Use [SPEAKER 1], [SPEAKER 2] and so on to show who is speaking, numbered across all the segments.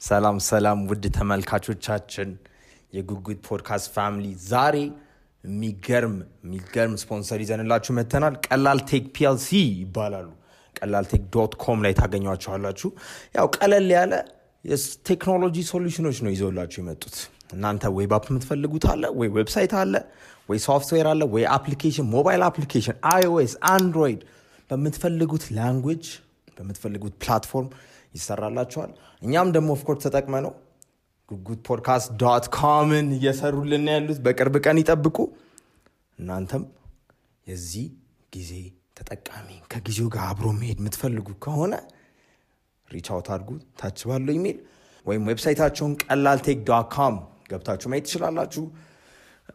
[SPEAKER 1] ሰላም ሰላም ውድ ተመልካቾቻችን የጉጉት ፖድካስት ፋሚሊ ዛሬ የሚገርም ስፖንሰር ይዘንላችሁ መተናል። ቀላል ቴክ ፒኤልሲ ይባላሉ። ቀላልቴክ.com ላይ ታገኟቸዋላችሁ። ያው ቀለል ያለ የቴክኖሎጂ ሶሉሽኖች ነው ይዘውላችሁ የመጡት። እናንተ ዌብ አፕ የምትፈልጉት አለ ወይ ዌብሳይት አለ ወይ ሶፍትዌር አለ ወይ አፕሊኬሽን ሞባይል አፕሊኬሽን iOS አንድሮይድ በምትፈልጉት ላንጉዌጅ በምትፈልጉት ፕላትፎርም ይሰራላችኋል። እኛም ደግሞ ኦፍ ኮርስ ተጠቅመ ነው goodpodcast.comን እየሰሩልን ያሉት በቅርብ ቀን ይጠብቁ። እናንተም የዚህ ጊዜ ተጠቃሚ ከጊዜው ጋር አብሮ መሄድ የምትፈልጉ ከሆነ ሪች አውት አድርጉ ታች ባለው ኢሜል ወይም ዌብሳይታቸውን ቀላልቴክ.com ገብታችሁ ማየት ትችላላችሁ።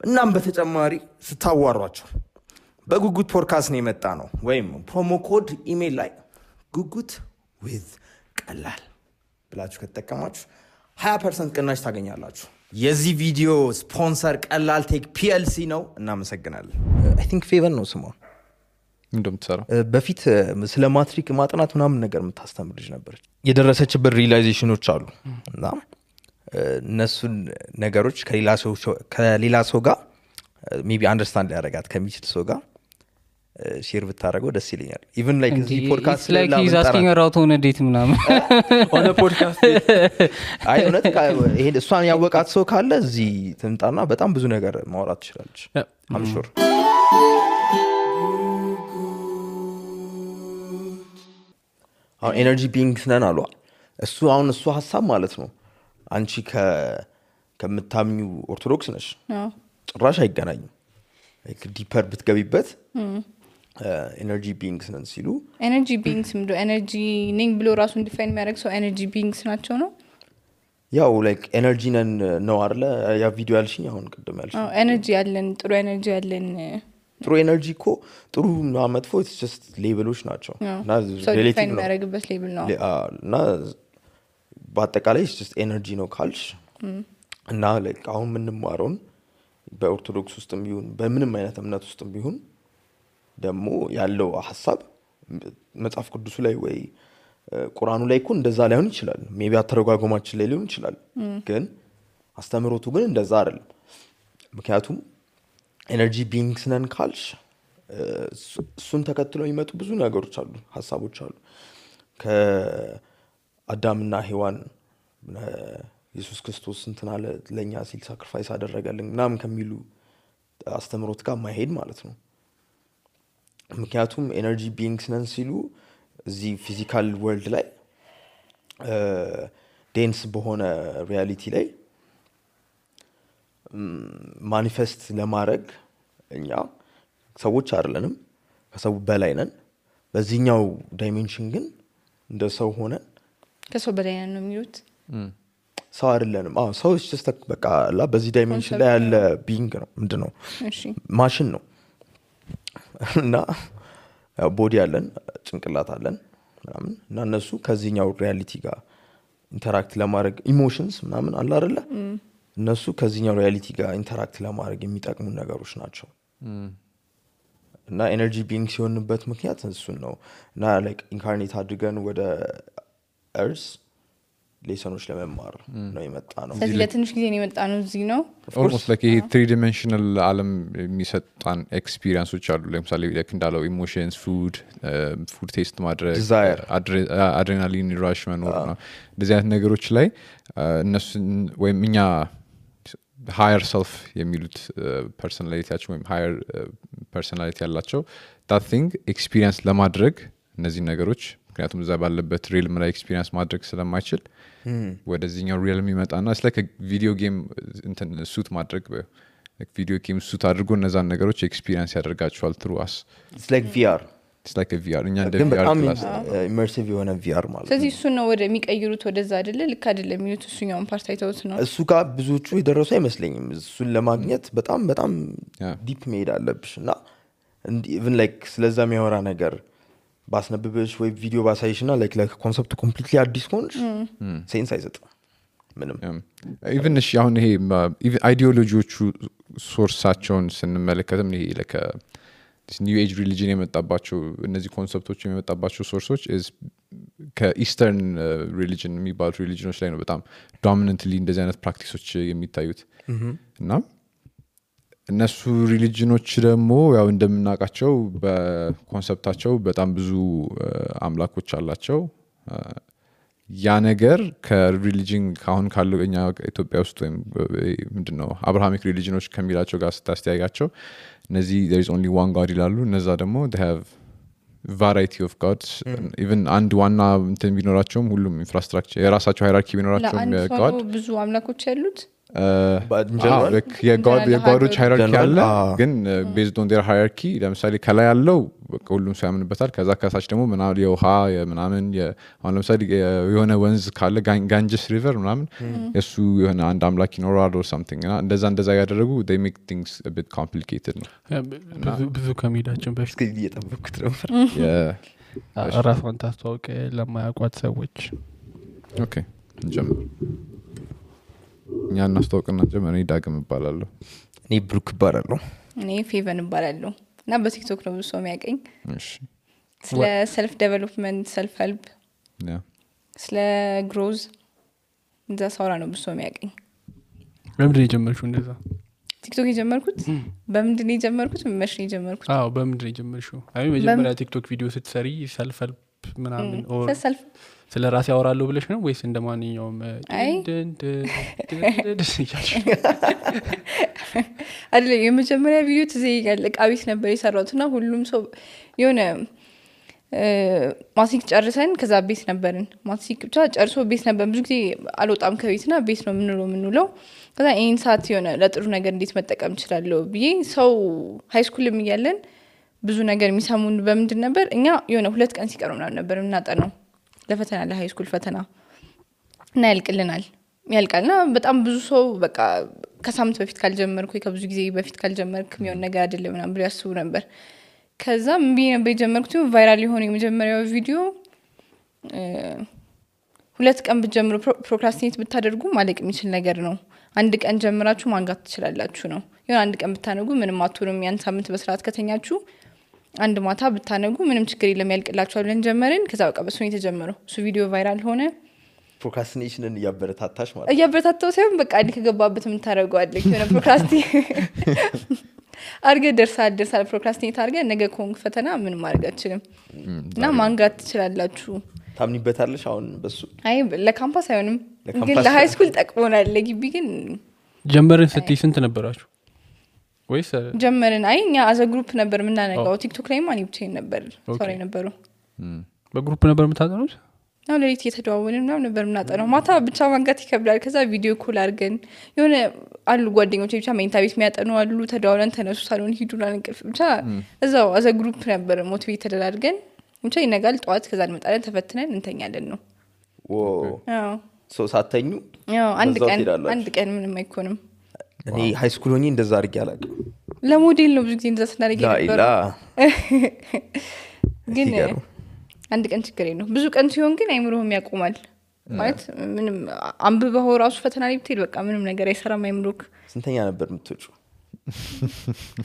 [SPEAKER 1] እናም በተጨማሪ ስታዋሯቸው በጉጉት ፖድካስት ነው የመጣ ነው ወይም ፕሮሞ ኮድ ኢሜል ላይ ጉጉት with ቀላል ብላችሁ ከተጠቀማችሁ 20% ቅናሽ ታገኛላችሁ። የዚህ ቪዲዮ ስፖንሰር ቀላልቴክ ፒኤልሲ ነው። እናመሰግናለን። አይ ቲንክ ፌቨን ነው ስሟ
[SPEAKER 2] እንደምትሰራው
[SPEAKER 1] በፊት ስለ ማትሪክ ማጥናት ምናምን ነገር የምታስተምር ልጅ ነበረች። የደረሰችበት ሪላይዜሽኖች አሉ እና እነሱን ነገሮች ከሌላ ሰው ጋር ሜቢ አንደርስታንድ ሊያደርጋት ከሚችል ሰው ጋር ሼር ብታደርገው ደስ ይለኛል። ኢቭን ላይክ እዚህ ፖድካስት
[SPEAKER 3] ላይ ላይክ ሂዝ አስኪንግ አራውት ኦን ዴት ምናምን
[SPEAKER 1] ኦን ፖድካስት አይ እውነት ይሄ እሷን ያወቃት ሰው ካለ እዚህ ትምጣና በጣም ብዙ ነገር ማውራት ትችላለች። I'm sure አሁን ኤነርጂ ቢንግስ ነን አሉ። እሱ ሐሳብ ማለት ነው። አንቺ ከምታምኙ ኦርቶዶክስ ነሽ ጭራሽ አይገናኝም። ላይክ ዲፐር ብትገቢበት ኤነርጂ ቢንግስ ነን ሲሉ
[SPEAKER 4] ኤነርጂ ቢንግስ ምንድን ነው? ኤነርጂ ነኝ ብሎ ራሱን ዲፋይን የሚያደርግ ሰው ኤነርጂ ቢንግስ ናቸው ነው።
[SPEAKER 1] ያው ላይክ ኤነርጂ ነን ነው አይደለ? ያ ቪዲዮ ያልሽኝ አሁን ቅድም ያልሽኝ
[SPEAKER 4] ኤነርጂ ያለን ጥሩ ኤነርጂ ያለን
[SPEAKER 1] ጥሩ ኤነርጂ እኮ ጥሩ እና መጥፎ it's just ሌቭሎች ናቸው
[SPEAKER 4] እና ሪሌቲቭ ነው የሚያደርግበት ሌቭል ነው
[SPEAKER 1] እና በአጠቃላይ it's just ኤነርጂ ነው ካልሽ እና ላይክ አሁን የምንማረውን በኦርቶዶክስ ውስጥም ቢሆን በምንም አይነት እምነት ውስጥም ቢሆን ደግሞ ያለው ሐሳብ መጽሐፍ ቅዱስ ላይ ወይ ቁርአኑ ላይ እኮ እንደዛ ላይሆን ይችላል። ሜቢ አተረጓጎማችን ላይ ሊሆን ይችላል። ግን አስተምሮቱ ግን እንደዛ አይደለም። ምክንያቱም ኤነርጂ ቢንግስ ነን ካልሽ እሱን ተከትለው የሚመጡ ብዙ ነገሮች አሉ፣ ሐሳቦች አሉ። ከአዳምና ሔዋን ኢየሱስ ክርስቶስ እንትና ለኛ ሲል ሳክሪፋይስ አደረገልን ምናምን ከሚሉ አስተምሮት ጋር ማይሄድ ማለት ነው። ምክንያቱም ኤነርጂ ቢንግስ ነን ሲሉ እዚህ ፊዚካል ወርልድ ላይ ዴንስ በሆነ ሪያሊቲ ላይ ማኒፌስት ለማድረግ እኛ ሰዎች አይደለንም፣ ከሰው በላይ ነን። በዚህኛው ዳይሜንሽን ግን እንደ ሰው ሆነን
[SPEAKER 4] ከሰው በላይ ነን ነው የሚሉት።
[SPEAKER 1] ሰው አይደለንም። ሰው just በቃ በዚህ ዳይሜንሽን ላይ ያለ ቢንግ ነው። ምንድነው?
[SPEAKER 4] እሺ
[SPEAKER 1] ማሽን ነው እና ቦዲ አለን፣ ጭንቅላት አለን ምናምን እና እነሱ ከዚህኛው ሪያሊቲ ጋር ኢንተራክት ለማድረግ ኢሞሽንስ ምናምን አለ አይደለ? እነሱ ከዚህኛው ሪያሊቲ ጋር ኢንተራክት ለማድረግ የሚጠቅሙ ነገሮች ናቸው። እና ኤነርጂ ቢንግ ሲሆንበት ምክንያት እሱን ነው። እና ላይክ ኢንካርኔት አድርገን ወደ እርስ ሌሰኖች ለመማር ነው የመጣ ነው።
[SPEAKER 4] ስለዚህ ለትንሽ ጊዜ ነው የመጣ ነው እዚህ ነው።
[SPEAKER 2] ኦልሞስት ላይክ ይሄ 3 dimensional ዓለም የሚሰጣን ኤክስፒሪየንሶች አሉ። ለምሳሌ ላይክ እንዳለው ኢሞሽንስ፣ ፉድ ቴስት ማድረግ፣ አድሬናሊን ራሽ መኖር ነው። እንደዚህ አይነት ነገሮች ላይ እነሱ ወይም እኛ ሃየር ሰልፍ የሚሉት ፐርሰናሊቲያቸው ወይም ሃየር ፐርሰናሊቲ ያላቸው that thing ኤክስፒሪየንስ ለማድረግ እነዚህ ነገሮች ምክንያቱም እዛ ባለበት ሪልም ላይ ኤክስፒሪየንስ ማድረግ ስለማይችል ወደዚህኛው ሪልም ይመጣና it's like a video game እንትን ሱት ማድረግ ቪዲዮ ጌም ሱት አድርጎ እነዛን ነገሮች ኤክስፒሪየንስ ያደርጋቸዋል through us.
[SPEAKER 1] it's like VR
[SPEAKER 2] እኛ እንደ
[SPEAKER 1] ግን
[SPEAKER 2] VR
[SPEAKER 1] በጣም
[SPEAKER 2] ክላስ
[SPEAKER 1] ኢመርሲቭ የሆነ VR ማለት ነው።
[SPEAKER 4] ስለዚህ እሱ ነው ወደ የሚቀይሩት ወደዛ አይደለ? ልክ አይደለም የሚሉት እሱኛውን ፓርት አይተውት ነው።
[SPEAKER 1] እሱ ጋር ብዙዎቹ የደረሱ አይመስለኝም። እሱን ለማግኘት በጣም ዲፕ መሄድ አለብሽ እና ኢቭን ላይክ ስለዛ የሚያወራ ነገር ባስነብብሽ ወይ ቪዲዮ ባሳይሽና ላይክ ኮንሰፕቱ ኮምፕሊትሊ አዲስ ሆንሽ ሴንስ አይሰጥም ምንም።
[SPEAKER 2] ኢቭን እሺ አሁን ይሄ አይዲዮሎጂዎቹ ሶርሳቸውን ስንመለከትም ይሄ ኒው ኤጅ ሪሊጅን የመጣባቸው እነዚህ ኮንሰፕቶች የመጣባቸው ሶርሶች is ከኢስተርን ሪሊጅን የሚባሉት ሪሊጅኖች ላይ ነው በጣም ዶሚናንትሊ እንደዚህ አይነት ፕራክቲሶች የሚታዩት እና እነሱ ሪሊጅኖች ደግሞ ያው እንደምናውቃቸው በኮንሰፕታቸው በጣም ብዙ አምላኮች አላቸው ያ ነገር ከሪሊጅን ካሁን ካለው እኛ ኢትዮጵያ ውስጥ ወይም ምንድነው አብርሃሚክ ሪሊጅኖች ከሚላቸው ጋር ስታስተያያቸው እነዚህ there is only one god ይላሉ እነዛ ደግሞ they have variety of gods even አንድ ዋና እንትን ቢኖራቸውም ሁሉም ኢንፍራስትራክቸር የራሳቸው ሃይራርኪ ቢኖራቸውም
[SPEAKER 4] god ብዙ አምላኮች ያሉት
[SPEAKER 2] የጋዶች ሃይራርኪ አለ ግን based on their hierarchy ለምሳሌ ከላይ ያለው ሁሉም ሰው ያምንበታል ከዛ ከታች ደግሞ ምናምን የውሃ ምናምን አሁን ለምሳሌ የሆነ ወንዝ ካለ ጋንጅስ ሪቨር ምናምን እሱ የሆነ አንድ አምላክ ይኖራል or something እና እንደዛ ያደረጉ they make things a bit complicated ነው
[SPEAKER 5] ብዙ ከመሄዳችን በፊት
[SPEAKER 1] እየጠበኩት ነበር
[SPEAKER 5] ራሷን ታስተዋውቅ ለማያውቋት ሰዎች
[SPEAKER 2] ኦኬ እንጀምር እኛ እናስተዋውቅና ጀመረ ዳግም እባላለሁ
[SPEAKER 1] እኔ ብሩክ እባላለሁ
[SPEAKER 4] እኔ ፌቨን እባላለሁ እና በቲክቶክ ነው ብዙ ሰው የሚያቀኝ
[SPEAKER 2] እሺ
[SPEAKER 4] ስለ ሰልፍ ዴቨሎፕመንት ሰልፍ ሄልፕ
[SPEAKER 2] ያ
[SPEAKER 4] ስለ ግሮዝ እንደዛ ሳውራ ነው ብዙ ሰው የሚያቀኝ
[SPEAKER 5] በምንድን ነው የጀመርሽው እንደዛ
[SPEAKER 4] ቲክቶክ የጀመርኩት በምንድን ነው የጀመርኩት መቼ ነው የጀመርኩት
[SPEAKER 5] በምንድን ነው የጀመርሽው አይ መጀመሪያ ቲክቶክ ቪዲዮ ስትሰሪ ሰልፍ ሄልፕ ምናምን ኦር
[SPEAKER 4] ሰልፍ
[SPEAKER 5] ስለ ራሴ ያወራለሁ ብለሽ ነው ወይስ እንደማንኛውም
[SPEAKER 4] አይደለ የመጀመሪያ ቪዲዮ ትዘይጋል ቃቢስ ነበር የሰራሁትና ሁሉም ሰው የሆነ ማትሪክ ጨርሰን ከዛ ቤት ነበርን ማትሪክ ብቻ ጨርሶ ቤት ነበር ብዙ ጊዜ አልወጣም ከቤትና ቤት ነው የምንውለው ከዛ ይሄን ሰዓት የሆነ ለጥሩ ነገር እንዴት መጠቀም እችላለሁ ብዬ ሰው ሃይስኩልም እያለን ብዙ ነገር የሚሰሙን በምንድን ነበር እኛ የሆነ 2 ቀን ሲቀሩ ምናምን ነበር እናጠናው ለፈተና ለሃይስኩል ፈተና እና ያልቃልና በጣም ብዙ ሰው በቃ ከሳምንት በፊት ካልጀመርኩ ከብዙ ጊዜ በፊት ካልጀመርክ የሚሆን ነገር አይደለም ምናምን ብሎ ያስቡ ነበር ከዛ ምን ነበር የጀመርኩት ቫይራል የሆነ የመጀመሪያው ቪዲዮ 2 ቀን ብትጀምሩ ፕሮክራስቲኔት ብታደርጉ ማለቅ የሚችል ነገር ነው አንድ ቀን ጀምራችሁ ማንጋት ትችላላችሁ ነው የሆነ አንድ ቀን ብታነጉ ምንም አትሆንም ያን ሳምንት በስርዓት ከተኛችሁ አንድ ማታ ብታነጉ ምንም ችግር የለም ያልቅላችኋል ብለን ጀመርን ከዛ በቃ በሱ ነው የተጀመረው እሱ ቪዲዮ ቫይራል ሆነ
[SPEAKER 1] ፕሮክራስቲኔሽንን እያበረታታሽ ማለት
[SPEAKER 4] እያበረታታው ሳይሆን በቃ አንድ ከገባበት ምን ታደርገዋለህ የሆነ ፕሮክራስቲ አርገ ደርሳል ፕሮክራስቲኔት አርገ ነገ ኮንክ ፈተና ምን ማድረግ አትችልም እና ማንጋት ትችላላችሁ
[SPEAKER 1] ታምኒበታለሽ አሁን በሱ
[SPEAKER 4] አይ ለካምፓስ አይሆንም ግን ለሃይስኩል ጠቅሞናል ለግቢ ግን
[SPEAKER 5] ጀመርን ስትይ ስንት ነበራችሁ ወይስ
[SPEAKER 4] ጀመርን አይ እኛ አዘ ግሩፕ ነበር ምናነጋው ቲክቶክ ላይ ማን ብቻዬን ነበር ሶሪ ነበሩ
[SPEAKER 5] በግሩፕ ነበር የምታጠኑት
[SPEAKER 4] ነው ለሊት እየተደዋወልን ምናምን ነበር ምናጠናው ማታ ብቻ ማንጋት ይከብዳል ከዛ ቪዲዮ ኮል አድርገን የሆነ አሉ ጓደኞቼ ብቻ መኝታ ቤት የሚያጠኑ አሉ ተደዋውለን ተነሱ ሳሎን ሂዱና እንቅልፍ ብቻ እዛው አዘ ግሩፕ ነበር ሞቲቬት ተደራርገን ብቻ ይነጋል ጠዋት ከዛ እንመጣለን ተፈትነን እንተኛለን ነው
[SPEAKER 1] አዎ ሶ ሳተኙ
[SPEAKER 4] ያው አንድ ቀን ምንም አይኮንም
[SPEAKER 1] እኔ ሃይስኩል ሆኜ እንደዛ አድርጌ አላውቅም
[SPEAKER 4] ለሞዴል ነው ብዙ ጊዜ እንደዛ ስናደርግ ነበር ግን አንድ ቀን ችግር የለው ብዙ ቀን ሲሆን ግን አይምሮህም ያቆማል ማለት ምንም አንብበው ራሱ ፈተና ላይ ብትሄድ በቃ ምንም ነገር አይሰራም አይምሮክ
[SPEAKER 1] ስንተኛ ነበር የምትወጪው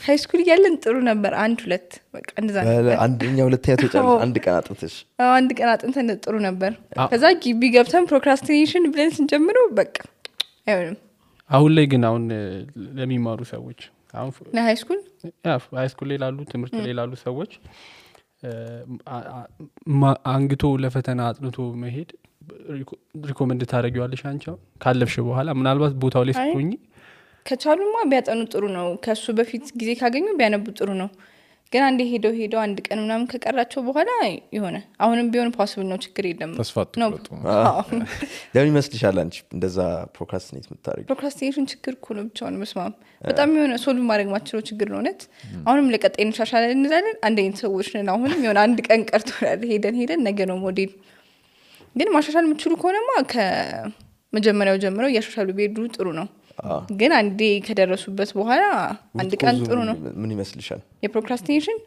[SPEAKER 4] ሃይስኩል ያለን ጥሩ ነበር 1-2 በቃ እንደዛ ነበር
[SPEAKER 1] አንደኛ ሁለተኛ ተጫለ አንድ ቀን አጥንተሽ
[SPEAKER 4] አንድ ቀን አጥንተን ጥሩ ነበር ከዛ ግቢ ገብተን ፕሮክራስቲኔሽን ብለን ስንጀምረው በቃ አይሆንም
[SPEAKER 5] አሁን ላይ ግን አሁን ለሚማሩ ሰዎች አሁን
[SPEAKER 4] ለሃይስኩል
[SPEAKER 5] ላይ ላሉ ትምህርት ላይ ላሉ ሰዎች አንግቶ ለፈተና አጥንቶ መሄድ ሪኮመንድ ታደርጊዋለሽ አንቺ ካለፍሽ በኋላ ምናልባት ቦታው ላይ ስትሆኚ
[SPEAKER 4] ከቻሉማ ቢያጠኑ ጥሩ ነው ከሱ በፊት ጊዜ ካገኙ ቢያነቡ ጥሩ ነው ግን አንዴ ሄደው አንድ ቀን ምናምን ከቀራቸው በኋላ ይሆነ አሁንም ቢሆን ፖሲብል ነው ችግር የለም
[SPEAKER 2] ተስፋት
[SPEAKER 4] ነው
[SPEAKER 1] ለምን ይመስልሻል አንቺ እንደዛ ፕሮክራስቲኔት የምታደርጊው
[SPEAKER 4] ፕሮክራስቲኔሽን ችግር እኮ ነው ብቻውን መስማም በጣም የሆነ ሶልቭ ማድረግ ማችለው ችግር ነው ነት አሁንም ለቀጣይ እንሻሻለን እንላለን አንድ አይነት ሰዎች ነን አሁንም የሆነ አንድ ቀን ቀርቶናል ሄደን ነገ ነው ሞዴል ግን ማሻሻል የምትችሉ ከሆነማ ከመጀመሪያው ጀምረው እያሻሻሉ ቢሄዱ ጥሩ ነው ግን አንዴ ከደረሱበት በኋላ አንድ ቀን ጥሩ ነው
[SPEAKER 1] ምን ይመስልሻል
[SPEAKER 4] የፕሮክራስቲኔሽን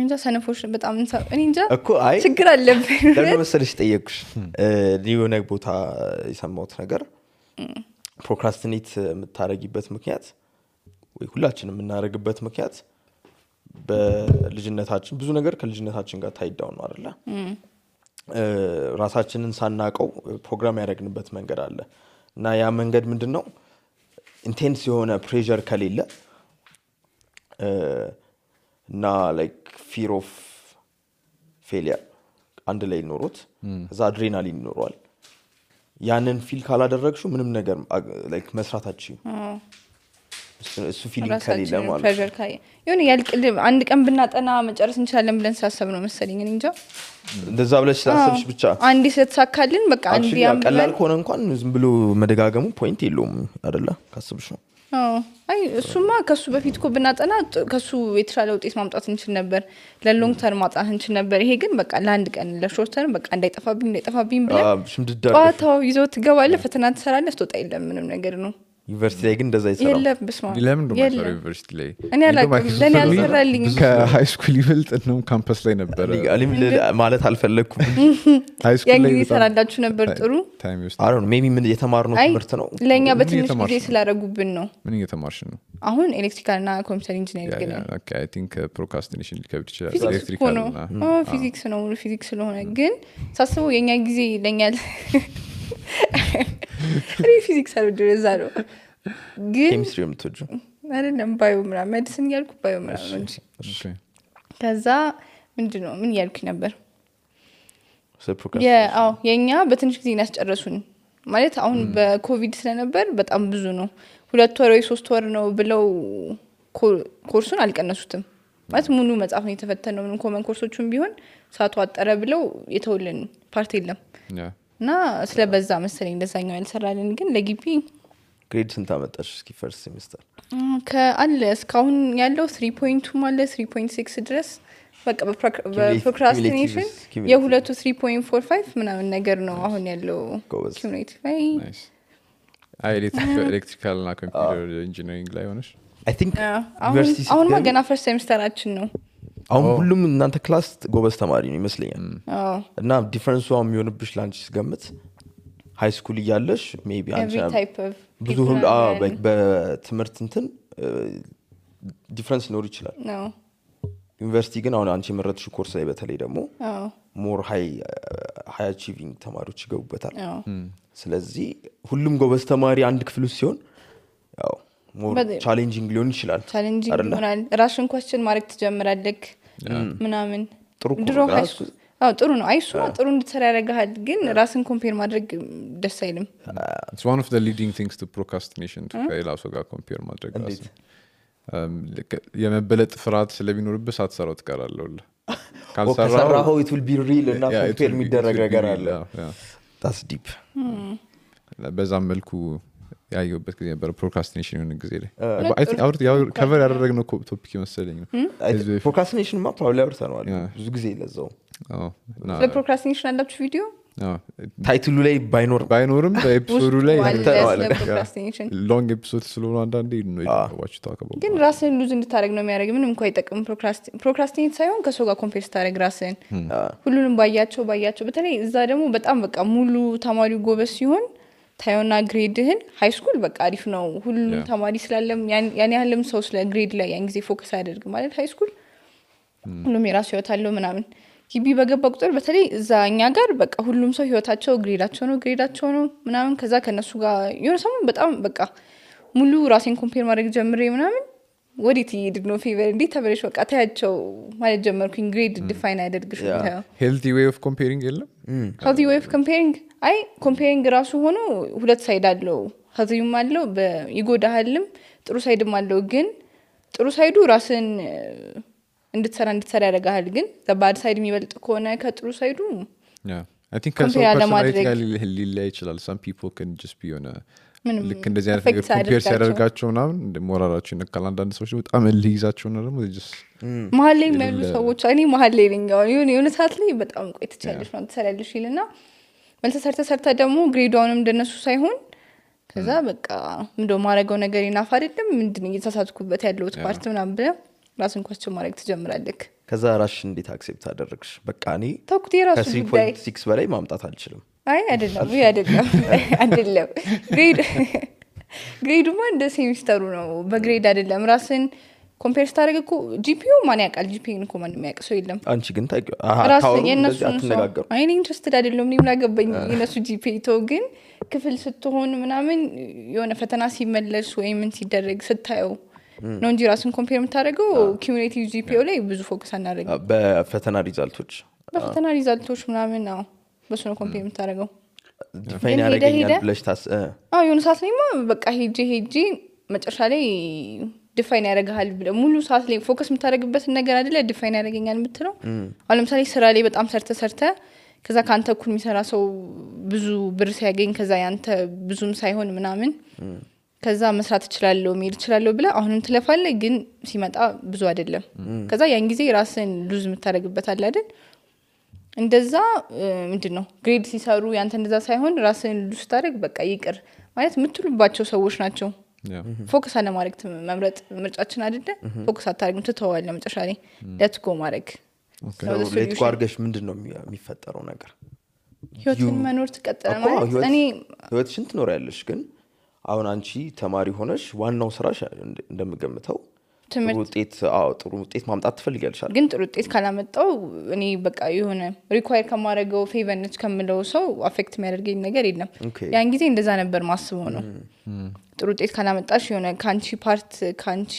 [SPEAKER 4] እንጃ ሰነፎች በጣም እኔ እንጃ
[SPEAKER 1] እኮ አይ
[SPEAKER 4] ችግር አለብኝ
[SPEAKER 1] ለምን መሰለሽ ጠየቅኩሽ ሊሆነ ቦታ የሰማሁት ነገር ፕሮክራስቲኔት የምታረጊበት ምክንያት ወይ ሁላችንም የምናረግበት ምክንያት በልጅነታችን ብዙ ነገር ከልጅነታችን ጋር ታይዳው ነው አይደለ ራሳችንን ሳናቀው ፕሮግራም ያደረግንበት መንገድ አለ እና ያ መንገድ ምንድነው ኢንቴንስ የሆነ ፕሬሸር ከሌለ እና ላይክ ፊር ኦፍ ፌሊየር አንድ ላይ ኖሮት እዛ አድሬናሊን ይኖረዋል ያንን ፊል ካላደረግሽው ምንም ነገር ላይክ መስራታችሁ እሱ ፊሊንግ ከሌለ ማለት
[SPEAKER 4] ፕሬሸር ካይ የሆነ ያልቅል አንድ ቀን ብናጠና መጨረስ እንችላለን ብለን ሳሰብ ነው መሰለኝ እንጃ
[SPEAKER 1] እንደዛ ብለሽ ሳሰብሽ ብቻ
[SPEAKER 4] አንድ ስለተሳካልን በቃ አንድ
[SPEAKER 1] ያቀላል ከሆነ እንኳን ዝም ብሎ መደጋገሙ ፖይንት የለውም አይደለ ካሰብሽ ነው
[SPEAKER 4] አይ እሱማ ከሱ በፊት እኮ ብናጠና ከሱ የተሻለ ውጤት ማምጣት እንችል ነበር ለሎንግ ተርም ማጣት እንችል ነበር ይሄ ግን በቃ ለአንድ ቀን ለሾርት ተርም በቃ እንዳይጠፋብኝ ብለን ጧታው ይዘው ትገባለህ ፈተና ትሰራለህ ስትወጣ የለም ምንም ነገር ነው
[SPEAKER 1] ዩኒቨርሲቲ ላይ ግን እንደዛ ይሰራል
[SPEAKER 4] የለም በስማ
[SPEAKER 2] ለምን ነው ዩኒቨርሲቲ ላይ
[SPEAKER 4] እኔ አላውቅም ለኔ አልሰራልኝ
[SPEAKER 2] ከሃይ ስኩል ይበልጥ ነው ካምፓስ ላይ ነበር
[SPEAKER 1] አለም ማለት አልፈለኩም
[SPEAKER 2] ሃይ ስኩል ላይ
[SPEAKER 4] ይሰራላችሁ ነበር ጥሩ
[SPEAKER 2] ታይም ውስጥ
[SPEAKER 1] አይ ዶንት ኖ ሜቢ ምን የተማርነው ትምህርት ነው
[SPEAKER 4] ለኛ በትንሽ ጊዜ ስላደረጉብን ነው
[SPEAKER 2] ምን እየተማርሽ ነው
[SPEAKER 4] አሁን ኤሌክትሪካል እና ኮምፒውተር ኢንጂነሪንግ ግን
[SPEAKER 2] ኦኬ አይ ቲንክ ፕሮክራስቲኔሽን ሊከብድ ይችላል
[SPEAKER 4] ኤሌክትሪካል እና ፊዚክስ ነው ፊዚክስ ስለሆነ ግን ሳስበው የኛ ጊዜ ለኛ ፊዚክስ አልወደዛ ነው ግን
[SPEAKER 1] ኬሚስትሪ ምትወጁ
[SPEAKER 4] አይደለም ባዮ ምናምን ሜዲሲን ያልኩ ባዮ ምናምን እንጂ ከዛ ምንድነው ምን ያልኩ ነበር የኛ በትንሽ ጊዜ ያስጨረሱን ማለት አሁን በኮቪድ ስለነበር በጣም ብዙ ነው 2 ወር ወይ 3 ወር ነው ብለው ኮርሱን አልቀነሱትም ማለት ሙሉ መጽሐፍ ነው የተፈተነው ምን ኮመን ኮርሶቹም ቢሆን ሳቱ አጠረ ብለው የተወልን ፓርት የለም እና ስለበዛ መሰለኝ እንደዛኛው ያልሰራልን ግን ለግቢ
[SPEAKER 1] ግሬድ ስንት አመጣሽ እስኪ ፈርስት ሴሚስተር
[SPEAKER 4] ከአለ እስካሁን ያለው 3.2 ማለት 3.6 ድረስ በቃ በፕሮክራስቲኔሽን የሁለቱ 3.45 ምናምን ነገር ነው አሁን ያለው ኮሚኒቲ ላይ
[SPEAKER 2] ኤሌክትሪካል እና ኮምፒውተር ኢንጂነሪንግ ላይ ሆነሽ
[SPEAKER 1] አይ ቲንክ
[SPEAKER 4] አሁን ገና ፈርስት ሴሚስተራችን ነው
[SPEAKER 1] አሁን ሁሉም እናንተ ክላስ ጎበዝ ተማሪ ነው ይመስለኛል እና ዲፈረንሱ የሚሆንብሽ ላንቺ ስገምት ሃይ ስኩል እያለሽ ሜቢ አንቺ ብዙ ሁሉ በትምህርት እንትን ዲፈረንስ ኖር ይችላል ዩኒቨርሲቲ ግን አሁን አንቺ መረጥሽ ኮርስ ላይ በተለይ ደግሞ ሞር ሃይ አቺቪንግ ተማሪዎች ይገቡበታል ስለዚህ ሁሉም ጎበዝ ተማሪ አንድ ክፍል ውስጥ ሲሆን ያው ሞር ቻሌንጂንግ ሊሆን ይችላል
[SPEAKER 4] ቻሌንጂንግ ይሆናል ራስን ኳስችን ማድረግ ትጀምራለህ ምናምን ድሮ ሃይ ስኩል ጥሩ ነው አይሱ ጥሩ እንድትሰራ ያደርጋል ግን ራስን ኮምፔር ማድረግ ደስ አይልም
[SPEAKER 2] it's one of the leading things to procrastination to ከሌላው ጋር ኮምፔር ማድረግ ራስ የመበለጥ ፍርሃት ስለሚኖርብህ ሳትሰራው ትቀራለህ
[SPEAKER 1] ካልሰራው it will be real እና ኮምፔር የሚደረግ ነገር አለ that's deep
[SPEAKER 2] በዛም መልኩ ያየሁበት ጊዜ ነበር ፕሮክራስቲኔሽን የሆነ ጊዜ ላይ አይ ቲንክ ያው ከቨር ያደረግነው ቶፒክ መሰለኝ ነው
[SPEAKER 1] ፕሮክራስቲኔሽን ማ ፕሮባብሊ አውርተናል ብዙ ጊዜ ለዛው
[SPEAKER 4] ለፕሮክራስቲኔሽን አላችሁ ቪዲዮ
[SPEAKER 1] ታይትሉ ላይ
[SPEAKER 2] ባይኖርም በኤፒሶዱ ላይ
[SPEAKER 4] ፕሮክራስቲኔሽን
[SPEAKER 2] ሎንግ ኤፒሶድ ስለሆነ አንዳንዴ ነው ዋች ታከበው
[SPEAKER 4] ግን ራስን ሉዝ እንድታረግ ነው የሚያደርግ ምንም እንኳን አይጠቅም ፕሮክራስቲኔት ሳይሆን ከሰው ጋር ኮምፔር ስታረግ ራስን ሁሉንም ባያቸው በተለይ እዛ ደግሞ በጣም በቃ ሙሉ ተማሪው ጎበዝ ሲሆን ታዩና ግሬድህን ሃይ ስኩል በቃ አሪፍ ነው ሁሉ ተማሪ ስላለም ያን ያህልም ሰው ስለ ግሬድ ላይ ያን ጊዜ ፎከስ አያደርግ ማለት ሃይ ስኩል ሁሉም የራሱ ህይወት አለው ምናምን ግቢ በገባ ቁጥር በተለይ እዛኛ ጋር በቃ ሁሉም ሰው ህይወታቸው ግሬዳቸው ነው ምናምን ከዛ ከነሱ ጋር የሆነ ሰሞን በጣም በቃ ሙሉ ራሴን ኮምፔር ማድረግ ጀምሬ ምናምን ወዲት ይድግ ነው ፌቨር እንዴ ተበለሽ በቃ ታያቸው ማለት ጀመርኩኝ ግሬድ ዲፋይን አያደርግሽ ነው
[SPEAKER 2] ሄልቲ ዌይ ኦፍ ኮምፔሪንግ የለም
[SPEAKER 4] ሄልቲ ዌይ ኦፍ ኮምፔሪንግ አይ ኮምፔሪንግ ራሱ ሆኖ ሁለት ሳይድ አለው ሀዚዩም አለው በይጎዳሃልም ጥሩ ሳይድም አለው ግን ጥሩ ሳይዱ ራስን እንድትሰራ ያደርጋል ግን ባድ ሳይድ የሚበልጥ ከሆነ ከጥሩ ሳይዱ
[SPEAKER 2] I think personality ሊለያይ ይችላል some people can just be on a ልክ እንደዚህ አይነት ነገር ኮምፔር ሲያደርጋቸው ምናምን ሞራላቸው ይነካል አንዳንድ ሰዎች በጣም ልይዛቸው ነው ደግሞ
[SPEAKER 4] መሀል ላይ የሚያሉ ሰዎች እኔ መሀል ላይ ነኝ የሆነ ሰዓት ላይ በጣም ቆይተቻለሽ ነው ትሰሪያለሽ ይልና መልሰ ሰርተ ደግሞ ግሬዷንም እንደነሱ ሳይሆን ከዛ በቃ ምንድነው ማረጋው ነገር ይናፋ አይደለም ምንድነው እየተሳሳትኩበት ያለው ፓርት ምናምን ብለ ራስን ኳስችን ማድረግ ትጀምራለህ ከዛ
[SPEAKER 1] ራሽ እንዴት አክሴፕት አደረግሽ በቃ እኔ
[SPEAKER 4] ተኩት የራሱ ጉዳይ
[SPEAKER 1] 3.6 በላይ ማምጣት አልችልም
[SPEAKER 4] አይ አይደለም ግሬዱማ እንደ ሴሚስተሩ ነው በግሬድ አይደለም ራስን ኮምፔር ስታደርግ እኮ ጂፒዩ ማን ያውቃል ጂፒዩን እኮ ማንም ያውቅ ሰው የለም
[SPEAKER 1] አንቺ ግን
[SPEAKER 4] ራስ
[SPEAKER 1] ታውሩ
[SPEAKER 4] የነሱ
[SPEAKER 1] አትነጋገሩ
[SPEAKER 4] አይኔ ኢንትረስትድ አይደለም እኔም ላገባኝ የነሱ ጂፒዩ ግን ክፍል ስትሆን ምናምን የሆነ ፈተና ሲመለስ ወይ ምን ሲደረግ ስታየው ነው እንጂ ራስን ኮምፔር የምታደርገው ኩሙሌቲቭ ጂፒዩ ላይ ብዙ ፎከስ አናደርግ
[SPEAKER 1] በፈተና ሪዛልቶች
[SPEAKER 4] ምናምን ነው በሱ ነው ኮምፔር የምታደርገው
[SPEAKER 1] ዲፋይን ያደርገኛል ብለሽ
[SPEAKER 4] የሆነ ሰዓት ላይማ በቃ ሄጄ መጨረሻ ላይ ዲፋይን ያደርግሃል ብለህ ሙሉ ሰዓት ላይ ፎከስ የምታደርግበትን ነገር አይደለ ዲፋይን ያደርገኛል የምትለው አሁን ለምሳሌ ስራ ላይ በጣም ሰርተ ከዛ ካንተ እኩል የሚሰራ ሰው ብዙ ብር ሲያገኝ ከዛ ያንተ ብዙም ሳይሆን ምናምን ከዛ መስራት እችላለሁ መሄድ እችላለሁ ብለህ አሁንም ትለፋለህ ግን ሲመጣ ብዙ አይደለም ከዛ ያን ጊዜ ራስን ሉዝ የምታደርግበት አለ አይደል እንደዛ ምንድነው ግሬድ ሲሰሩ ያንተ እንደዛ ሳይሆን ራስን ሉዝ ታደርግ በቃ ይቅር ማለት የምትሉባቸው ሰዎች ናቸው ፎከስ አለ ማድረግ መምረጥ ምርጫችን አይደለ ፎከስ አታርግም ትተዋለህ መጨረሻ ላይ ለትጎ ማድረግ
[SPEAKER 1] ለትጎ አድርገሽ ምንድነው የሚፈጠረው ነገር
[SPEAKER 4] ህይወትን መኖር ትቀጥለ ማለት እኔ
[SPEAKER 1] ህይወትሽን ትኖሪያለሽ ግን አሁን አንቺ ተማሪ ሆነሽ ዋናው ስራሽ እንደምገምተው ጥሩ ውጤት ማምጣት ትፈልጊያለሽ
[SPEAKER 4] ግን ጥሩ ውጤት ካላመጣው እኔ በቃ የሆነ ሪኳየር ከማድረገው ፌቨርነች ከምለው ሰው አፌክት የሚያደርገኝ ነገር የለም ያን ጊዜ እንደዛ ነበር ማስበው ነው ጥሩ ውጤት ካላመጣሽ የሆነ ካንቺ ፓርት ካንቺ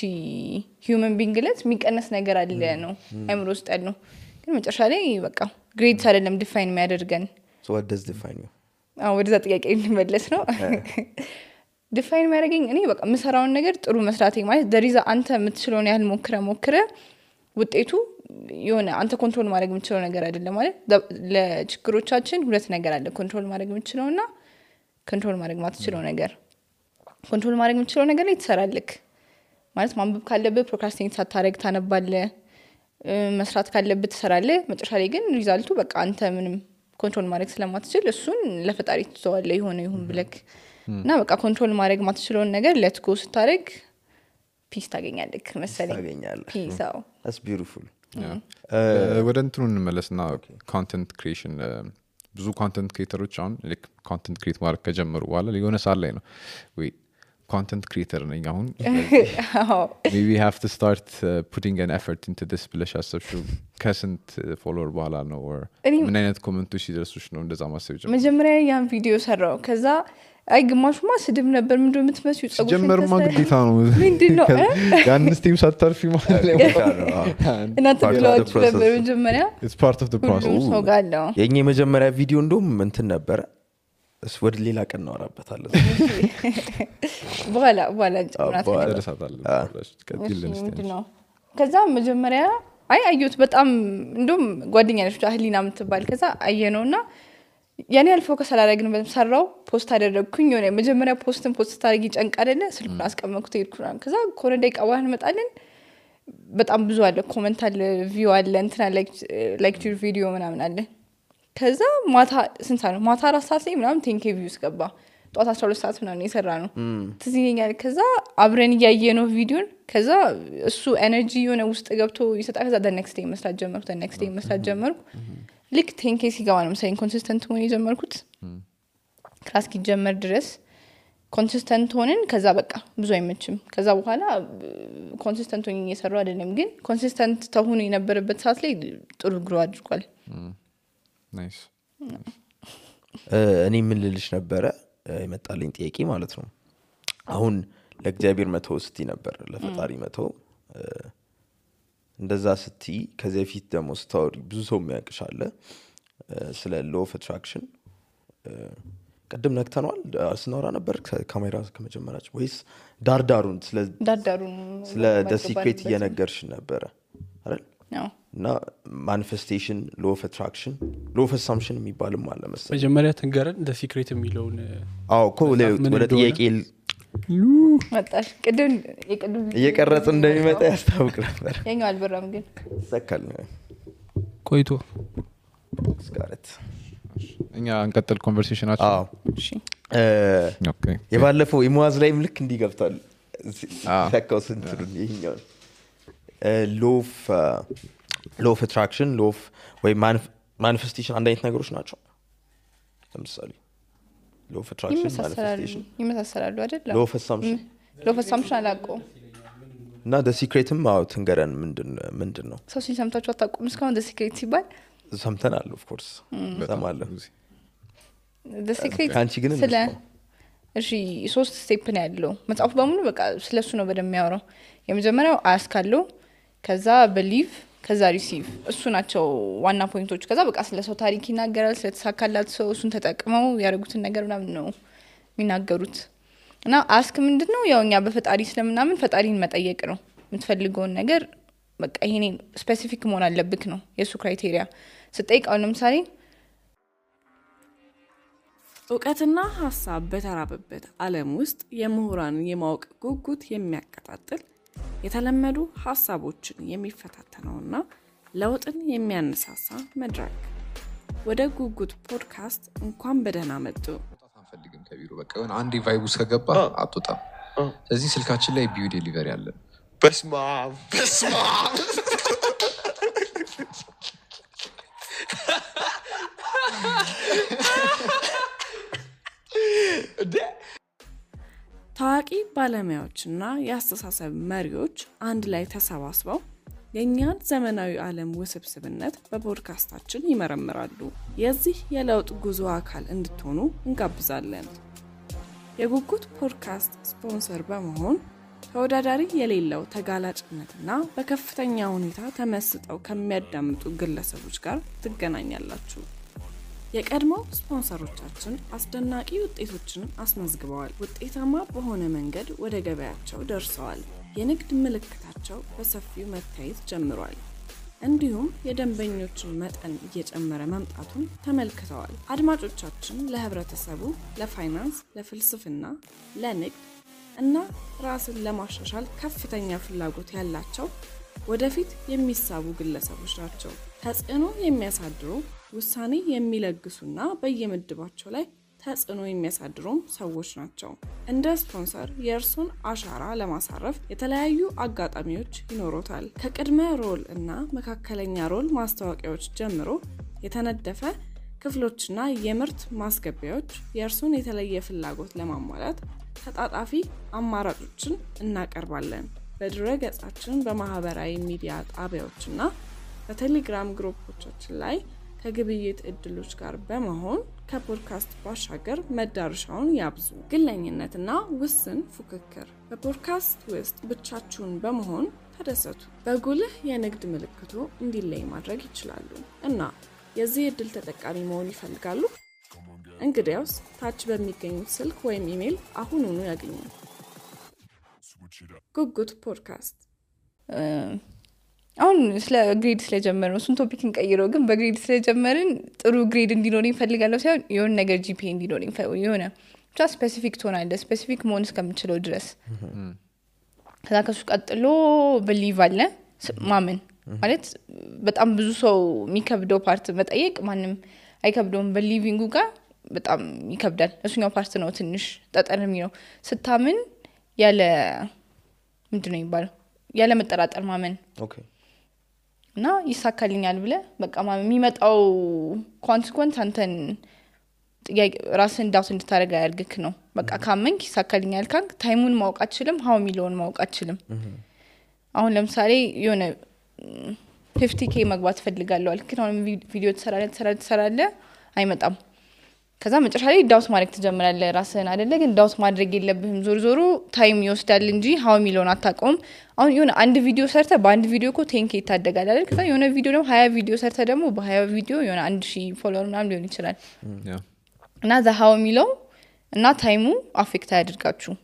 [SPEAKER 4] ሂዩመን ቢንግለት የሚቀነስ ነገር አለ ነው አይምሮ ውስጥ ያለው ግን መጨረሻ ላይ በቃ ግሬድስ አይደለም ዲፋይን የሚያደርገን
[SPEAKER 1] what does define you
[SPEAKER 4] ወደዛ ጥያቄ እንመለስ ነው ዲፋይን የሚያደርገኝ እኔ በቃ የምሰራውን ነገር ጥሩ መስራቴ ማለት ደሪዛ አንተ የምትችለውን ያህል ሞክረ ውጤቱ የሆነ አንተ ኮንትሮል ማድረግ የምትችለው ነገር አይደለም ማለት ለችግሮቻችን ሁለት ነገር አለ ኮንትሮል ማድረግ የምትችለውና ኮንትሮል ማድረግ ማትችለው ነገር ኮንትሮል ማድረግ የምትችለው ነገር ላይ ትሰራለክ ማለት ማንበብ ካለብህ ፕሮክራስቲኔት ሳታረግ ታነባለህ መስራት ካለብህ ትሰራለህ መጨረሻ ላይ ግን ሪዛልቱ በቃ አንተ ምንም ኮንትሮል ማድረግ ስለማትችል እሱን ለፈጣሪ ትተዋለህ ይሆን ብለክ እና በቃ ኮንትሮል ማድረግ ማትችለውን ነገር ሌትስ ጎ ስታረግ ፒስ ታገኛለህ መሰለኝ ፒስ
[SPEAKER 1] that's beautiful
[SPEAKER 2] ወደ እንትኑ እንመለስና ኮንቴንት ክሪኤሽን ብዙ ኮንቴንት ክሪኤተሮች አሁን ላይክ ኮንቴንት ክሪኤት ማድረግ ከጀመሩ በኋላ የሆነ ሳል ላይ ነው ወይ content creator ነኝ አሁን maybe have to start putting an effort into this ብለሽ አሰብሽው ከስንት ፎሎወር በኋላ ነው or ምን አይነት ኮሜንቶች ሲደርሱሽ ነው እንደዛ ማሰብ ጀመርሽ
[SPEAKER 4] መጀመሪያ ያን ቪዲዮ ሰራው ከዛ አይ ግማሹማ ስድብ ነበር ምንድነው የምትመስዩ ጸጉር
[SPEAKER 2] ጀመርማ ግዴታ ነው
[SPEAKER 4] ምንድነው
[SPEAKER 2] ያን ስቴም ሳታርፊ ማለት ነው
[SPEAKER 4] እና ተብሏችሁ ነበር መጀመሪያ
[SPEAKER 2] it's part of the process
[SPEAKER 4] ሰው ጋለው
[SPEAKER 1] የኛ መጀመሪያ ቪዲዮ እንደውም እንትን ነበር ወደ ሌላ ቀን እናወራበታለን
[SPEAKER 4] በኋላ
[SPEAKER 2] ተደረሳታለን
[SPEAKER 4] ነው ከዛ መጀመሪያ አዩት በጣም እንደውም ጓደኛ ነች አህሊና የምትባል ከዛ አየነውና ያኔ አልፎከስ አላደረግንም ሰራው ፖስት አደረግኩኝ የሆነ መጀመሪያ ፖስት ታርጊ ጨንቅ አይደለ ስልኩን አስቀመጥኩት ሄድኩና ከዛ ኮረንዳይ ቀባህን መጣልን በጣም ብዙ አለ ኮሜንት አለ ቪው አለ እንትና ላይክ ዩር ቪዲዮ ምናምን አለ ከዛ ማታ ስንት ነው ማታ 4 ሰዓት ላይ ምናምን 10k ቪውስ ገባ ጧት 12 ሰዓት ምናምን የሰራ ነው ትዝኛል ከዛ አብረን ያየነው ቪዲዮን ከዛ እሱ ኤነርጂ የሆነ ውስጥ ገብቶ ይሰጣ ከዛ the next day መስራት ጀመርኩ ልክ 10k ሲገባ ነው ሳይን ኮንሲስተንት ሆነ የጀመርኩት ክላስ ኪጀመር ድረስ ኮንሲስተንት ሆነን ከዛ በቃ ብዙ አይመችም ከዛ በኋላ ኮንሲስተንት ሆነን እየሰራው አይደለም ግን ኮንሲስተንት ተሆነ የነበረበት ሰዓት ላይ ጥሩ ግሮ አድርጓል
[SPEAKER 2] ናይስ
[SPEAKER 1] እኔ ምን ልልሽ ነበረ የመጣልኝ ጥያቄ ማለት ነው አሁን ለእግዚአብሔር መተው ስቲ ነበር ለፈጣሪ መተው እንደዛ ስቲ ከዚህ ፊት ደግሞ ስታወሪ ብዙ ሰው የሚያውቅሻለ ስለ law of attraction ቀደም ነክተናል ስናወራ ነበር ካሜራ ከመጀመራችን ወይስ ዳርዳሩን ስለ the secret እየነገርሽ ነበር አይደል
[SPEAKER 4] ነው
[SPEAKER 1] እና ማኒፌስቴሽን law of attraction law of assumption የሚባልም አለ መሰለኝ
[SPEAKER 5] መጀመሪያ ተንገረን the secret የሚለውን
[SPEAKER 1] ወደ ጥያቄ
[SPEAKER 4] መጣሽ ቅድም
[SPEAKER 1] እየቀረጽ እንደሚመጣ ያስታውቅ ነበር
[SPEAKER 4] የኛው አልበራም ግን
[SPEAKER 1] ሰከል
[SPEAKER 5] ቆይቶ
[SPEAKER 1] ስካረት
[SPEAKER 2] እኛ እንቀጥል ኮንቨርሴሽናችን
[SPEAKER 4] እሺ
[SPEAKER 2] ኦኬ
[SPEAKER 1] የባለፈው ኢሞዋዝ ላይ ምልክ እንዲገብታል ተካው ስንቱን ይሄኛው law of attraction law of ወይ manifestation አንድ አይነት ነገሮች ናቸው ለምሳሌ law of attraction manifestation
[SPEAKER 4] ይመሳሰላሉ አይደል
[SPEAKER 1] law of assumption
[SPEAKER 4] አላውቀው
[SPEAKER 1] እና the secretም ትንገረን ምንድን ነው
[SPEAKER 4] ሰው ሲሰምታችሁ አታውቁም እስካሁን the secret ሲባል
[SPEAKER 1] ሰምተናል of course ሰማለን
[SPEAKER 4] the secret
[SPEAKER 1] አንቺ ግን
[SPEAKER 4] ስለ እሺ 3 ስቴፕ ነው ያለው መጽሐፉ በሙሉ በቃ ስለሱ ነው በደም የሚያወራው የመጀመሪያው ask አለው ከዛ believe ከዛ receive እሱ ናቸው ዋና ፖይንቶች ከዛ በቃ ስለ ሰው ታሪክ ይናገራል ስለተሳካላት ሰው እሱን ተጠቅመው ያደረጉትን ነገር ምናምን ነው የሚናገሩት እና ask ምንድነው ያው እኛ በፈጣሪ ስለምናምን ፈጣሪን መጠየቅ ነው የምትፈልገውን ነገር በቃ ይሄኔ ስፔሲፊክ መሆን አለብክ ነው የሱ ክራይቴሪያ ስጠይቀው ለምሳሌ
[SPEAKER 6] እውቀትና ሐሳብ በተራበበት ዓለም ውስጥ የምሁራን የማወቅ ጉጉት የሚያቀጣጥል የተለመዱ ሐሳቦችን የሚፈታተነውና ለውጥን የሚያነሳሳ መድረክ ወደ ጉጉት ፖድካስት እንኳን በደህና መጡ
[SPEAKER 2] አንፈልግም ከቢሮ በቃ የሆነ አንዴ ቫይቡስ ከገባ አትወጣም ስለዚህ ስልካችን ላይ ቢዩ ዴሊቨሪ አለን
[SPEAKER 1] በስማ
[SPEAKER 6] ታዋቂ ባለሙያዎችና የአስተሳሰብ መሪዎች አንድ ላይ ተሰባስበው የኛን ዘመናዊ ዓለም ውስብስብነት በፖድካስታችን ይመረምራሉ የዚህ የለውጥ ጉዞ አካል እንድትሆኑ እንጋብዛለን የጉጉት ፖድካስት ስፖንሰር በመሆን ተወዳዳሪ የሌለው ተጋላጭነትና በከፍተኛ ሁኔታ ተመስጠው ከሚያዳምጡ ግለሰቦች ጋር ትገናኛላችሁ የቀድሞ ስፖንሰሮቻችን አስደናቂ ውጤቶችን አስመዝግበዋል ውጤታማ በሆነ መንገድ ወደ ገበያቸው ደርሰዋል የንግድ ምልክታቸው በሰፊው መታየት ጀምሯል እንዲሁም የደንበኞችን መጠን እየጨመረ መምጣቱን ተመልክተዋል አድማጮቻችን ለህብረተሰቡ ለፋይናንስ ለፍልስፍና ለንግድ እና ራስን ለማሻሻል ከፍተኛ ፍላጎት ያላቸው ወደፊት የሚሳቡ ግለሰቦች ናቸው ተጽዕኖ የሚያሳድሩ ውሳኔ የሚለግሱና በየምድባቸው ላይ ተጽዕኖ የሚያሳድሩም ሰዎች ናቸው እንደ ስፖንሰር የእርሱን አሻራ ለማሳረፍ የተለያዩ አጋጣሚዎች ይኖሩታል ከቅድመ ሮል እና መካከለኛ ሮል ማስታወቂያዎች ጀምሮ የተነደፈ ክፍሎችና የምርት ማስገቢያዎች የእርሱን የተለየ ፍላጎት ለማሟላት ተጣጣፊ አማራጮችን እናቀርባለን በድረ ገጻችን በማህበራዊ ሚዲያ ጣቢያዎችና በቴሌግራም ግሩፖቻችን ላይ ከግብይት እድሎች ጋር በመሆን ከፖድካስት ባሻገር መዳረሻውን ያብዙ ግለኝነትና ውስን ፉክክር በፖድካስት ውስጥ ብቻችሁን በመሆን ተደሰቱ በጉልህ የንግድ ምልክቱ እንዲለይ ማድረግ ይችላሉ እና የዚህ እድል ተጠቃሚ መሆን ይፈልጋሉ እንግዲያውስ ታች በሚገኙት ስልክ ወይም ኢሜል አሁኑኑ ያገኙ ጉጉት ፖድካስት
[SPEAKER 4] አሁን ስለ ግሬድ ስለጀመርን እሱን ቶፒክ እንቀይረው ግን በግሬድ ስለጀመርን ጥሩ ግሬድ እንዲኖረኝ ፈልጋለሁ ሳይሆን የሆነ ነገር ጂፒኤ እንዲኖረኝ የሆነ ብቻ ስፔሲፊክ ትሆናለህ ስፔሲፊክ መሆን እስከምችለው ድረስ ከዛ ከሱ ቀጥሎ በሊቭ አለ ማመን ማለት በጣም ብዙ ሰው የሚከብደው ፓርት መጠየቅ ማንም አይከብደውም በሊቪንጉ ጋር በጣም ይከብዳል እሱኛው ፓርት ነው ትንሽ ጠጠር የሚለው ስታምን ያለ ምንድነው የሚባለው ያለ መጠራጠር ማመን
[SPEAKER 1] ኦኬ
[SPEAKER 4] እና ይሳካልኛል ብለ በቃ የሚመጣው ኮንሲኩዌንስ አንተን ራስን ዳውት እንድታረጋ ያርግክ ነው በቃ ካመንክ ይሳካልኛል ካንክ ታይሙን ማወቅ አትችልም ሃው ሚሊዮን ማወቅ አትችልም አሁን ለምሳሌ የሆነ 50k መግባት ፈልጋለሁ አልክ አሁን ቪዲዮ ተሰራለ አይመጣም ከዛ መጨረሻ ላይ ዳውት ማድረግ ትጀምራለህ ራስህን አይደለ ግን ዳውት ማድረግ የለብህም ዞር ታይም ይወስዳል እንጂ ሃው ሚሊዮን አታቆም አሁን የሆነ አንድ ቪዲዮ ሰርተ በአንድ ቪዲዮ እኮ 10k ይታደጋል አይደል ከዛ የሆነ ቪዲዮ ደግሞ 20 ቪዲዮ ሰርተ ደግሞ በ20 ቪዲዮ የሆነ 1000 ፎሎወር ምናምን ሊሆን ይችላል እና ሃው ሚሊዮን እና ታይሙ አፌክት ያድርጋችሁ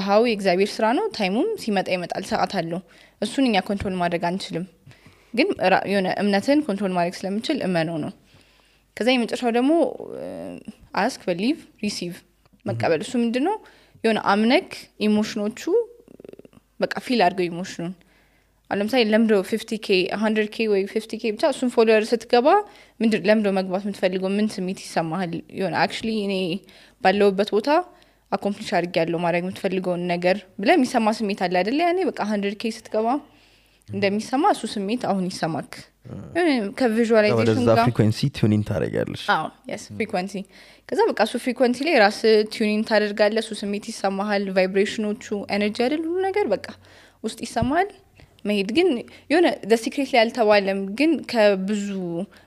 [SPEAKER 4] ሃው የእግዚአብሔር ስራ ነው ታይሙም ሲመጣ ይመጣል ሰዓት አለው እሱን እኛ ኮንትሮል ማድረግ አንችልም ግን የሆነ እምነትን ኮንትሮል ማድረግ ስለምችል እመነው ነው ከዛ የመጨረሻው ደግሞ ask believe receive መቀበል እሱ ምንድነው የሆነ አምነክ ኢሞሽኖቹ በቃ ፊል አድርገው ኢሞሽኑን ለምሳሌ ለምዶ 50k 100k ወይ 50k ብቻ እሱን ፎሎወር ስትገባ ምንድነው ለምዶ መግባት የምትፈልገው ምን ስሜት ይሰማሃል የሆነ actually እኔ ባለውበት ቦታ አኮምፕሊሽ አድርጌያለሁ ማድረግ የምትፈልገው ነገር ብለ የሚሰማ ስሜት አለ አይደል ያኔ በቃ 100k ስትገባ እንደሚሰማ እሱ ስሜት አሁን ይሰማክ ከቪዥዋላይዜሽን ጋር
[SPEAKER 1] ፍሪኩዌንሲ ቱኒንግ ታደርጋለሽ
[SPEAKER 4] yes ፍሪኩዌንሲ ከዛ በቃ እሱ ፍሪኩዌንሲ ላይ ራስ ቱኒንግ ታደርጋለህ እሱ ስሜት ይሰማሃል ቫይብሬሽኖቹ ኤነርጂ አይደል ሁሉ ነገር በቃ ውስጥ ይሰማል መሄድ ግን የሆነ the secret ላይ አልተባለም ግን ከብዙ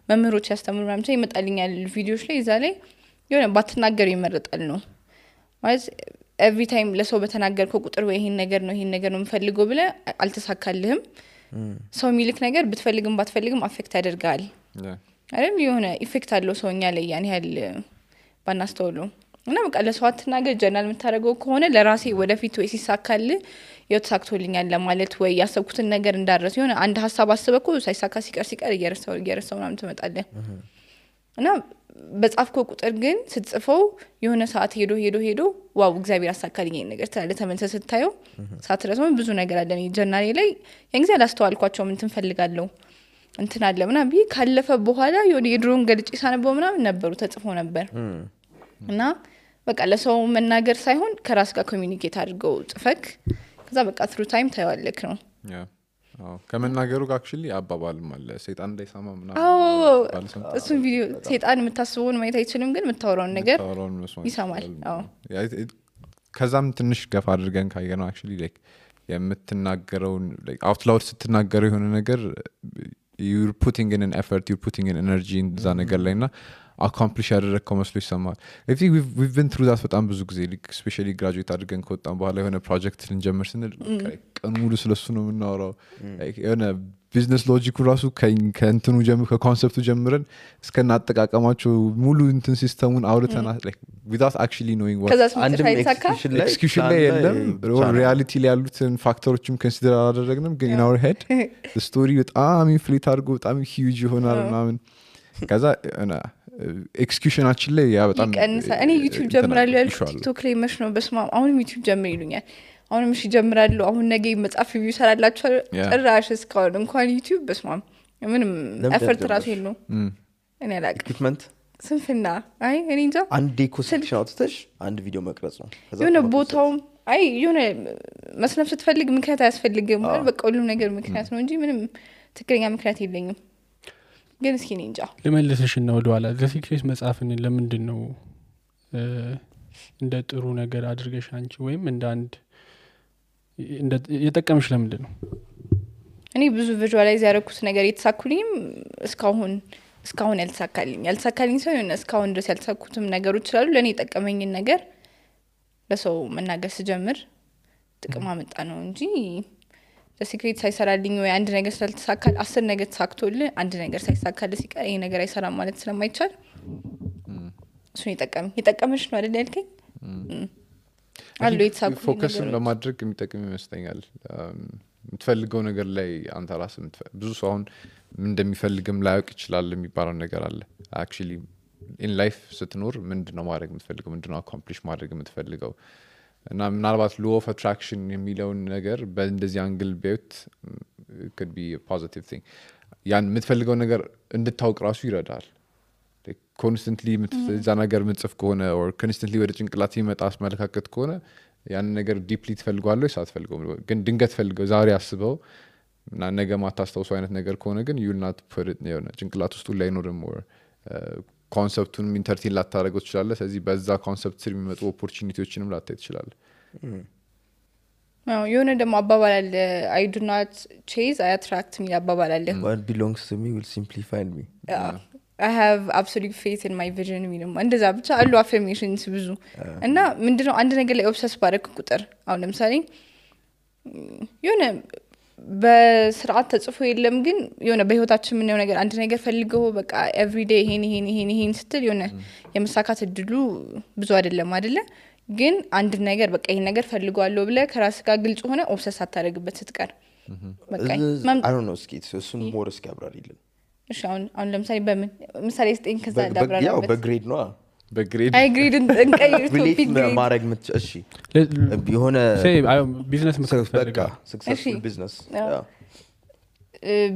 [SPEAKER 4] መምህሮች ያስተምሩ ምናምን ይመጣልኛል ቪዲዮዎች ላይ እዛ ላይ የሆነ ባትናገር ይመረጣል ነው ማለት every time ለሰው በተናገርከው ቁጥር ወይ ይሄን ነገር ነው የምፈልገው ብለ አልተሳካልህም ሰው የሚልክ ነገር ብትፈልግም ባትፈልግም አፌክት ያደርጋል አይደል የሆነ ኢፌክት አለው ሰውኛ ላይ ያን ያህል ባናስተውሉ እና በቃ ለሰው አትናገር ጀነራል የምታደርገው ከሆነ ለራሴ ወደፊት ወይ ሲሳካል ተሳክቶልኛል ለማለት ወይ ያሰብኩትን ነገር እንዳረስ የሆነ አንድ ሐሳብ አስበኩ ሳይሳካ ሲቀር እየረሳው ምናምን ትመጣለህ እና በጻፍከው ቁጥር ግን ስትጽፈው የሆነ ሰዓት ሄዶ ዋው እግዚአብሔር አሳካልኝ ይሄን ነገር ተመልሰህ ስታየው ሳትረሳው ብዙ ነገር አለ ጀነራል ላይ ያን ጊዜ አላስተዋልኳቸው ምን ትፈልጋለሁ እንትን አለ ምናምን ቢ ካለፈ በኋላ የሆነ የድሮን ገልጭ ሳነበው ምናምን ነበሩ ተጽፎ ነበር እና በቃ ለሰው መናገር ሳይሆን ከራስ ጋር ኮሚኒኬት አድርገው ጽፈክ ከዛ በቃ ትሩ ታይም ታይዋለክ ነው
[SPEAKER 2] ከመናገሩ ጋር actually አባባልም አለ ሰይጣን እንዳይሰማ ምናምን
[SPEAKER 4] እሱን ቪዲዮ ሰይጣን የምታስበውን ማየት አይችልም ግን የምታወራውን ነገር ይሰማል
[SPEAKER 2] ከዛም ትንሽ ገፋ አድርገን ካየነው actually like የምትናገረውን like out loud ስትናገረው የሆነ ነገር you're putting in an effort you're putting in energy in ዛ ነገር ላይና accomplish ያደረግከው መስሎ ይሰማል I think we've been through that በጣም ብዙ ጊዜ especially graduate አድርገን ከወጣን በኋላ የሆነ ፕሮጀክት ልንጀምር ስንል ቀን ሙሉ ስለሱ ነው የምናወራው የሆነ ቢዝነስ ሎጂኩ ራሱ ከእንትኑ ከኮንሰፕቱ ጀምረን እስከና አጠቃቀማቸው ሙሉ እንትን ሲስተሙን አውርተናል like without actually knowing what execution ላይ የለም ሪያሊቲ ላይ ያሉትን ፋክተሮችም ኮንሲደር አላደረግንም ግን in our head the story በጣም ኢንፍሌት አድርጎ በጣም huge ይሆናል ምናምን ከዛ ኤክስኪዩሽናችን ላይ ያ በጣም
[SPEAKER 4] እኔ ዩቲዩብ ጀምራለሁ ያልኩት ቲክቶክ ላይ መሽ ነው በስማ አሁንም ዩቲዩብ ጀምር ይሉኛል አሁንም እሺ ጀምራለሁ አሁን ነገ መጻፍ ሪቪው ሰራላችሁ ጭራሽ እስካሁን እንኳን ዩቲዩብ በስማ ምንም ኤፈርት ራሱ የለው እኔ አላውቅም
[SPEAKER 1] ኢኩዊፕመንት
[SPEAKER 4] ስንፍና አይ እኔ እንጃ
[SPEAKER 1] አንድ ኮንሰፕሽን አውጥተሽ አንድ ቪዲዮ መቅረጽ ነው
[SPEAKER 4] የሆነ ቦታው አይ የሆነ መስነፍ ስትፈልግ ምክንያት አያስፈልግም ማለት በቃ ሁሉ ነገር ምክንያት ነው እንጂ ምንም ትክክለኛ ምክንያት የለኝም ግን እስኪ እኔ እንጃ
[SPEAKER 5] ለመለሰሽና ወደኋላ ዘሲክሬት መጽሐፍን ለምንድን ነው እንደ ጥሩ ነገር አድርገሽ አንቺ ወይም እንደ አንድ የጠቀምሽ ለምንድን ነው
[SPEAKER 4] እኔ ብዙ ቪዥዋላይዝ ያደረኩት ነገር የተሳኩልኝም እስካሁን ያልተሳካልኝ ሰው የሆነ እስካሁን ድረስ ያልተሳኩትም ነገሮች ስላሉ ለእኔ የጠቀመኝን ነገር ለሰው መናገር ስጀምር ጥቅም አመጣ ነው እንጂ ለሲክሬት ሳይሰራልኝ ወይ አንድ ነገር ስላልተሳካል 10 ነገር ተሳክቶልህ አንድ ነገር ሳይሳካል ሲቀር ይሄ ነገር አይሰራም ማለት ስለማይቻል እሱን የጠቀመሽ ነው አይደል ያልከኝ አሉ የተሳኩ
[SPEAKER 2] ፎከስን በማድረግ የሚጠቅም ይመስለኛል የምትፈልገው ነገር ላይ አንተ ራስህ ብዙ ሰው አሁን እንደሚፈልግም ላያውቅ ይችላል የሚባለው ነገር አለ actually in life ስትኖር ምንድነው ማድረግ የምትፈልገው ምንድነው accomplish ማድረግ የምትፈልገው እና ምናልባት law of attraction የሚለውን ነገር በእንደዚህ አንግል ቢያዩት could be a positive thing ያን የምትፈልገው ነገር እንድታውቅ ራሱ ይረዳል ኮንስተንትሊ እዛ ነገር ምጽፍ ከሆነ or constantly ወደ ጭንቅላት ይመጣ አስመለካከት ከሆነ ያን ነገር ዲፕሊ ትፈልጓለህ ሳትፈልገው ግን ድንገት ፈልገው ዛሬ አስበው እና ነገ ማታስተውሰው አይነት ነገር ከሆነ ግን you will not put it የሆነ ጭንቅላት ውስጥ ላይ ኖርም or ኮንሰፕቱን ኢንተርቴን ላታረጋው ትችላለህ ስለዚህ በዛ ኮንሰፕት ስር የሚመጡ ኦፖርቹኒቲዎችንም ላታይ ትችላለህ
[SPEAKER 4] የሆነ ደግሞ አባባል አለ I do not chase I attract me አባባል አለ
[SPEAKER 1] what belongs to me will simply find me
[SPEAKER 4] I have absolute faith in my vision ምንም እንደዛ ብቻ አሉ affirmations ብዙ እና ምንድነው አንድ ነገር ላይ ኦብሰስ ባረክ ቁጥር አሁን ለምሳሌ የሆነ በስርዓት ተጽፎ የለም ግን የሆነ በህይወታችን ምን ነው ነገር አንድ ነገር ፈልገው በቃ every day ይሄን ስትል የሆነ የመሳካት እድሉ ብዙ አይደለም አይደለ ግን አንድ ነገር በቃ ይሄን ነገር ፈልጓለሁ ብለ ከራስ ጋር ግልጽ ሆነ ኦብሰስ አታረግበት ስትቀር
[SPEAKER 1] በቃ I don't know እስኪ እሱን ሞር እስኪ አብራሪልን
[SPEAKER 4] እሺ አሁን ለምሳሌ በምን ምሳሌ ስጠኝ ከዛ ዳብራራበት
[SPEAKER 1] ያው በግሬድ ነው
[SPEAKER 2] በግሬድ
[SPEAKER 4] አይ ግሬድ እንቀይር ቶፒክ
[SPEAKER 1] ማድረግ እሺ የሆነ
[SPEAKER 5] ቢዝነስ መክፈት
[SPEAKER 1] በቃ successful business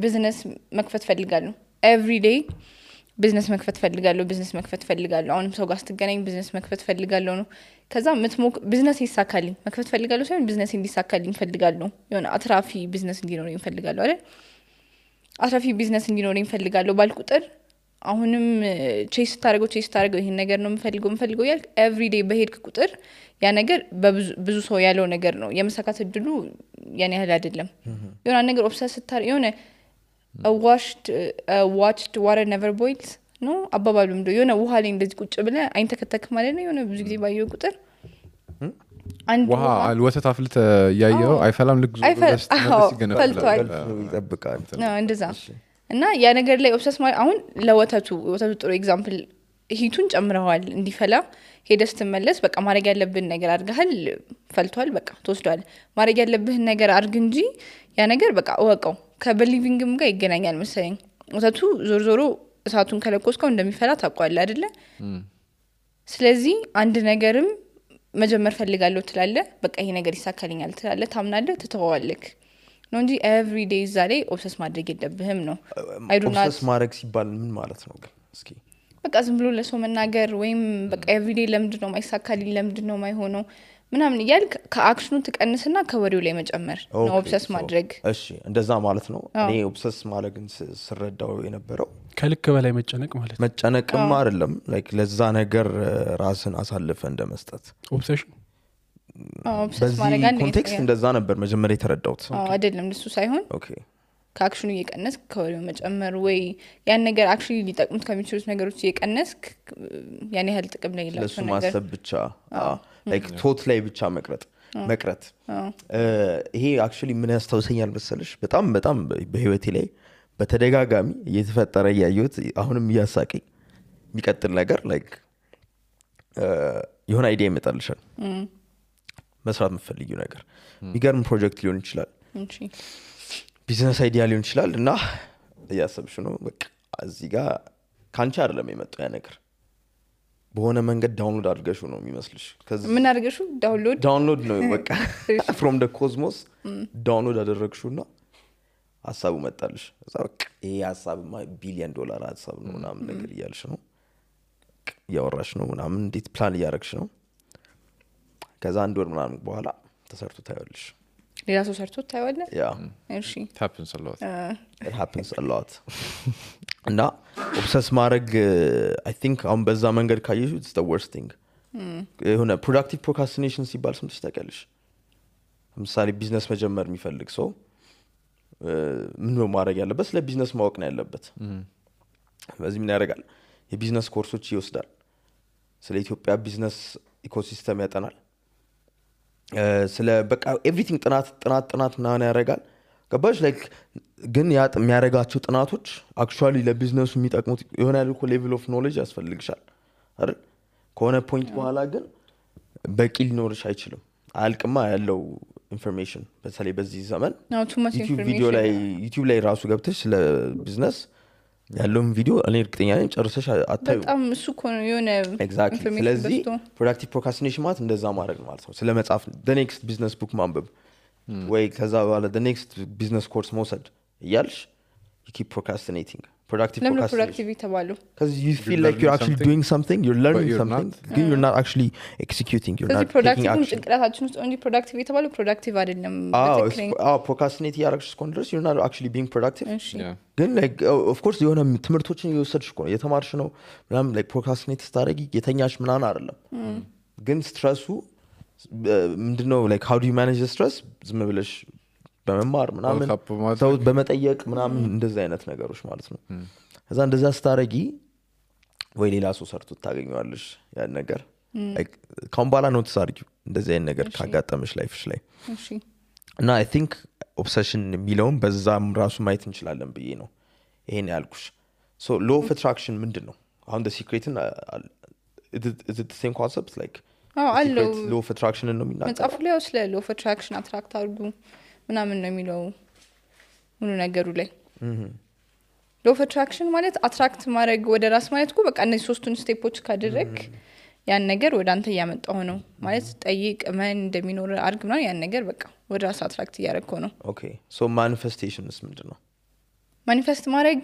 [SPEAKER 4] ቢዝነስ መክፈት ፈልጋለሁ every day ቢዝነስ መክፈት ፈልጋለሁ አሁንም ሰው ጋር ስትገናኝ ቢዝነስ መክፈት ፈልጋለሁ ነው ከዛ ቢዝነስ ይሳካልኝ መክፈት ፈልጋለሁ ሳይሆን ቢዝነስ እንዲሳካልኝ ፈልጋለሁ የሆነ አትራፊ ቢዝነስ እንዲኖረኝ ፈልጋለሁ አይደል አትራፊ ቢዝነስ እንዲኖረኝ ፈልጋለሁ ባልቁጥር አሁንም ቼስ ታደርገው ይሄን ነገር ነው የምፈልገው ያልክ ኤቭሪዴይ በሄድክ ቁጥር ያ ነገር በብዙ ሰው ያለው ነገር ነው የመሳካት እድሉ ያን ያህል አይደለም የሆነ ነገር ኦብሰስ ስታር የሆነ watched water never boils ነው አባባሉም እንደው የሆነ ውሃ ላይ እንደዚህ ቁጭ ብለ አይንተከተክ ማለት ነው የሆነ ብዙ ጊዜ ባየው ቁጥር አንድ
[SPEAKER 2] ውሃ ወተት አፍልተ ያየው አይፈላም ልክ ዙ
[SPEAKER 4] ፈልቷል
[SPEAKER 1] ይጠብቃል
[SPEAKER 4] እንደዛ እና ያ ነገር ላይ ኦብሰስ ማለት አሁን ለወተቱ ጥሩ ኤግዛምፕል ሂቱን ጨምረዋል እንዲፈላ ሄደስ ተመለስ በቃ ማድረግ ያለብን ነገር አድርገሃል ፈልቷል በቃ ተወስዷል ማድረግ ያለብህ ነገር አድርግ እንጂ ያ ነገር በቃ ወቀው ከበሊቪንግም ጋር ይገናኛል መሰለኝ ወተቱ ዞሮ እሳቱን ከለኮስከው እንደሚፈላ ታውቃለህ አይደለ ስለዚህ አንድ ነገርም መጀመር ፈልጋለሁ ትላለ በቃ ይሄ ነገር ይሳካልኛል ትላለ ታምናለህ ትተዋዋለክ ነው እንጂ ኤቭሪ ዴይ ዛሬ ኦብሰስ ማድረግ የለብህም ነው
[SPEAKER 1] ኦብሰስ ማድረግ ሲባል ምን ማለት ነው ግን እስኪ
[SPEAKER 4] በቃ ዝም ብሎ ለሰው መናገር ወይም በቃ ኤቭሪ ዴይ ለምንድነው ማይሳካልኝ ለምንድነው ማይሆነው ምናምን ይያልክ ከአክሽኑ ተቀንስና ከወሬው ላይ መጨመር ነው ኦብሰስ ማድረግ
[SPEAKER 1] እሺ እንደዛ ማለት ነው እኔ ኦብሰስ ማለግን ስረዳው የነበረው
[SPEAKER 5] ከልክ በላይ መጨነቅ ማለት ነው
[SPEAKER 1] መጨነቅም አይደለም ላይክ ለዛ ነገር ራስን አሳልፈ እንደመስጠት
[SPEAKER 5] ኦብሴሽን
[SPEAKER 4] ኦብሰስ ማድረግ አንድ
[SPEAKER 1] ኮንቴክስት እንደዛ ነበር መጀመሪያ የተረዳሁት
[SPEAKER 4] አይደለም እሱ ሳይሆን
[SPEAKER 1] ኦኬ
[SPEAKER 4] ከአክሽኑ እየቀነስ ከወሬው መጨመር ወይ ያን ነገር አክቹሊ ሊጠቅሙት ከሚችሉት ነገሮች እየቀነስ ያን ያህል ጥቅም ላይ ይላል
[SPEAKER 1] ለሱ ማሰብ ብቻ ላይክ ቶት ላይ ብቻ መቅረት ይሄ አክቹሊ ምን ያስታውሰኛል መሰለሽ በጣም በህይወቴ ላይ በተደጋጋሚ እየተፈጠረ ያየሁት አሁንም እያሳቀኝ የሚቀጥል ነገር ላይክ የሆነ አይዲያ ይመጣልሻል መስራት የምትፈልጊው ነገር የሚገርም ፕሮጀክት ሊሆን ይችላል ቢዝነስ አይዲያ ሊሆን ይችላል እና እያሰብሽ ነው በቃ እዚህ ጋር ካንቺ አይደለም የመጣው ያ ነገር በሆነ መንገድ ዳውንሎድ አድርገሽው ነው የሚመስልሽ
[SPEAKER 4] ምን አድርገሽው
[SPEAKER 1] ዳውንሎድ ነው በቃ from the cosmos ዳውንሎድ አደረግሽውና ሐሳቡ መጣልሽ እዛ በቃ ይሄ ሐሳብማ ቢሊየን ዶላር ሐሳብ ነው ምናምን ነገር እያልሽ ነው ያወራሽ ነው ምናምን እንዴት ፕላን እያደረግሽ ነው ከዛ አንድ ወር ምናምን በኋላ ተሰርቶ ታያለሽ
[SPEAKER 4] ሌላ ሰው ሰርቶ ታያለህ እሺ
[SPEAKER 1] it happens a lot እና ኦብሰስ ማድረግ I think አሁን በዛ መንገድ ካየሽ it's the worst thing የሆነ productive procrastination ሲባል ስምሽ ታውቂያለሽ ለምሳሌ ቢዝነስ መጀመር የሚፈልግ ሰው ምን ነው ማድረግ ያለበት ስለ ቢዝነስ ማወቅ ነው ያለበት በዚህ ምን ያደርጋል የቢዝነስ ኮርሶች ይወስዳል ስለ ኢትዮጵያ ቢዝነስ ኢኮሲስተም ያጠናል ስለ በቃ ኤቭሪቲንግ ጥናት ምናምን ያደርጋል ገባሽ ላይክ ግን ያ የሚያደርጋቸው ጥናቶች አክቹአሊ ለቢዝነሱ የሚጠቅሙት የሆነ ያልኩ ሌቭል ኦፍ ኖሌጅ ያስፈልግሻል አይደል ከሆነ ፖይንት በኋላ ግን በቂ ሊኖርሽ አይችልም አልቅማ ያለው ኢንፎርሜሽን በተለይ በዚህ ዘመን ዩቲዩብ ላይ ራሱ ገብተሽ ስለ ቢዝነስ ያለውን ቪዲዮ እኔ እርግጠኛ ነኝ ጨርሰሽ አታዩ
[SPEAKER 4] በጣም እሱ ኮን የሆነ
[SPEAKER 1] ኤግዛክትሊ ስለዚህ ፕሮዳክቲቭ ፕሮክራስቲኔሽን ማለት እንደዛ ማድረግ ማለት ነው ስለ መጻፍ the next business book ማንበብ ወይ ከዛ በኋላ the next business course መውሰድ እያልሽ you keep procrastinating productive
[SPEAKER 4] productivity ተባሉ
[SPEAKER 1] because you feel like you're actually doing something you're learning something you're not actually executing you're not taking action
[SPEAKER 4] ጭንቅላታችን ውስጥ only productivity ተባሉ productive አይደለም
[SPEAKER 1] procrastinate ያረግሽ እስከሆነ you're not actually being productive ግን like of course የሆነ ትምህርቶችን እየወሰድሽ እኮ ነው የተማርሽ ነው ምናምን like procrastinate ስታደርጊ የተኛሽ ምናምን አይደለም ግን ስትረሱ ምንድነው like how do you manage the stress ዝም ብለሽ በመማር ምናምን ሰው በመጠየቅ ምናምን እንደዛ አይነት ነገሮች ማለት ነው ከዛ እንደዛ ስታረጊ ወይ ሌላ ሰው ሰርቶ ታገኘዋለሽ ያን ነገር ካምባላ ኖትስ አድርጊው እንደዚህ አይነት ነገር ካጋጠመሽ ላይፍሽ ላይ እና I think obsession የሚለውን በዛም ራሱ ማየት እንችላለን ብዬ ነው ይሄን ያልኩሽ so law of attraction ምንድነው አሁን the secret is it the same concept like
[SPEAKER 4] አለው
[SPEAKER 1] law of attraction ነው የሚናገረው
[SPEAKER 4] መጽሐፉ ላይ ስለ law of attraction አትራክት አድርጉ ምናምን ነው የሚለው ሁሉ ነገሩ ላይ law of attraction ማለት አትራክት ማድረግ ወደ ራስ ማለት እኮ በቃ እነዚህ ሶስቱን ስቴፖች ካደረክ ያን ነገር ወደ አንተ ያመጣው ነው ማለት ጠይቅ ማን እንደሚኖር አርግ ምናምን ያን ነገር በቃ ወደ ራስ አትራክት ያደረከው ነው
[SPEAKER 1] ኦኬ so manifestationስ ምንድነው
[SPEAKER 4] ማኒፌስት ማድረግ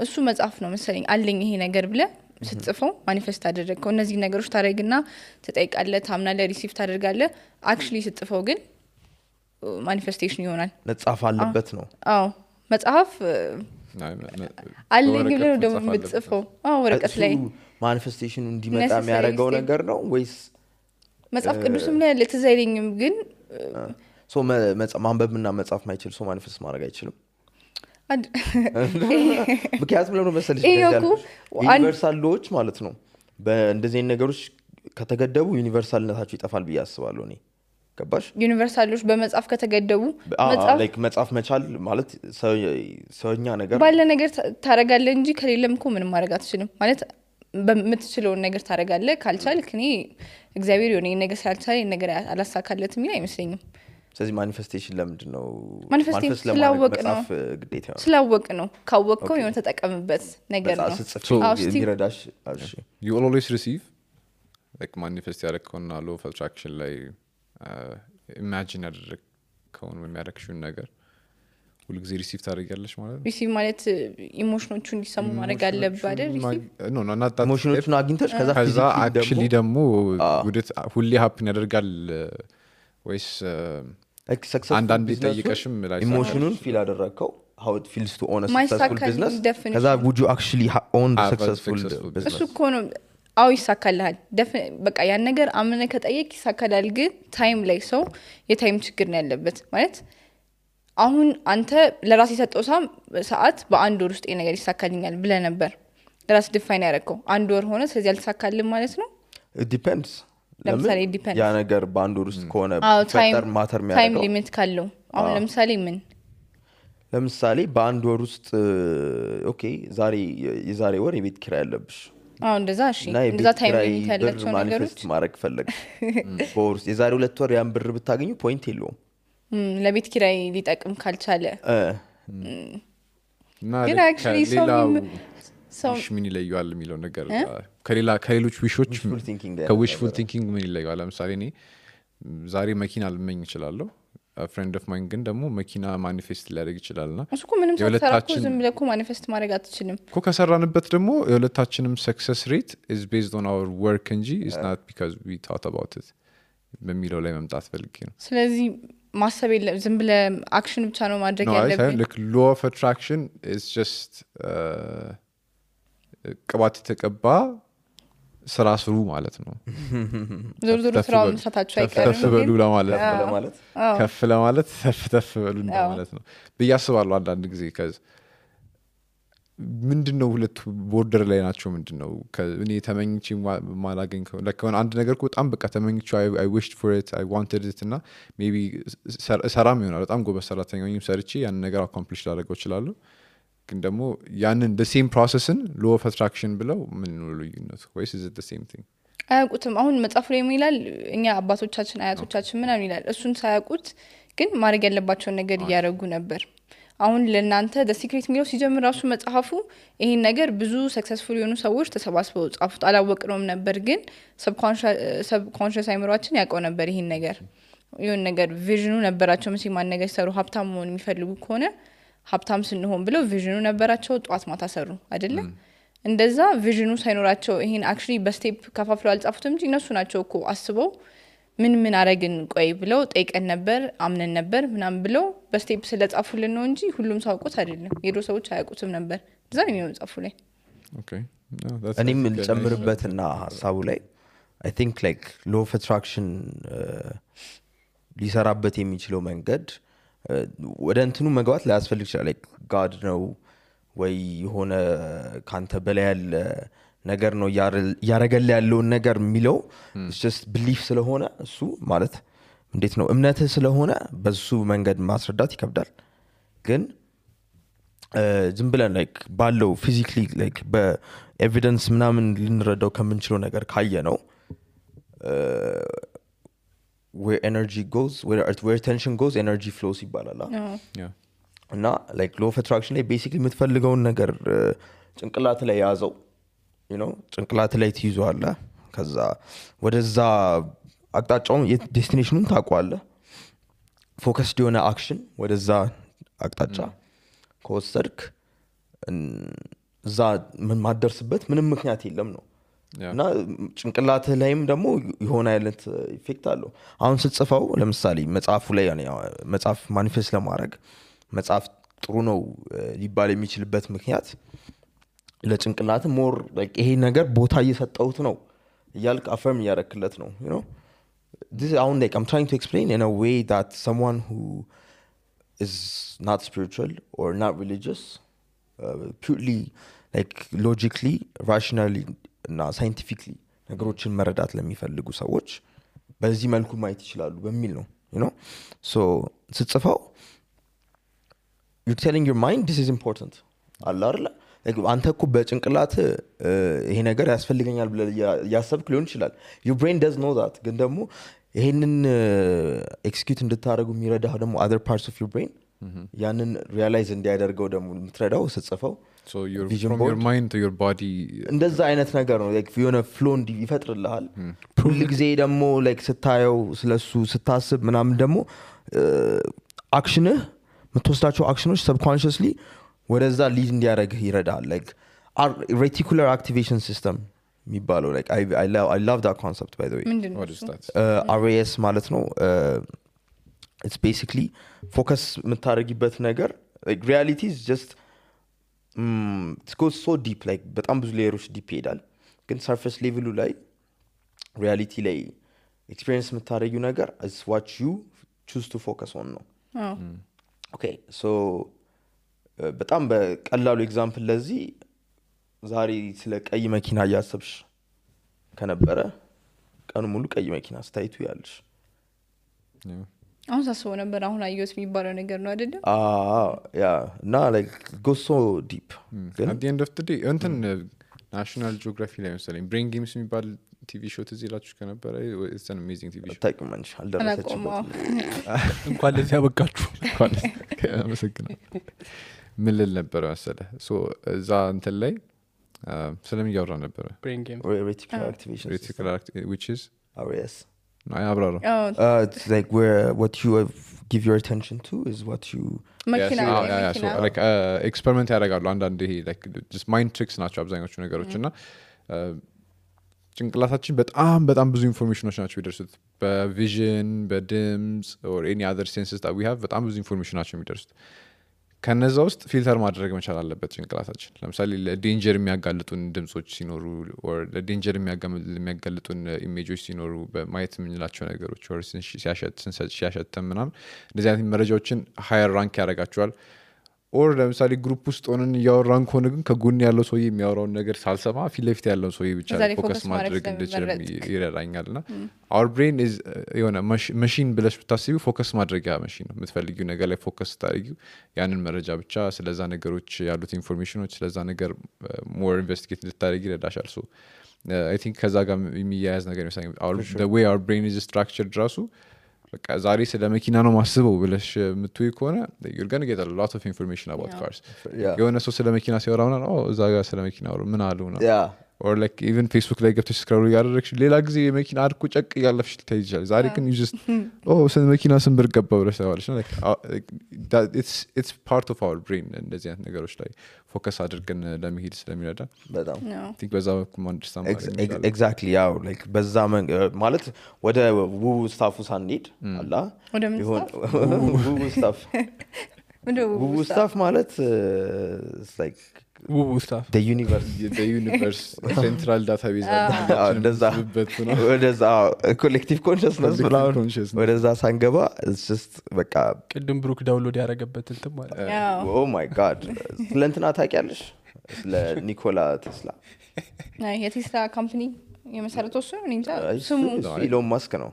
[SPEAKER 4] እሱ መጽሐፍ ነው መሰለኝ አለኝ ይሄ ነገር ብለ ስትጽፈው ማኒፌስት አደረግከው እነዚህ ነገሮች ታረግና ተጠይቃለህ ታምናለህ ሪሲቭ ታደርጋለህ አክቹሊ ስትጽፈው ግን ማኒፌስቴሽን ይሆናል
[SPEAKER 1] መጽሐፍ አለበት ነው
[SPEAKER 4] አዎ መጽሐፍ አለኝ ብለህ ነው ደግሞ የምትጽፈው ወረቀት ላይ
[SPEAKER 1] ማኒፌስቴሽኑ እንዲመጣ የሚያደርገው ነገር ነው ወይስ
[SPEAKER 4] መጽሐፍ ቅዱስም ላይ ያለ ትዝ አይለኝም ግን
[SPEAKER 1] ሶ ማንበብና መጻፍ ማይችል ሰው ማኒፌስት ማድረግ አይችልም ምክንያቱም ለምን መሰለሽ ዩኒቨርሳል ሎዎች ማለት ነው በእንደዚህ ነገሮች ከተገደቡ ዩኒቨርሳልነታቸው ይጠፋል ብዬ አስባለሁ እኔ ገባሽ
[SPEAKER 4] ዩኒቨርሳሎች በመጽሐፍ ከተገደቡ
[SPEAKER 1] መጽሐፍ መቻል ማለት ሰውኛ ነገር
[SPEAKER 4] ባለ ነገር ታረጋለህ እንጂ ከሌለም እኮ ምንም ማድረግ አትችልም ማለት በምትችለውን ነገር ታረጋለህ ካልቻልክ እኔ እግዚአብሔር የሆነ ነገር ሳልቻል ነገር አላሳካለትም ይላል አይመስለኝም
[SPEAKER 1] ስለዚህ ማኒፌስቴሽን ለምንድን ነው
[SPEAKER 4] ማኒፌስቴሽን ስላወቅ ነው ካወቅከው የሆነ ተጠቀምበት ነገር ነው
[SPEAKER 1] የሚረዳሽ
[SPEAKER 2] you always receive like manifest ያደረግከውና law of attraction ላይ imagine ያደረግከውን የሚያደርግሽውን ነገር ሁልጊዜ ሪሲቭ ታደርጊያለሽ ማለት ነው
[SPEAKER 4] ሪሲቭ ማለት ኢሞሽኖቹ እንዲሰሙ ማድረግ አለብህ አይደል
[SPEAKER 1] ሪሲቭ ኢሞሽኖቹን አግኝተሽ
[SPEAKER 2] ከዛ actually ደግሞ ሁሌ happen ያደርጋል ወይስ አንዳንድ ጠይቀሽም
[SPEAKER 1] ኢሞሽኑን ፊል አደረግከው how it feels to own a successful business ከዛ would you actually own the successful business
[SPEAKER 4] እሱ እኮ ነው አው ይሳካልሃል በቃ ያን ነገር አምነ ከጠየቅ ይሳካላል ግን ታይም ላይ ሰው የታይም ችግር ነው ያለበት ማለት አሁን አንተ ለራስ የሰጠው ሰዓት በአንድ ወር ውስጥ ነገር ይሳካልኛል ብለ ነበር ለራስ ዲፋይን ያደረከው አንድ ወር ሆነ ስለዚህ አልተሳካልም ማለት ነው
[SPEAKER 1] it depends
[SPEAKER 4] ለምሳሌ ዲፔንድ
[SPEAKER 1] ያ ነገር በአንድ ወር ውስጥ ከሆነ ፈጠር ማተር የሚያደርገው
[SPEAKER 4] ታይም ሊሚት ካለው አሁን
[SPEAKER 1] ለምሳሌ በአንድ ወር ውስጥ ኦኬ የዛሬ ወር የቤት ኪራይ ያለብሽ
[SPEAKER 4] እንደዛ እሺ እንደዛ ታይም ሊሚት ያላቸው ነገሮች
[SPEAKER 1] ማድረግ ፈለግ በወር የዛሬ 2 ወር ያን ብር ብታገኙ ፖይንት የለውም
[SPEAKER 4] ለቤት ኪራይ ሊጠቅም ካልቻለ
[SPEAKER 2] ግን actually ሰው ምን ይለያል የሚለው ነገር ከሌሎች ዊሾች ከዊሽፉል ቲንኪንግ ምን ይለያል ለምሳሌ እኔ ዛሬ መኪና ልመኝ እችላለሁ ፍሬንድ ኦፍ ማይን ግን ደግሞ መኪና ማኒፌስት ሊያደርግ ይችላልና
[SPEAKER 4] እሱኮ ምንም ሳትሰራኩ ዝም ብለህ ማኒፌስት ማድረግ አትችልም
[SPEAKER 2] እኮ ከሰራንበት ደግሞ የሁለታችንም ሰክሰስ ሬት is based on our work እንጂ is not because we thought about it በሚለው ላይ መምጣት ፈልጌ ነው
[SPEAKER 4] ስለዚህ ማሰብ የለም ዝም ብለህ አክሽን ብቻ ነው ማድረግ ያለብህ
[SPEAKER 2] like law of attraction is just ቅባት የተቀባ ስራ ስሩ ማለት ነው
[SPEAKER 4] ዞር ስራውን መስራታቸው አይቀርም
[SPEAKER 2] ከፍ በሉ ለማለት ከፍ ለማለት ተፍ በሉ ማለት ነው በያስባሉ አንዳንድ ጊዜ ምንድነው ሁለት ቦርደር ላይ ናቸው ምንድነው እኔ ተመኝቼ ማላገኝ ለከሆነ አንድ ነገር በጣም በቃ ተመኝቼ I wished for it I wanted it እና maybe ሰራም ይሆናል በጣም ጎበዝ ሰራተኛ ነኝ ሰርቼ ያን ነገር accomplish ላደርገው እችላለሁ ግን ደግሞ ያንን the same processን law of attraction ብለው ምን ነው ልዩነቱ ወይስ is it the same thing
[SPEAKER 4] አያውቁትም አሁን መጽሐፉ ላይ ይላል እኛ አባቶቻችን አያቶቻችን ምናምን ይላል እሱን ሳያውቁት ግን ማድረግ ያለባቸውን ነገር እያደረጉ ነበር አሁን ለናንተ the secret የሚለው ሲጀምር ራሱ መጽሐፉ ይሄን ነገር ብዙ ሰክሰስፉል የሆኑ ሰዎች ተሰባስበው ጻፉት አላወቅነውም ነበር ግን subconscious አይምሮአችን ያውቀው ነበር ይሄን ነገር ይሁን ነገር ቪዥኑ ነበራቸው ምን ሲማን ነገር ሰሩ ሀብታም መሆን የሚፈልጉ ከሆነ ሀብታም ስንሆን ብለው ቪዥኑ ነበራቸው ጧት ማታ ሰሩ አይደለ እንደዛ ቪዥኑ ሳይኖራቸው ይሄን actually በስቴፕ ከፋፍለው አልጻፉትም እንጂ እነሱ ናቸው እኮ አስበው ምን አረግን ቆይ ብለው ጠይቀን ነበር አምነን ነበር ምናም ብለው በስቴፕ ስለጻፉልን ነው እንጂ ሁሉም ሰው አውቆት አይደለም የዶ ሰዎች አያውቁትም ነበር እዛ ነው የሚጻፉ ላይ
[SPEAKER 2] ኦኬ
[SPEAKER 1] እኔም ልጨምርበትና ሐሳቡ ላይ I think like law of attraction ሊሰራበት የሚችለው መንገድ ወደ እንትኑ መግባት ላያስፈልግ ይችላል like God ነው ወይ የሆነ ካንተ በላይ ያለ ነገር ነው ያረጋል ያለው ነገር የሚለው it's just belief ስለሆነ እሱ ማለት እንዴት ነው እምነትህ ስለሆነ በሱ መንገድ ማስረዳት ይከብዳል ግን ዝም ብለን like ባለው physically like በኤቪደንስ ምናምን ልንረዳው ከምንችለው ነገር ካየ ነው where energy goes where tension goes energy flows ይባላል እና like law of attraction ላይ basically የምትፈልገውን ነገር ጭንቅላት ላይ ያዘው you know ጭንቅላት ላይ ትይዟለህ ከዛ ወደዛ አቅጣጫውን ዴስቲኔሽኑን ታውቀዋለህ ፎከስድ የሆነ አክሽን ወደዛ አቅጣጫ ከወሰድክ እዛ ምን ማደርስበት ምንም ምክንያት የለም ነው እና ጭንቅላት ላይም ደግሞ የሆነ አይነት ኢፌክት አለው አሁን ስትጽፈው ለምሳሌ መጽሐፉ ላይ መጽሐፍ ማኒፌስት ለማድረግ መጽሐፍ ጥሩ ነው ሊባል የሚችልበት ምክንያት ለጭንቅላት ሞር ይሄ ነገር ቦታ እየሰጠሁት ነው እያልክ አፈርም እያረክለት ነው you know this አሁን I'm trying to explain in a way that someone who is not spiritual or not religious purely logically rationally እና scientifically ነገሮችን መረዳት ለሚፈልጉ ሰዎች በዚህ መልኩ ማየት ይችላሉ በሚል ነው you know so ስትጽፈው you're telling your mind this is important አለ አይደል አንተ እኮ በጭንቅላት ይሄ ነገር ያስፈልገኛል ብለህ ያሰብክ ሊሆን ይችላል your brain does know that ግን ደግሞ ይሄንን ኤክስኪዩት እንድታደርጉ የሚረዳህ ደግሞ other parts of your brain ያንን ሪያላይዝ እንዲያደርገው ደግሞ የምትረዳው ስትጽፈው
[SPEAKER 2] so from your mind to your body
[SPEAKER 1] እንደዛ አይነት ነገር ነው የሆነ ፍሎ ይፈጥርልሃል ሁሉ ጊዜ ደግሞ ስታየው ስለሱ ስታስብ ምናምን ደግሞ አክሽንህ የምትወስዳቸው አክሽኖች ሰብኮንሽስሊ ወደዛ ሊድ እንዲያደርግህ ይረዳል reticular activation system የሚባለው I love that concept by the way
[SPEAKER 2] what is that
[SPEAKER 1] RAS ማለት ነው it's basically focus የምታደርጊበት ነገር reality is just it goes so deep በጣም ብዙ ሌየሮች ዲፕ ይሄዳል ግን surface level ላይ reality ላይ experience የምታደርጊው ነገር is what you choose to focus on ነው okay so በጣም በቀላሉ ኤግዛምፕል ለዚህ ዛሬ ስለ ቀይ መኪና እያሰብሽ ከነበረ ቀኑ ሙሉ ቀይ መኪና ስታይቱ ያለሽ
[SPEAKER 4] አሁን ሳስበው ነበር አሁን አየሁት የሚባለው ነገር ነው አይደል
[SPEAKER 1] ያ እና goes so deep
[SPEAKER 2] at the end of the day እንትን ናሽናል ጂኦግራፊ ላይ መሰለኝ ብሬን ጌምስ የሚባል ቲቪ ሾው ትዝ ይላችሁ ከነበረ it's an amazing TV show
[SPEAKER 1] ታውቂማንሽ አልደረሰችበት
[SPEAKER 5] እንኳን ለዚህ ያበቃችሁ
[SPEAKER 2] አመሰግናለሁ ምን ልል ነበረ መሰለህ ሶ እዛ እንትን ላይ ስለምን እያወራ ነበረ
[SPEAKER 5] ብሬን ጌም
[SPEAKER 1] reticular activation
[SPEAKER 2] which is
[SPEAKER 1] RAS
[SPEAKER 2] አብራራ
[SPEAKER 1] it's where what you give your attention to is what you
[SPEAKER 4] መኪና
[SPEAKER 2] so experiment ያደርጋሉ አንዳንድ ይሄ just mind tricks ናቸው አብዛኞቹ ነገሮች እና ጭንቅላታችን በጣም ብዙ ኢንፎርሜሽኖች ናቸው የሚደርሱት በቪዥን በድምጽ or any other senses that we have በጣም ብዙ ኢንፎርሜሽን ናቸው የሚደርሱት ከነዛ ውስጥ ፊልተር ማድረግ መቻል አለበት ጭንቅላታችን ለምሳሌ ለዴንጀር የሚያጋልጡን ድምጾች ሲኖሩ or ለዴንጀር የሚያጋልጡን ኢሜጆች ሲኖሩ በማየት የምንላቸው ነገሮች or ሲያሸት ምናምን እንደዚህ አይነት መረጃዎችን ሃየር ራንክ ያደርጋቸዋል or ለምሳሌ ግሩፕ ውስጥ ሆነን እያወራን ከሆነ ግን ከጎን ያለው ሰውዬ የሚያወራውን ነገር ሳልሰማ ፊት ለፊት ያለው ሰውዬ ብቻ ፎከስ ማድረግ እንድችል ይረዳኛልና our brain is የሆነ ማሽን ብለሽ ብታስቢው ፎከስ ማድረጊያ ማሽን ነው የምትፈልጊው ነገር ላይ ፎከስ ታደርጊው ያንን መረጃ ብቻ ስለዛ ነገሮች ያሉት ኢንፎርሜሽኖች ስለዛ ነገር ሞር ኢንቨስቲጌት እንድታደርጊ ይረዳሻል so I think ከዛ ጋር የሚያያዝ ነገር ነው the way our brain is structured ራሱ በቃ ዛሬ ስለ መኪና ነው ማስበው ብለሽ የምትውይ ከሆነ you're going to get a lot of information about cars የሆነ ሰው ስለ መኪና ሲያወራውና እዛ ጋር ስለ መኪና ምን አሉ ነው or even Facebook ላይ ገብተሽ ስክሮል ያደረግሽ ሌላ ጊዜ የመኪና አድኩ ጨቅ ያለፍሽ ትይጃለሽ ዛሬ ግን you just ስለ መኪና ስም ብር ገባ ብለሽ ታዋለሽ ነው it's part of our brain እንደዚህ አይነት ነገሮች ላይ ፎከስ አድርገን ለመሄድ ስለሚረዳ
[SPEAKER 1] በጣም
[SPEAKER 2] think በዛ በኩል
[SPEAKER 1] exactly ያው በዛ ማለት ወደ ውው ስታፉ ሳንሄድ አላ ውው ስታፍ ውው ስታፍ ማለት
[SPEAKER 5] ውቡ ስታፍ
[SPEAKER 2] the universe central database
[SPEAKER 1] ወደዛ ኮሌክቲቭ ኮንሽስነስ ወደዛ ሳንገባ it's just በቃ
[SPEAKER 5] ቅድም ብሩክ ዳውንሎድ ያደረገበት እንትን ማለት
[SPEAKER 1] oh my god ስለንትና ታውቂያለሽ ስለ ኒኮላ ቴስላ
[SPEAKER 4] የቴስላ ካምፓኒ የመሰረተው እሱ ነው እንጃ ስሙ
[SPEAKER 1] ኢሎን ማስክ ነው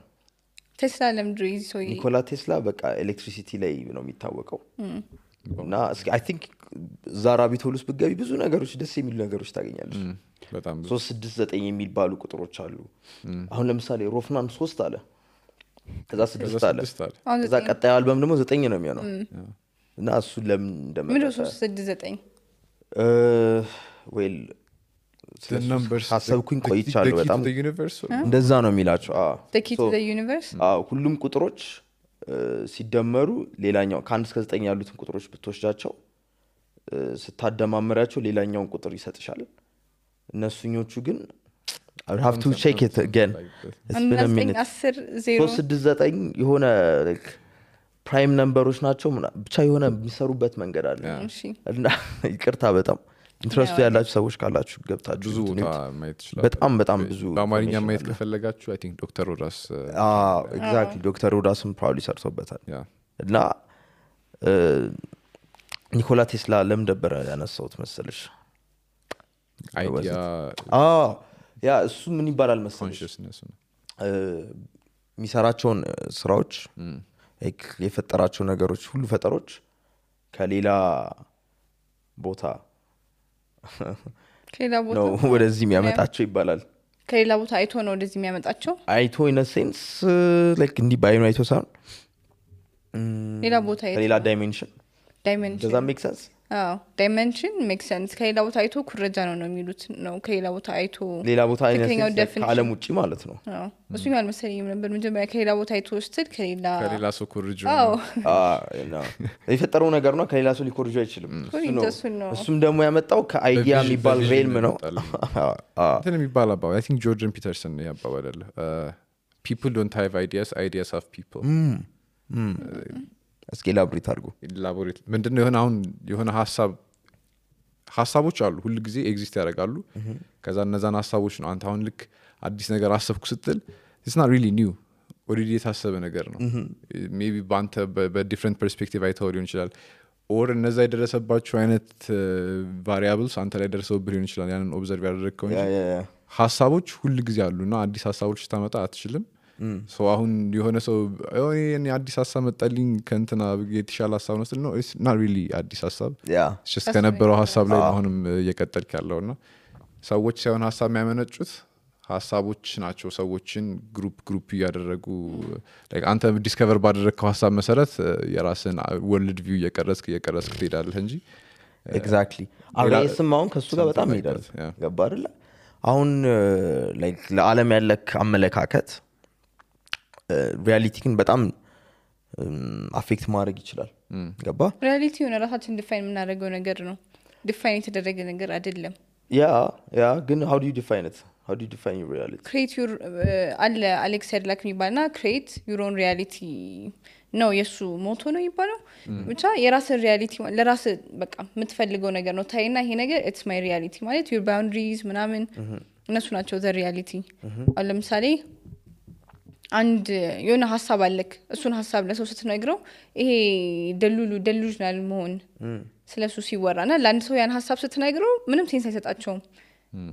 [SPEAKER 4] ቴስላ ለምድር ይዞ
[SPEAKER 1] ኒኮላ ቴስላ በቃ ኤሌክትሪሲቲ ላይ ነው የሚታወቀው እና I think ዛራቢቶሉስ ብትገቢ ብዙ ነገሮች ደስ የሚሉ ነገሮች ታገኛለሽ
[SPEAKER 2] በጣም
[SPEAKER 1] 369 የሚባሉ ቁጥሮች አሉ አሁን ለምሳሌ ሮፍናን 3 አለ ከዛ 6 አለ ከዛ ቀጣዩ አልበም ደግሞ 9 ነው የሚሆነው እና እሱ ለምን እንደመጣ
[SPEAKER 4] 369
[SPEAKER 1] ዌል ሀሳብኩኝ ቆይቻለሁ በጣም እንደዛ ነው የሚላቸው
[SPEAKER 4] the key to the universe
[SPEAKER 1] ሁሉም ቁጥሮች ሲደመሩ ሌላኛው ከ1 እስከ 9 ያሉትን ቁጥሮች ብትወስዳቸው ስታደማምራቸው ሌላኛውን ቁጥር ይሰጥሻል እነሱኞቹ ግን I have to check it again it's been a minute 369 የሆነ ፕራይም ነምበሮች ናቸው ብቻ የሆነ የሚሰሩበት መንገድ አለ
[SPEAKER 4] እሺ
[SPEAKER 1] እና ይቅርታ በጣም ኢንትረስቱ ያላችሁ ሰዎች ካላችሁ ገብታችሁ
[SPEAKER 2] ብዙ ቦታ ማየት ይችላል
[SPEAKER 1] በጣም ብዙ
[SPEAKER 2] በአማርኛ ማየት ከፈለጋችሁ አይ ቲንክ ዶክተር ሮዳስ
[SPEAKER 1] ኤግዛክትሊ ዶክተር ሮዳስም ፕራውሊ ሰርቶበታል
[SPEAKER 2] ያ
[SPEAKER 1] እና ኒኮላ ቴስላ ለምን ደበረ ያነሳውት መሰለሽ
[SPEAKER 2] አይዲያ
[SPEAKER 1] ያ እሱ ምን ይባላል መሰለሽ
[SPEAKER 2] ኮንሽስነስ ነው
[SPEAKER 1] የሚሰራቸውን ስራዎች የፈጠራቸው ነገሮች ሁሉ ፈጠሮች ከሌላ ቦታ ነው ወደዚህ የሚያመጣቸው ይባላል
[SPEAKER 4] ከሌላ ቦታ አይቶ ነው ወደዚህ የሚያመጣቸው
[SPEAKER 1] አይቶ ኢን አ ሴንስ ላይክ እንዲ ባይኑ አይቶ ሳይሆን
[SPEAKER 4] ሌላ ቦታ
[SPEAKER 1] ከሌላ ዳይሜንሽን
[SPEAKER 4] ዳይሜንሽን
[SPEAKER 1] does that make sense
[SPEAKER 4] ዳይሜንሽን ሜክ ሴንስ ከሌላ ቦታ አይቶ ኩረጃ ነው የሚሉት ነው ከሌላ ቦታ አይቶ
[SPEAKER 1] ሌላ ቦታ ከዓለም ውጪ ማለት ነው
[SPEAKER 4] እሱ ይላል መሰለኝ ነበር መጀመሪያ ከሌላ ቦታ አይቶ ስትል
[SPEAKER 2] ከሌላ ሰው ኩርጆ
[SPEAKER 1] የፈጠረው ነገር ነው ከሌላ ሰው ሊኮርጆ አይችልም እሱም ደግሞ ያመጣው ከአይዲያ የሚባል ሬልም ነው
[SPEAKER 2] እንትን የሚባል አባባል አይ ቲንክ ጆርደን ፒተርሰን ያባባል አለ people don't have ideas have people
[SPEAKER 1] እስኪ ላብሪት አድርጉ
[SPEAKER 2] ላቦሬት ምንድነው የሆነ አሁን የሆነ ሀሳቦች አሉ ሁሉ ጊዜ ኤግዚስት ያደርጋሉ ከዛ እነዛን ሀሳቦች ነው አንተ አሁን ልክ አዲስ ነገር አሰብኩ ስትል it's not really new ኦሬዲ የታሰበ ነገር ነው ሜቢ ባንተ በዲፍረንት ፐርስፔክቲቭ አይተው ሊሆን ይችላል ኦር እነዛ የደረሰባቸው አይነት ቫሪያብልስ አንተ ላይ ደርሰውብህ ሊሆን ይችላል ያንን ኦብዘርቭ ያደረግከው እንጂ ሀሳቦች ሁሉ ጊዜ አሉና አዲስ ሀሳቦች ስታመጣ አትችልም ሶ አሁን የሆነ ሰው እኔ አዲስ ሀሳብ መጣልኝ ከእንትና የተሻለ ሀሳብ ነው ነው it's not really አዲስ ሀሳብ just ከነበረው ሀሳብ ላይ አሁንም እየቀጠልክ ያለውና ሰዎች ሳይሆን ሀሳብ የሚያመነጩት ሀሳቦች ናቸው ሰዎችን ግሩፕ እያደረጉ like አንተ ዲስከቨር ባደረግከው ሀሳብ መሰረት የራስን ወርልድ ቪው እየቀረስክ ትሄዳለህ እንጂ
[SPEAKER 1] ኤግዛክትሊ አሁን አሁን ከሱ ጋር በጣም ይሄዳል ገባ አይደል አሁን like ለዓለም ያለክ አመለካከት ሪያሊቲን በጣም አፌክት ማድረግ ይችላል ገባ
[SPEAKER 4] ሪያሊቲ ሆነ ራሳችን ዲፋይን የምናደርገው ነገር ነው ዲፋይን የተደረገ ነገር አይደለም
[SPEAKER 1] ያ ግን how do you define it how do you define your reality
[SPEAKER 4] create your አለ አሌክስ ሄድላክ የሚባልና create your own reality ነው የሱ ሞቶ ነው ይባላል ብቻ የራስን ሪያሊቲ ለራስ በቃ የምትፈልገው ነገር ነው ታይና ይሄ ነገር it's my reality ማለት your boundaries ምናምን እነሱ ናቸው the reality አሁን ለምሳሌ አንድ የሆነ ሐሳብ አለክ እሱን ሐሳብ ለሰው ስትነግረው ይሄ ደሉዥናል መሆን ስለሱ ሲወራና ለአንድ ሰው ያን ሐሳብ ስትነግረው ምንም ሴንስ አይሰጣቸውም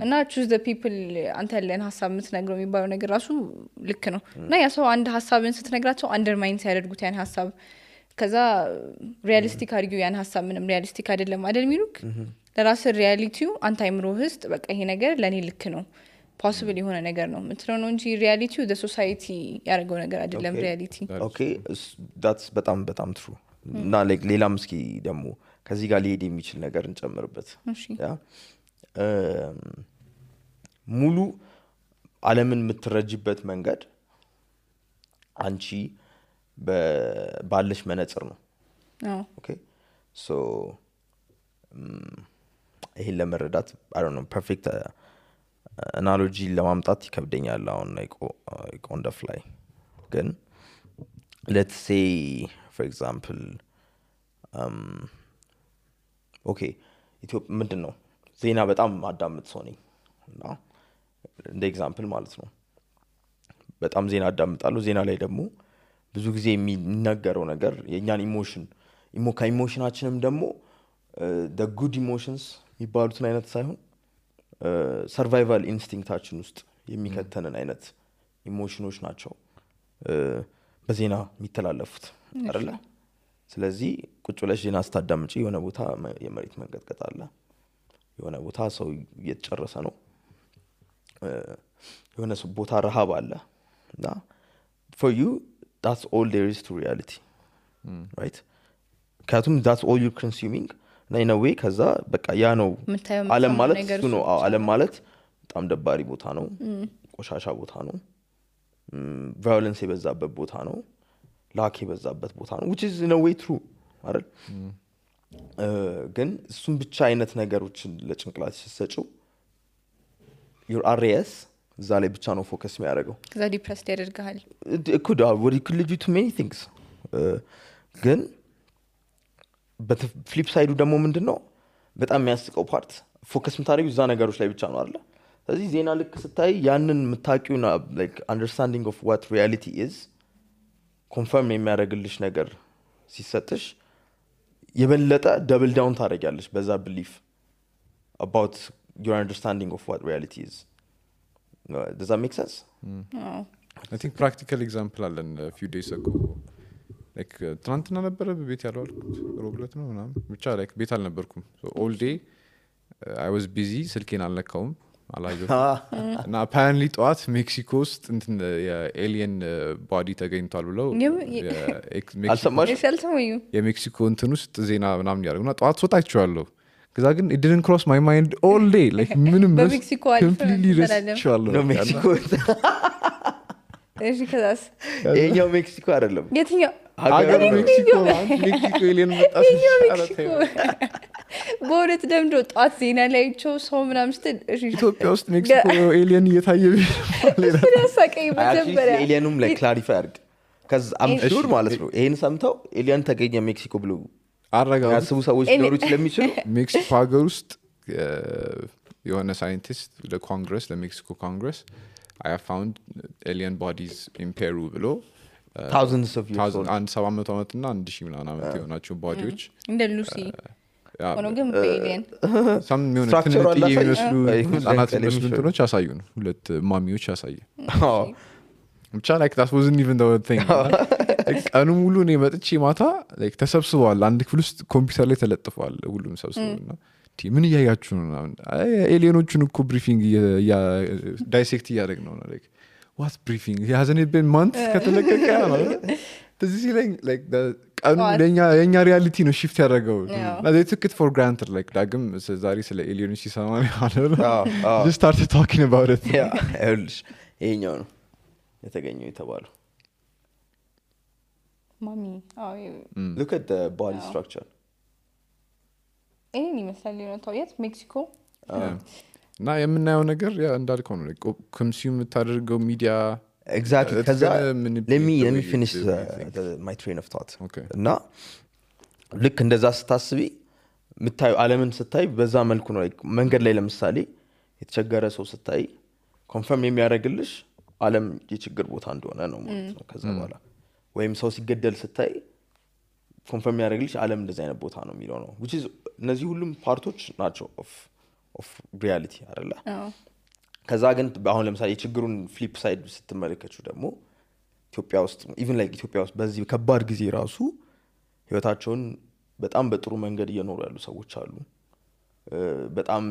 [SPEAKER 4] እና choose the people አንተ ያለን ሐሳብ የምትነግረው የሚባለው ነገር ራሱ ልክ ነው እና ያ ሰው አንድ ሐሳብን ስትነግራቸው አንደርማይን ሲያደርጉት ያን ሐሳብ ከዛ ሪያሊስቲክ አድርጊው ያን ሐሳብ ምንም ሪያሊስቲክ አይደለም አይደል ሚሉክ ለራስ ሪያሊቲው አንተ አይምሮህ ውስጥ በቃ ይሄ ነገር ለኔ ልክ ነው possible የሆነ ነገር ነው ምትለው ነው እንጂ ሪያሊቲው the society ያደረገው ነገር አይደለም ሪያሊቲ
[SPEAKER 1] okay that's በጣም true እና like ሌላም እስኪ ደግሞ ከዚህ ጋር ሊሄድ የሚችል ነገር እንጨምርበት ያ ሙሉ ዓለምን የምትረጅበት መንገድ አንቺ ባለሽ መነጽር ነው okay so ይሄን ለመረዳት I don't know perfect አናሎጂ ለማምጣት ይከብደኛል አሁን like on the fly ግን let's say for example okay ኢትዮጵያ ምንድነው ዜና በጣም አዳምጥ ሰው ነኝ እና እንደ ኤግዛምፕል ማለት ነው በጣም ዜና አዳምጣለሁ ዜና ላይ ደግሞ ብዙ ጊዜ የሚነገረው ነገር የኛን ኢሞሽናችንም ደግሞ the good emotions የሚባሉትን አይነት ሳይሆን ሰርቫይቫል ኢንስቲንክታችን ውስጥ የሚከተንን አይነት ኢሞሽኖች ናቸው በዜና የሚተላለፉት አይደል ስለዚህ ቁጭ ብለሽ ዜና ስታዳምጪ የሆነ ቦታ የመሬት መንቀጥቀጥ አለ የሆነ ቦታ ሰው እየተጨረሰ ነው የሆነ ቦታ ረሃብ አለ እና for you that's all there is to reality right ካቱም that's all you're consuming እና in a way ከዛ በቃ ያ ነው ዓለም ማለት እሱ ነው ዓለም ማለት በጣም ደባሪ ቦታ ነው ቆሻሻ ቦታ ነው ቫዮለንስ የበዛበት ቦታ ነው ላክ የበዛበት ቦታ ነው which is in a way true አይደል ግን እሱም ብቻ አይነት ነገሮችን ለጭንቅላት ሲሰጪው your RAS እዛ ላይ ብቻ ነው ፎከስ የሚያደርገው
[SPEAKER 4] ከዛ ዲፕረስድ ያደርጋል
[SPEAKER 1] it could lead you to many things ግን በፍሊፕ ሳይዱ ደግሞ ምንድነው በጣም የሚያስቀው ፓርት ፎከስ የምታደርጊው እዛ ነገሮች ላይ ብቻ ነው አይደለ ስለዚህ ዜና ልክ ስታይ ያንን የምታውቂውና like understanding of what reality is ኮንፈርም የሚያደርግልሽ ነገር ሲሰጥሽ የበለጠ ደብል ዳውን ታደርጊያለሽ በዛ belief about your understanding of what reality is. Does that make sense?
[SPEAKER 2] I think practical example አለን a few days ago like ትናንትና ነበረ በቤት ያለው አልኩት ሮብለት ነው ምናምን ብቻ like ቤት አልነበርኩም so all day I was busy ስልኬን አልነካውም አላየሁትም እና apparently ጠዋት ሜክሲኮ ውስጥ እንትን የኤሊየን ቦዲ ተገኝቷል ብለው የሜክሲኮ እንትን ውስጥ ዜና ምናምን ያደርጉና ጠዋት ሶታችኋለሁ ከዛ ግን it didn't cross my mind all day like ምንም completely ረስቼዋለሁ
[SPEAKER 1] ነው ሜክሲኮ
[SPEAKER 4] እሺ ከዛስ
[SPEAKER 1] የኛው ሜክሲኮ አይደለም
[SPEAKER 4] የትኛው
[SPEAKER 2] ሀገር ሜክሲኮ ኤሊየን መጣች
[SPEAKER 4] በእውነት ደምዶ ጠዋት ዜና ላይ ቸው ሰው ምናምን ስትል
[SPEAKER 2] ኢትዮጵያ ውስጥ ሜክሲኮ ኤሊየን እየታየ
[SPEAKER 4] ያሳቀኝ መጀመሪያ
[SPEAKER 1] ኤሊየኑም ላይ ክላሪፋይ አድርግ ከዛ አምሹር ማለት ነው ይሄን ሰምተው ኤሊየን ተገኘ ሜክሲኮ ብሎ
[SPEAKER 2] አረጋው
[SPEAKER 1] ያስቡ ሰዎች ሊኖሩ ስለሚችሉ
[SPEAKER 2] ሜክሲኮ ሀገር ውስጥ የሆነ ሳይንቲስት ለኮንግረስ ለሜክሲኮ ኮንግረስ I have found alien bodies in Peru ብሎ
[SPEAKER 1] thousands of years old
[SPEAKER 2] and 700 ዓመትና 1000 ምናምን ዓመት የሆናቸው ቦዲዎች
[SPEAKER 4] እንደ ሉሲ ሆኖ ግን በኤሊየን
[SPEAKER 2] some የሚመስሉ ህጻናት የሚመስሉ እንትኖች ያሳዩን ሁለት ማሚዎች ያሳዩ ብቻ like that wasn't even the thing ቀኑ ሙሉ ነው መጥቼ ማታ like ተሰብስበዋል አንድ ክፍል ውስጥ ኮምፒውተር ላይ ተለጥፈዋል ሁሉም ሰብስበውና ምን እያያችሁ ነው ኤሊየኖቹን እኮ ብሪፊንግ ዳይሴክት እያደረግነው ነው like what briefing he hasn't been months ከተለቀቀ ነው this is like the ቀኑ የኛ ሪያሊቲ ነው shift ያደረገው they took it for granted like ዳግም ዛሬ ስለ ኤሊየኖች ሲሰማ ነው just started talking about it
[SPEAKER 1] ይሄኛው ነው የተገኘው የተባለው
[SPEAKER 4] ማሚ
[SPEAKER 1] look at the body structure
[SPEAKER 4] ይሄን ይመስላል ነው የት ሜክሲኮ
[SPEAKER 2] እና የምናየው ነገር ያ እንዳልከው ነው ኮንሱም የምታደርገው ሚዲያ
[SPEAKER 1] exactly ከዛ let me finish my train of thought እና ልክ እንደዛ ስታስቢ ምታዩ ዓለምን ስታይ በዛ መልኩ ነው መንገድ ላይ ለምሳሌ የተቸገረ ሰው ስታይ ኮንፈርም የሚያደርግልሽ ዓለም የችግር ቦታ እንደሆነ ነው ማለት ነው ከዛ በኋላ ወይም ሰው ሲገደል ስታይ ኮንፈርም ያደርግልሽ ዓለም እንደዚህ አይነት ቦታ ነው የሚለው ነው which is እነዚህ ሁሉም ፓርቶች ናቸው of reality አይደለ ከዛ ግን አሁን ለምሳሌ የችግሩን ፍሊፕ ሳይድ ስትመለከቱ ደግሞ ኢትዮጵያ ውስጥ even like ኢትዮጵያ ውስጥ በዚህ ከባድ ጊዜ ራሱ ህይወታቸውን በጣም በጥሩ መንገድ እየኖሩ ያሉ ሰዎች አሉ በጣም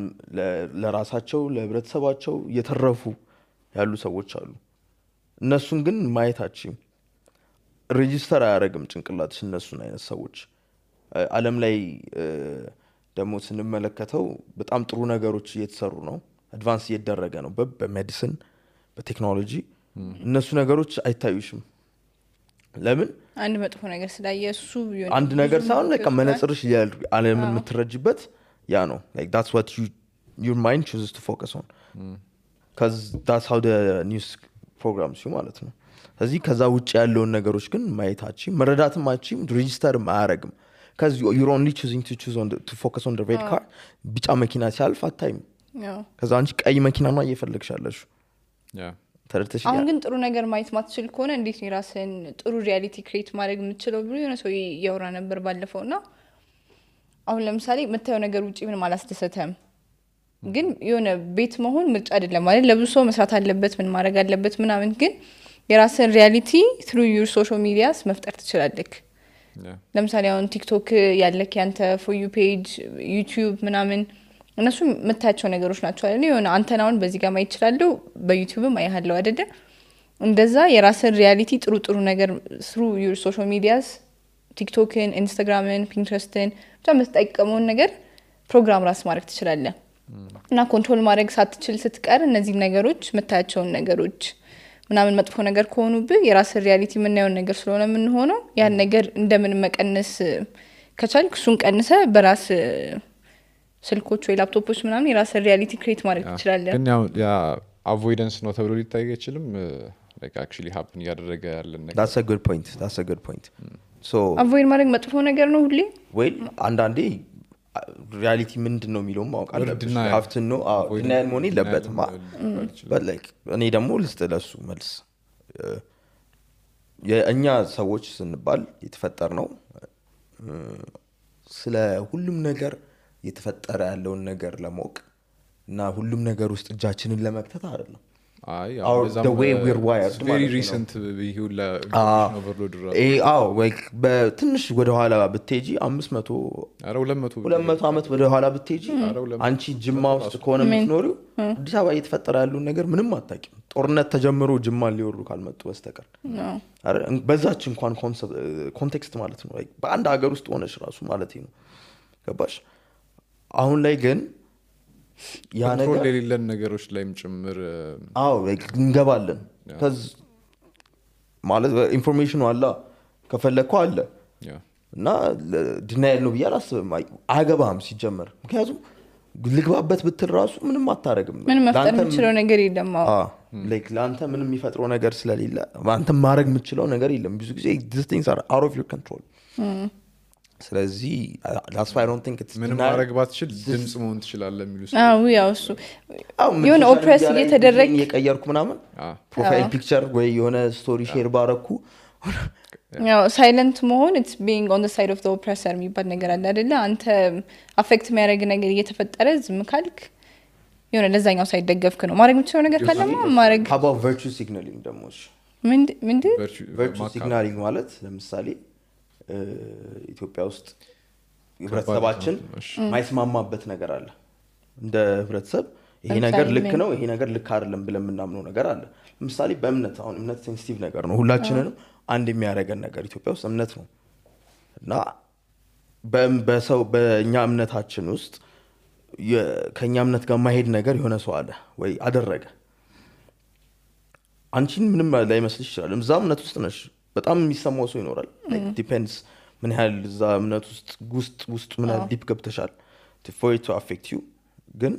[SPEAKER 1] ለራሳቸው ለህብረተሰባቸው እየተረፉ ያሉ ሰዎች አሉ እነሱን ግን ማየታችን ሬጂስተር አያደርግም ጭንቅላትሽ እነሱን አይነት ሰዎች ዓለም ላይ ደግሞ ስንመለከተው በጣም ጥሩ ነገሮች እየተሰሩ ነው አድቫንስ እየተደረገ ነው በሜዲሲን በቴክኖሎጂ እነሱ ነገሮች አይታዩሽም ለምን
[SPEAKER 4] አንድ መጥፎ ነገር ስላየሱ ቢሆን
[SPEAKER 1] አንድ ነገር ሳይሆን like መነጽርሽ ዓለምን የምትረጅበት ያ ነው like that's what your mind chooses to focus on cuz that's how the news programs you ማለት ነው ስለዚህ ከዛ ውጭ ያለውን ነገሮች ግን ማየታችን መረዳትም አችም ሬጂስተር ማያረግም cuz you're only choosing to focus on the red car ቢጫ መኪና ሲያልፍ አታይም ከዛ አንቺ ቀይ መኪና ነው እየፈለግሻለሽ ተረተሽ
[SPEAKER 4] አሁን ግን ጥሩ ነገር ማየት ማትችል ከሆነ እንዴት ነው ራስን ጥሩ ሪያሊቲ ክሬት ማድረግ የምትችለው ብሎ የሆነ ሰው ያወራ ነበር ባለፈውና አሁን ለምሳሌ የምታየው ነገር ውጪ ምንም አላስደሰተም ግን የሆነ ቤት መሆን ምርጫ አይደለም ማለት ለብዙ ሰው መስራት አለበት ምን ማድረግ አለበት ምናምን ግን የራስን ሪያሊቲ through your social medias መፍጠር ትችላለህ ለምሳሌ አሁን ቲክቶክ ያለክ ያንተ for you page YouTube ምናምን እነሱ የምታያቸው ነገሮች ናቸው አይደል የሆነ አንተናውን በዚህ ጋር ማየት ይችላል በዩቲዩብም አይሃለው አይደል እንደዛ የራስን ሪያሊቲ ጥሩ ነገር through your social medias ቲክቶክን ኢንስታግራምን ፒንትረስትን ብቻ መስጠቀመውን ነገር ፕሮግራም ራስ ማድረግ ትችላለህ እና ኮንትሮል ማድረግ ሳትችል ስትቀር እነዚህ ነገሮች የምታያቸው ነገሮች ምናምን መጥፎ ነገር ከሆኑብህ የራስ ሪያሊቲ ምናየውን ነገር ስለሆነ ምን ሆኖ ያን ነገር እንደምን መቀነስ ከቻልክ እሱን ቀንሰ በራስ ስልኮች ወይ ላፕቶፖች ምናምን የራስ ሪያሊቲ ክሬት ማድረግ ትችላለህ
[SPEAKER 2] ግን ያ አቮይደንስ ነው ተብሎ ሊታይ አይችልም like actually happen ያደረገ ያለ ነገር
[SPEAKER 1] that's a good point ሶ
[SPEAKER 4] አቮይድ ማድረግ መጥፎ ነገር ነው ሁሌ
[SPEAKER 1] ወይ አንዳንዴ ሪያሊቲ ምንድን ነው የሚለውም ማወቅ አለብሽ ሀፍትን ነው ዲናይል መሆን የለበትም but like እኔ ደግሞ ልስጥ ለሱ መልስ የእኛ ሰዎች ስንባል የተፈጠር ነው ስለ ሁሉም ነገር የተፈጠረ ያለውን ነገር ለማወቅ እና ሁሉም ነገር ውስጥ እጃችንን ለመክተት አይደለም the way we're wired
[SPEAKER 2] very recent ይሁን ለኦቨርሎድ
[SPEAKER 1] በትንሽ ወደ ኋላ ብትሄጂ 500 200 ዓመት ወደ ኋላ ብትሄጂ አንቺ ጅማ ውስጥ ከሆነ የምትኖሪው አዲስ አበባ እየተፈጠረ ያለውን ነገር ምንም አታውቂም ጦርነት ተጀምሮ ጅማ ሊወሩ ካልመጡ በስተቀር በዛች እንኳን ኮንቴክስት ማለት ነው በአንድ ሀገር ውስጥ ሆነሽ ራሱ ማለት ነው ገባሽ አሁን ላይ ግን ያ ነገር
[SPEAKER 2] የሌለን ነገሮች ላይም ጭምር
[SPEAKER 1] እንገባለን ከዚ ማለት ኢንፎርሜሽኑ አለ ከፈለኩ አለ እና ዲናይል ነው ብዬ አላስብም አገባም ሲጀመር ምክንያቱም ልግባበት ብትል ራሱ ምንም አታረግም
[SPEAKER 4] ምንም መፍጠር የምችለው ነገር የለም
[SPEAKER 1] ለአንተ ምንም የሚፈጥረው ነገር ስለሌለ አንተ ማድረግ የምችለው ነገር የለም ብዙ ጊዜ these things are out of your control ስለዚህ that's why I don't think it's
[SPEAKER 2] ምንም ማድረግ ባትችል ድምጽ መሆን ትችላለህ የሚሉ
[SPEAKER 4] ያው እሱ የሆነ ኦፕሬስ እየተደረገ
[SPEAKER 1] የቀየርኩ ምናምን ፕሮፋይል ፒክቸር ወይ የሆነ ስቶሪ ሼር ባረኩ
[SPEAKER 4] ያው ሳይለንት መሆን it's being on the side of the oppressor የሚባል ነገር አለ አይደለ አንተ አፌክት የሚያደርግ ነገር እየተፈጠረ ዝም ካልክ የሆነ ለዛኛው ሳይደገፍክ ነው ማድረግ የምትችለው ነገር ካለማ ማድረግ
[SPEAKER 1] how about virtue signaling ደግሞ
[SPEAKER 4] ምንድን
[SPEAKER 1] virtue signaling ማለት ለምሳሌ ኢትዮጵያ ውስጥ ህብረተሰባችን ማይስማማበት ነገር አለ እንደ ህብረተሰብ ይሄ ነገር ልክ ነው ይሄ ነገር ልክ አይደለም ብለን ምናምነው ነገር አለ ለምሳሌ በእምነት አሁን እምነት ሴንሲቲቭ ነገር ነው ሁላችንንም አንድ የሚያደርገን ነገር ኢትዮጵያ ውስጥ እምነት ነው እና በእኛ እምነታችን ውስጥ ከኛ እምነት ጋር ማሄድ ነገር የሆነ ሰው አለ ወይ አደረገ አንቺን ምንም ላይመስልሽ ይችላል እዛ እምነት ውስጥ ነሽ በጣም የሚሰማው ሰው ይኖራል ዲፔንድስ ምን ያህል እዛ እምነት ውስጥ ምን ያህል ዲፕ ገብተሻል for it to affect you ግን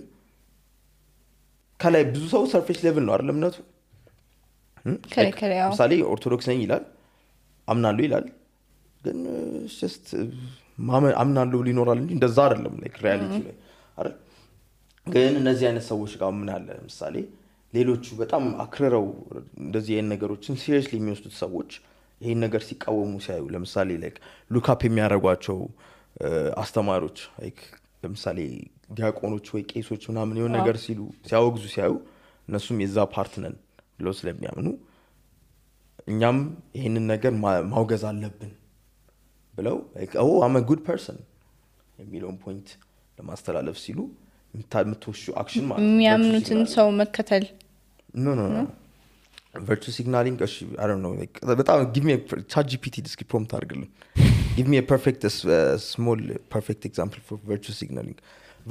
[SPEAKER 1] ከላይ ብዙ ሰው ሰርፌስ ሌቭል ነው አይደል እምነቱ ምሳሌ ኦርቶዶክስ ነኝ ይላል አምናለሁ ይላል ግን just አምናለሁ ሊኖራል እንጂ እንደዛ አይደለም ሪያሊቲ ላይ አይደል ግን እነዚህ አይነት ሰዎች ጋር ምን አለ ምሳሌ ሌሎቹ በጣም አክረረው እንደዚህ አይነት ነገሮችን ሲሪየስሊ የሚወስዱት ሰዎች ይሄን ነገር ሲቃወሙ ሲያዩ ለምሳሌ ሉክ አፕ የሚያደርጓቸው አስተማሪዎች ለምሳሌ ዲያቆኖች ወይ ቄሶች ምናምን የሆነ ነገር ሲሉ ሲያወግዙ ሲያዩ እነሱም የዛ ፓርት ነን ብለው ስለሚያምኑ እኛም ይሄንን ነገር ማውገዝ አለብን ብለው I'm a good person የሚለውን ፖይንት ለማስተላለፍ ሲሉ የምትወሹ አክሽን ማለት
[SPEAKER 4] የሚያምኑትን ሰው መከተል
[SPEAKER 1] no virtue signaling I don't know በጣም give me a ChatGPT description prompt አድርግልኝ give me a perfect small perfect example for virtue signaling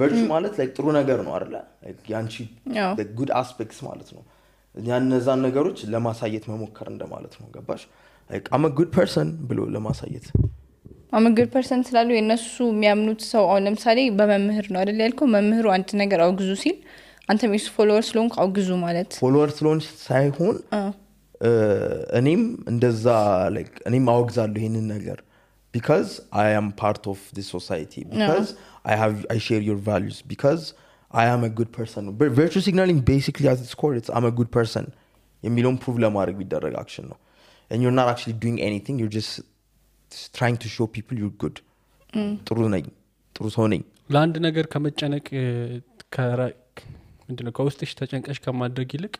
[SPEAKER 1] virtue ማለት ጥሩ ነገር ነው አይደል ያንቺ the good aspects ማለት ነው ያነዛን ነገሮች ለማሳየት መሞከር እንደማለት ነው ገባሽ I'm a good person ብሎ ለማሳየት
[SPEAKER 4] I'm a good person ስላሉ የነሱ የሚያምኑት ሰው አሁን ለምሳሌ በመምህር ነው አይደል ያልከው መምህሩ አንድ ነገር አውግዙ ሲል አንተ ሚስ ፎሎወር ስለሆንክ አውግዙ ማለት
[SPEAKER 1] ፎሎወር ስለሆንሽ ሳይሆን እኔም እንደዛ እኔም አውግዛለሁ ይሄንን ነገር because I am part of this society because I share your values because I am a good person but virtue signaling basically at its core it's I'm a good person የሚለውን ፕሩቭ ለማድረግ ቢደረግ አክሽን ነው and you're not actually doing anything you're just trying to show people you're good ጥሩ ነኝ ጥሩ ሰው ነኝ
[SPEAKER 5] ለአንድ ነገር ከመጨነቅ ምንድነው ከውስጥሽ ተጨንቀሽ ከማድረግ ይልቅ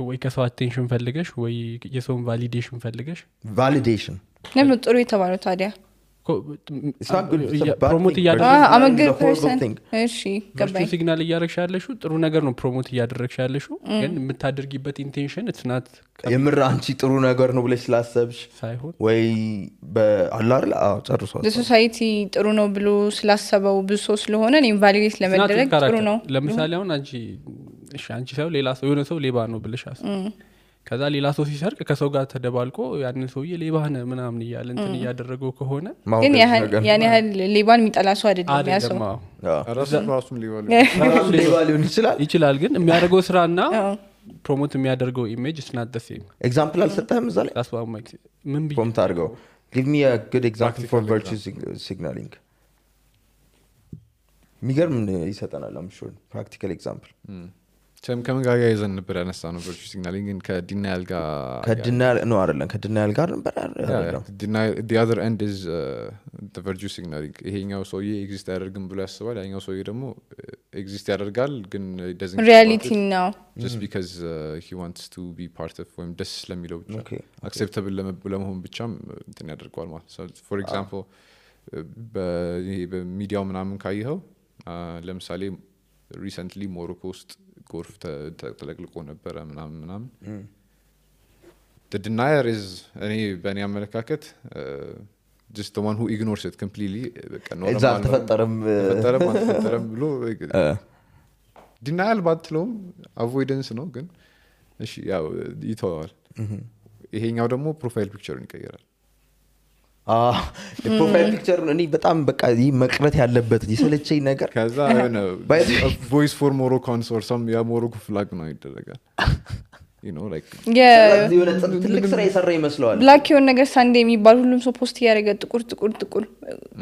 [SPEAKER 5] ወይ ከሰው አቴንሽን ፈልገሽ ወይ የሰውን ቫሊዴሽን ፈልገሽ
[SPEAKER 1] validation
[SPEAKER 4] ለምን ጥሩ የተባለው ታዲያ
[SPEAKER 1] it's not good it's a bad
[SPEAKER 5] ፕሮሞት
[SPEAKER 1] thing
[SPEAKER 4] I'm a good person እሺ ገባኝ
[SPEAKER 5] ሲግናል እያደረግሽ ያለሽው ጥሩ ነገር ነው ፕሮሞት እያደረግሽ ያለሽው ግን የምታደርጊበት ኢንቴንሽን it's not
[SPEAKER 1] የምር አንቺ ጥሩ ነገር ነው ብለሽ ስላሰብሽ
[SPEAKER 5] ሳይሆን
[SPEAKER 1] ወይ በአላር ጨርሶ
[SPEAKER 4] ለሶሳይቲ ጥሩ ነው ብሎ ስላሰበው ብዙ ሰው ስለሆነ ኢንቫሊዴት ለመደረግ ጥሩ ነው
[SPEAKER 5] ለምሳሌ አሁን አንቺ ሰው ሌላ ሰው የሆነ ሰው ሌባ ነው ብለሽ ከዛ ሌላ ሰው ሲሰርቅ ከሰው ጋር ተደባልቆ ያንን ሰውዬ ሌባ ነህ ምናምን እያለ እንትን እያደረገው ከሆነ
[SPEAKER 4] ግን ያን ያህል ሌባን የሚጠላ ሰው አይደለም ያ ሰው
[SPEAKER 2] ራሱም
[SPEAKER 1] ሌባ ሊሆን
[SPEAKER 5] ይችላል ግን የሚያደርገው ስራና ፕሮሞት የሚያደርገው ኢሜጅ is not the same
[SPEAKER 1] ኤግዛምፕል አልሰጠህም እዛ ላይ
[SPEAKER 5] ምን
[SPEAKER 1] ፕሮሞት አድርገው give me a good example for
[SPEAKER 2] Practical
[SPEAKER 1] virtue signaling የሚገርም ይሰጠናል I'm sure practical example
[SPEAKER 2] ከምን ጋር ያይዘን ነበር ያነሳ ነው ቨርቹ ሲግናሊንግ ግን ከዲናያል ጋር
[SPEAKER 1] ከዲናያል ጋር ነበር
[SPEAKER 2] the other end is the virtue signaling ይሄኛው ሰውዬ ኤግዚስት ያደርግም ብሎ ያስባል ያኛው ሰውዬ ደግሞ ኤግዚስት ያደርጋል ግን it doesn't
[SPEAKER 4] reality now
[SPEAKER 2] just because he wants to be part of ወይም ደስ ስለሚለው ብቻ acceptable ለመሆን ብቻም እንትን ያደርገዋል ማለት so for example በሚዲያው ምናምን ካየኸው ለምሳሌ recently ሞሮኮ ውስጥ ጎርፍ ተጠቅልቆ ነበር ምናምን the denier is እኔ በእኔ አመለካከት just the one who ignores it completely
[SPEAKER 1] exact ተፈጠረም
[SPEAKER 2] ብሎ denial ባትለውም avoidance ነው ግን እሺ ያው ይተዋል ይሄኛው ደግሞ ፕሮፋይል ፒክቸሩን ይቀየራል
[SPEAKER 1] ፕሮፋይል ፒክቸር እኔ በጣም በቃ መቅረት ያለበት ይሰለቸኝ ነገር
[SPEAKER 2] ከዛ ነው voice for Moroccans or some ያ ሞሮኮ ፍላግ ነው ይደረጋል you know like
[SPEAKER 1] የሆነ ትልቅ ስራ የሰራ ይመስላል
[SPEAKER 4] ብላክ የሆነ ነገር ሳንዴ የሚባል ሁሉም ሰው ፖስት ያደረገ ጥቁር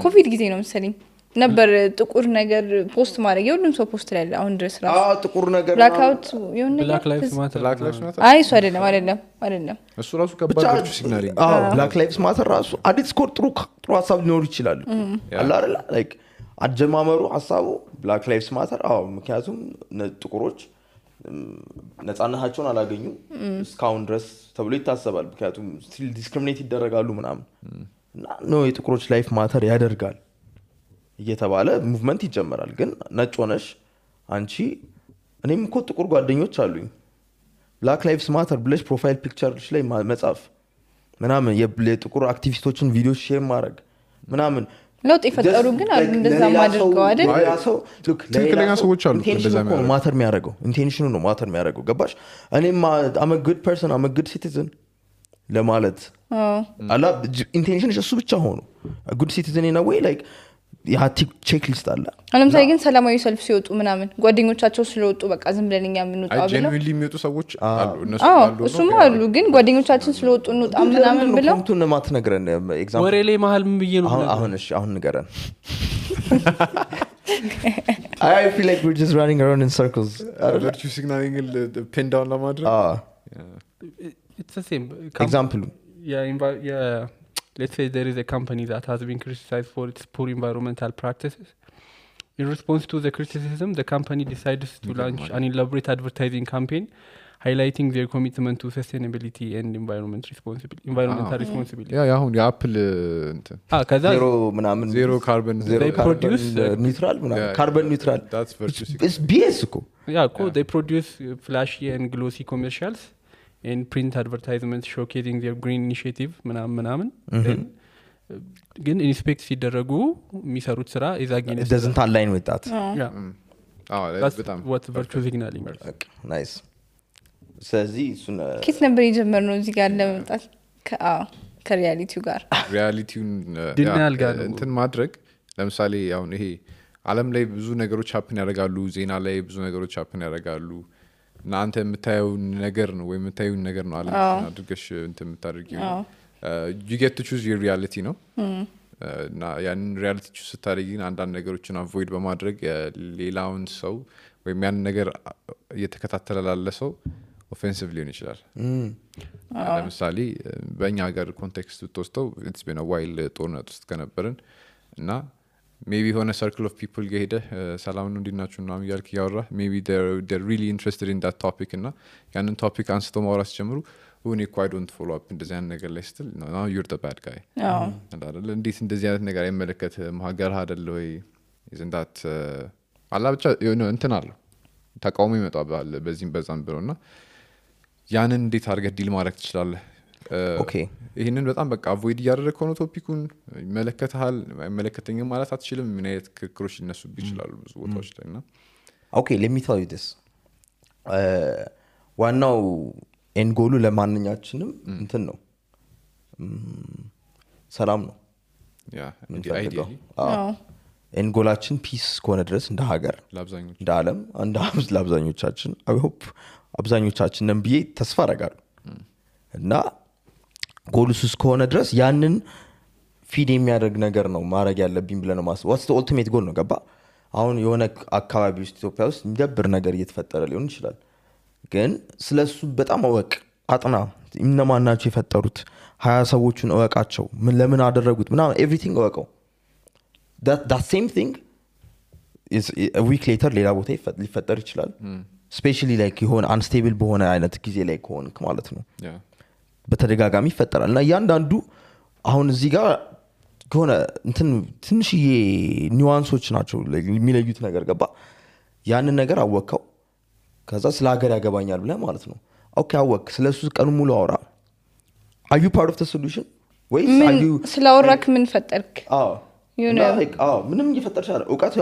[SPEAKER 4] ኮቪድ ጊዜ ነው መሰለኝ ነበር ጥቁር ነገር ፖስት ማድረግ የሁሉም ሰው ፖስት ላይ አሁን ድረስ ራሱ
[SPEAKER 1] ጥቁር ነገር
[SPEAKER 4] ብላክ አውት የሆነ
[SPEAKER 5] ብላክ ላይቭስ ማተር
[SPEAKER 4] አይ እሱ አይደለም
[SPEAKER 2] እሱ ራሱ ከባድ ቨርቹ ሲግናሊንግ
[SPEAKER 1] ብላክ ላይቭስ ማተር ራሱ አዲስ ኮር ጥሩ ሐሳብ ሊኖር ይችላል አላ አይደል ላይክ አጀማመሩ ሐሳቡ ብላክ ላይቭስ ማተር ምክንያቱም ጥቁሮች ነፃነታቸውን አላገኙ እስካሁን ድረስ ተብሎ ይታሰባል ምክንያቱም ስቲል ዲስክሪሚኔት ይደረጋሉ ምናምን እና ነው የጥቁሮች ላይፍ ማተር ያደርጋል እየተባለ ሙቭመንት ይጀምራል ግን ነጭ ሆነሽ አንቺ እኔም እኮ ጥቁር ጓደኞች አሉኝ ብላክ ላይቭስ ማተር ብለሽ ፕሮፋይል ፒክቸርሽ ላይ መጻፍ ምናምን የጥቁር አክቲቪስቶችን ቪዲዮ ሼር ማድረግ ምናምን
[SPEAKER 4] ለውጥ ይፈጠሩ ግን አሉ እንደዛ ማድረገው አይደል
[SPEAKER 1] ያ ሰው ሉክ
[SPEAKER 2] ትክክለኛ ሰዎች አሉ
[SPEAKER 1] እንደዛ ማተር የሚያደርገው ኢንቴንሽኑ ነው ማተር የሚያደርገው ገባሽ እኔም I'm a good person I'm a good citizen ለማለት አላ ኢንቴንሽንሽ እሱ ብቻ ሆኖ a good citizen in a way like ያ ቼክ ሊስት አለ
[SPEAKER 4] ለምሳሌ ግን ሰላማዊ ሰልፍ ሲወጡ ምናምን ጓደኞቻቸው ስለወጡ በቃ ዝም ብለን እኛ የምንወጣው ብለው
[SPEAKER 2] ጀንዊሊ የሚወጡ ሰዎች አሉ እነሱ አሉ
[SPEAKER 4] እሱም አሉ ግን ጓደኞቻችን ስለወጡ እንውጣ ምናምን ብለው
[SPEAKER 1] ኮንቱን ማትነግረን ኤግዛምፕል
[SPEAKER 5] ወሬ ላይ መሀል ምን ብዬ ነው
[SPEAKER 1] አሁን ንገረን I feel like we're just running around in circles
[SPEAKER 2] virtue signaling pin down ለማድረግ
[SPEAKER 5] it's the same
[SPEAKER 1] example
[SPEAKER 5] yeah let's say there is a company that has been criticized for its poor environmental practices. In response to the criticism, the company decides to launch an elaborate advertising campaign highlighting their commitment to sustainability and environmental responsibility.
[SPEAKER 2] Yeah, አሁን የአፕል እንትን
[SPEAKER 1] ዜሮ
[SPEAKER 2] ካርበን
[SPEAKER 5] they produce
[SPEAKER 1] neutral carbon neutral
[SPEAKER 2] that's virtue signaling
[SPEAKER 1] it's BS እኮ
[SPEAKER 5] they produce flashy and glossy commercials and print advertisements showcasing their green initiative ምናምን ግን ኢንስፔክት ሲደረጉ የሚሰሩት ስራ is against
[SPEAKER 1] it doesn't align with that
[SPEAKER 5] that's what virtue signaling is
[SPEAKER 1] nice ስለዚህ እሱን
[SPEAKER 4] ኪስ ነበር የጀመርነው እዚህ ጋር ለመምጣት ከሪያሊቲው ጋር
[SPEAKER 2] ሪያሊቲውን
[SPEAKER 5] ዲናያል ጋር
[SPEAKER 2] እንትን ማድረግ ለምሳሌ አሁን ይሄ ዓለም ላይ ብዙ ነገሮች happen ያደርጋሉ ዜና ላይ ብዙ ነገሮች happen ያደርጋሉ እናንተ የምታየው ነገር ነው ወይ የምታየው ነገር ነው ዓለም አድርገሽ እንትን የምታደርጊው you get to choose your reality ነው እና ያን ሪያሊቲ ቹዝ ስታደርጊ አንዳንድ ነገሮችን አቮይድ በማድረግ ሌላውን ሰው ወይም ያን ነገር እየተከታተለ ላለ ሰው ኦፌንሲቭ ሊሆን ይችላል ለምሳሌ በእኛ ሀገር ኮንቴክስት ብትወስደው it's been a while ጦርነት ውስጥ ከነበርን እና maybe ሆነ circle of people ገሄደ ሰላም ነው እንዲናችሁ እና ያልክ ያወራ maybe they're really interested in that topic እና ያንን ቶፒክ አንስተው ማውራት ጀምሩ when you quite don't follow up እንደዚህ አይነት ነገር ላይ ስትል now you're the bad guy አይደል እንዴት እንደዚህ አይነት ነገር አይመለከትም ሀገር አይደል ወይ isn't that አላ ብቻ እንትን አለ ተቃውሞ ይመጣባል በዚህም በዛም ብለውና ያንን እንዴት አድርገህ ዲል ማድረግ ትችላለህ
[SPEAKER 1] ኦኬ
[SPEAKER 2] ይሄንን በጣም በቃ አቮይድ ያደረከው ነው ቶፒኩን ይመለከታል አይመለከተኝም ማለት አትችልም ምን አይነት ክርክሮች ሊነሱብህ ይችላሉ ብዙ ቦታዎች ላይና
[SPEAKER 1] ኦኬ let me tell you this ዋናው ኤንጎሉ ለማንኛችንም እንትን ነው ሰላም ነው
[SPEAKER 2] ያ አይዲያሊ
[SPEAKER 1] ኤንጎላችን ፒስ ከሆነ ድረስ እንደ ሀገር
[SPEAKER 2] ለአብዛኞቹ
[SPEAKER 1] እንደ ዓለም እንደ ለአብዛኞቻችን I hope አብዛኞቻችን ብዬ ተስፋ አደርጋለሁ እና ጎሉስ ከሆነ ድረስ ያንን ፊድ የሚያደርግ ነገር ነው ማድረግ ያለብኝ ብለህ ነው ማስበው። ዋትስ ኦልቲሜት ጎል ነው ገባ። አሁን የሆነ አካባቢ ውስጥ ኢትዮጵያ ውስጥ የሚደብር ነገር እየተፈጠረ ሊሆን ይችላል፣ ግን ስለሱ በጣም እወቅ፣ አጥና። እነማን ናቸው የፈጠሩት? 20 ሰዎቹን እወቃቸው፣ ለምን አደረጉት ምናምን ኤቭሪቲንግ እወቀው። that same thing is a week later ሌላ ቦታ ሊፈጠር ይችላል። ስፔሻሊ ላይክ የሆነ አንስቴብል በሆነ አይነት ጊዜ ላይ ከሆንክ ማለት ነው በተደጋጋሚ ይፈጠራል። እና እያንዳንዱ አሁን እዚህ ጋር ከሆነ እንትን ትንሽዬ ኒዋንሶች ናቸው የሚለዩት ነገር ገባ። ያንን ነገር አወቅከው፣ ከዛ ስለ ሀገር ያገባኛል ብለህ ማለት ነው ኦኬ አወቅ፣ ስለሱ ቀኑ ሙሉ አውራ። are you part of the solution ወይስ are you
[SPEAKER 4] ስለአወራክ ምን ፈጠርክ?
[SPEAKER 1] ምንም እየፈጠርሽ አለ እውቀት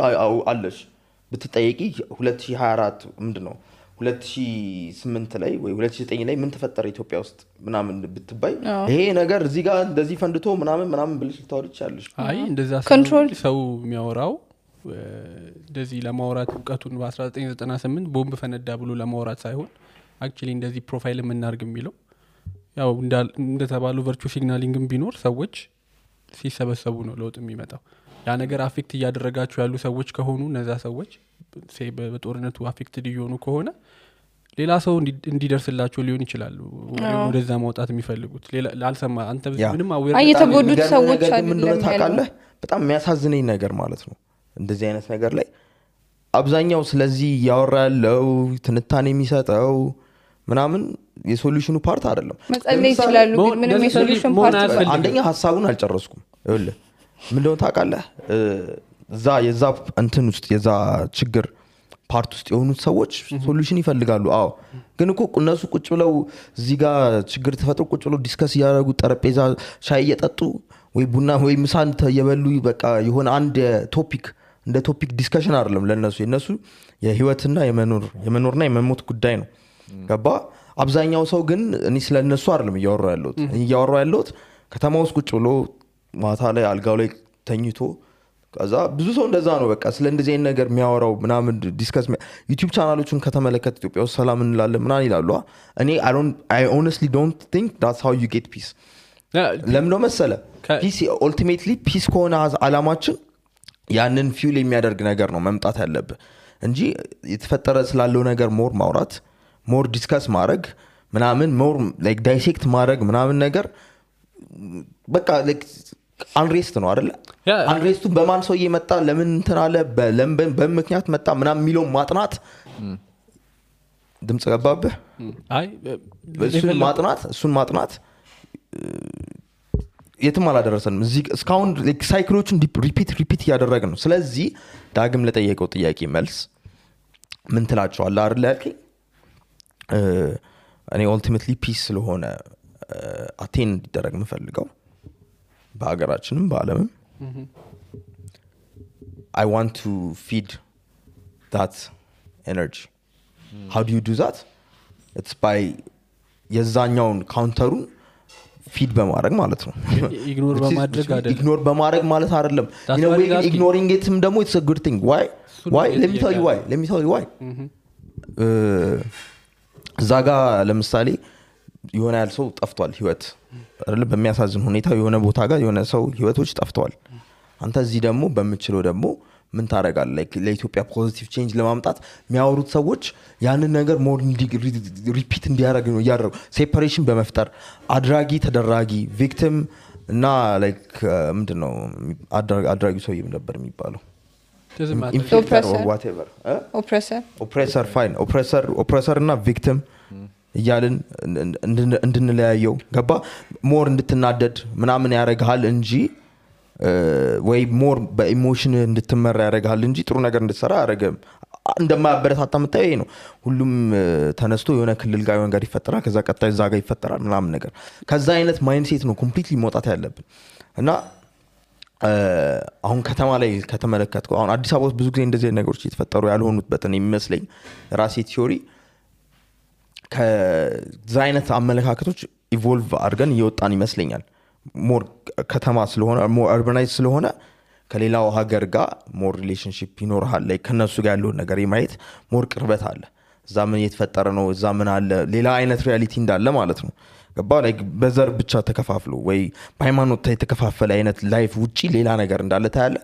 [SPEAKER 1] አለሽ ብትጠየቂ 2024 ምንድነው 2008 ላይ ወይ 2009 ላይ ምን ተፈጠረ ኢትዮጵያ ውስጥ ምናምን ብትባይ ይሄ ነገር እዚህ ጋር እንደዚህ ፈንድቶ ምናምን ብልሽ ልታወሪ ይችላልሽ።
[SPEAKER 5] አይ እንደዛ ሰው የሚያወራው እንደዚህ ለማውራት እውቀቱን በ1998 ቦምብ ፈነዳ ብሎ ለማውራት ሳይሆን አክቹሊ እንደዚህ ፕሮፋይል የምናርግ የሚለው ያው እንደተባለው ቨርቹዋል ሲግናሊንግም ቢኖር ሰዎች ሲሰበሰቡ ነው ለውጥ የሚመጣው። ያ ነገር አፌክት እያደረጋቸው ያሉ ሰዎች ከሆኑ እነዛ ሰዎች በጦርነቱ አፌክትድ እየሆኑ ከሆነ ሌላ ሰው እንዲደርስላቸው ሊሆን ይችላል ወደዛ ማውጣት የሚፈልጉት። ላልሰማ አንተ ምንም
[SPEAKER 4] የተጎዱት ሰዎች
[SPEAKER 1] አይደለም ታውቃለህ። በጣም የሚያሳዝነኝ ነገር ማለት ነው እንደዚህ አይነት ነገር ላይ አብዛኛው ስለዚህ ያወራ ያለው ትንታኔ የሚሰጠው ምናምን የሶሉሽኑ ፓርት አይደለም።
[SPEAKER 4] መጸለይ ይችላሉ ግን ምንም የሶሉሽን ፓርት አይደለም።
[SPEAKER 1] አንደኛ ሐሳቡን አልጨረስኩም። ይኸውልህ ምንድነው ታውቃለህ የዛ እንትን ውስጥ የዛ ችግር ፓርት ውስጥ የሆኑት ሰዎች ሶሉሽን ይፈልጋሉ። አዎ ግን እኮ እነሱ ቁጭ ብለው እዚህ ጋር ችግር ተፈጥሮ ቁጭ ብለው ዲስከስ ያደረጉ ጠረጴዛ ሻይ እየጠጡ ወይ ቡና ወይ ምሳ እየበሉ በቃ የሆነ አንድ ቶፒክ እንደ ቶፒክ ዲስከሽን አይደለም ለነሱ። የነሱ የህይወትና የመኖርና የመሞት ጉዳይ ነው ገባ። አብዛኛው ሰው ግን እኔ ስለነሱ አይደለም እያወራው ያለሁት ከተማ ውስጥ ቁጭ ብሎ ማታ ላይ አልጋው ላይ ተኝቶ ከዛ ብዙ ሰው እንደዛ ነው በቃ ስለ እንደዚህ አይነት ነገር የሚያወራው ምናምን ዲስከስ ዩቲዩብ ቻናሎችን ከተመለከተ ኢትዮጵያ ውስጥ ሰላም እንላለን ምናምን ይላሉ። እኔ I honestly don't think that's how you get peace። ለምን ነው መሰለ ፒስ ultimately ፒስ ከሆነ አላማችን ያንን ፊውል የሚያደርግ ነገር ነው መምጣት ያለብህ እንጂ የተፈጠረ ስላለው ነገር ሞር ማውራት ሞር ዲስከስ ማድረግ ምናምን ሞር ላይክ ዳይሴክት ማድረግ ምናምን ነገር በቃ ላይክ አንሬስት ነው አይደለ? አንሬስቱ በማን ሰው እየመጣ ለምን እንትን አለ በምክንያት መጣ ምናምን የሚለው ማጥናት ድምጽ ገባብህ?
[SPEAKER 5] አይ
[SPEAKER 1] እሱን ማጥናት የትም አላደረሰንም። እዚህ እስካሁን ሳይክሎቹን ሪፒት እያደረግን ነው። ስለዚህ ዳግም ለጠየቀው ጥያቄ መልስ ምን ትላቸዋለህ አይደል ያልከኝ? እኔ ኦልቲሜትሊ ፒስ ስለሆነ አቴን እንዲደረግ የምፈልገው በሀገራችንም በአለምም I want to feed that energy. How do you do that? It's by የዛኛውን ካውንተሩን ፊድ በማድረግ ማለት ነው።
[SPEAKER 5] ኢግኖር በማድረግ አይደለም።
[SPEAKER 1] ኢግኖር በማድረግ ማለት አይደለም። ignoring itም ደግሞ it's a good thing. Why? Let me tell you why. እዛ ጋር ለምሳሌ የሆነ ያል ሰው ጠፍቷል ህይወት አይደለም በሚያሳዝን ሁኔታ የሆነ ቦታ ጋር የሆነ ሰው ህይወቶች ጠፍቷል። አንተ እዚህ ደግሞ በመችለው ደግሞ ምን ታረጋለህ? ለኢትዮጵያ ፖዚቲቭ ቼንጅ ለማምጣት የሚያወሩት ሰዎች ያንን ነገር ሞር ሪፒት እንዲያደርግ ነው ያደረጉ። ሴፓሬሽን በመፍጠር አድራጊ ተደራጊ ቪክቲም እና ላይክ ምንድነው አድራጊው ሰው ነበር የሚባለው ኦፕሬሰር እና ቪክቲም እያልን እንድንለያየው ገባ። ሞር እንድትናደድ ምናምን ያደርግሃል እንጂ ወይ ሞር በኢሞሽን እንድትመራ ያደርግሃል እንጂ ጥሩ ነገር እንድትሰራ አያደርግም። እንደማያበረታታ የምታየው ይሄ ነው። ሁሉም ተነስቶ የሆነ ክልል ጋር የሆነ ነገር ይፈጠራል፣ ከዛ ቀጣይ እዛ ጋር ይፈጠራል ምናምን ነገር። ከዛ አይነት ማይንድሴት ነው ኮምፕሊትሊ መውጣት ያለብን። እና አሁን ከተማ ላይ ከተመለከትከው አሁን አዲስ አበባ ውስጥ ብዙ ጊዜ እንደዚህ ነገሮች እየተፈጠሩ ያልሆኑበት ነው የሚመስለኝ ራሴ ቲዮሪ። ከዛ አይነት አመለካከቶች ኢቮልቭ አድርገን እየወጣን ይመስለኛል። ሞር ከተማ ስለሆነ ሞር አርባናይዝ ስለሆነ ከሌላው ሀገር ጋር ሞር ሪሌሽንሺፕ ይኖርሃል ላይ ከነሱ ጋር ያለውን ነገር የማየት ሞር ቅርበት አለ። እዛ ምን እየተፈጠረ ነው እዛ ምን አለ ሌላ አይነት ሪያሊቲ እንዳለ ማለት ነው። ገባ ላይክ በዘር ብቻ ተከፋፍሎ ወይ በሃይማኖት የተከፋፈለ አይነት ላይፍ ውጪ ሌላ ነገር እንዳለ ታያለ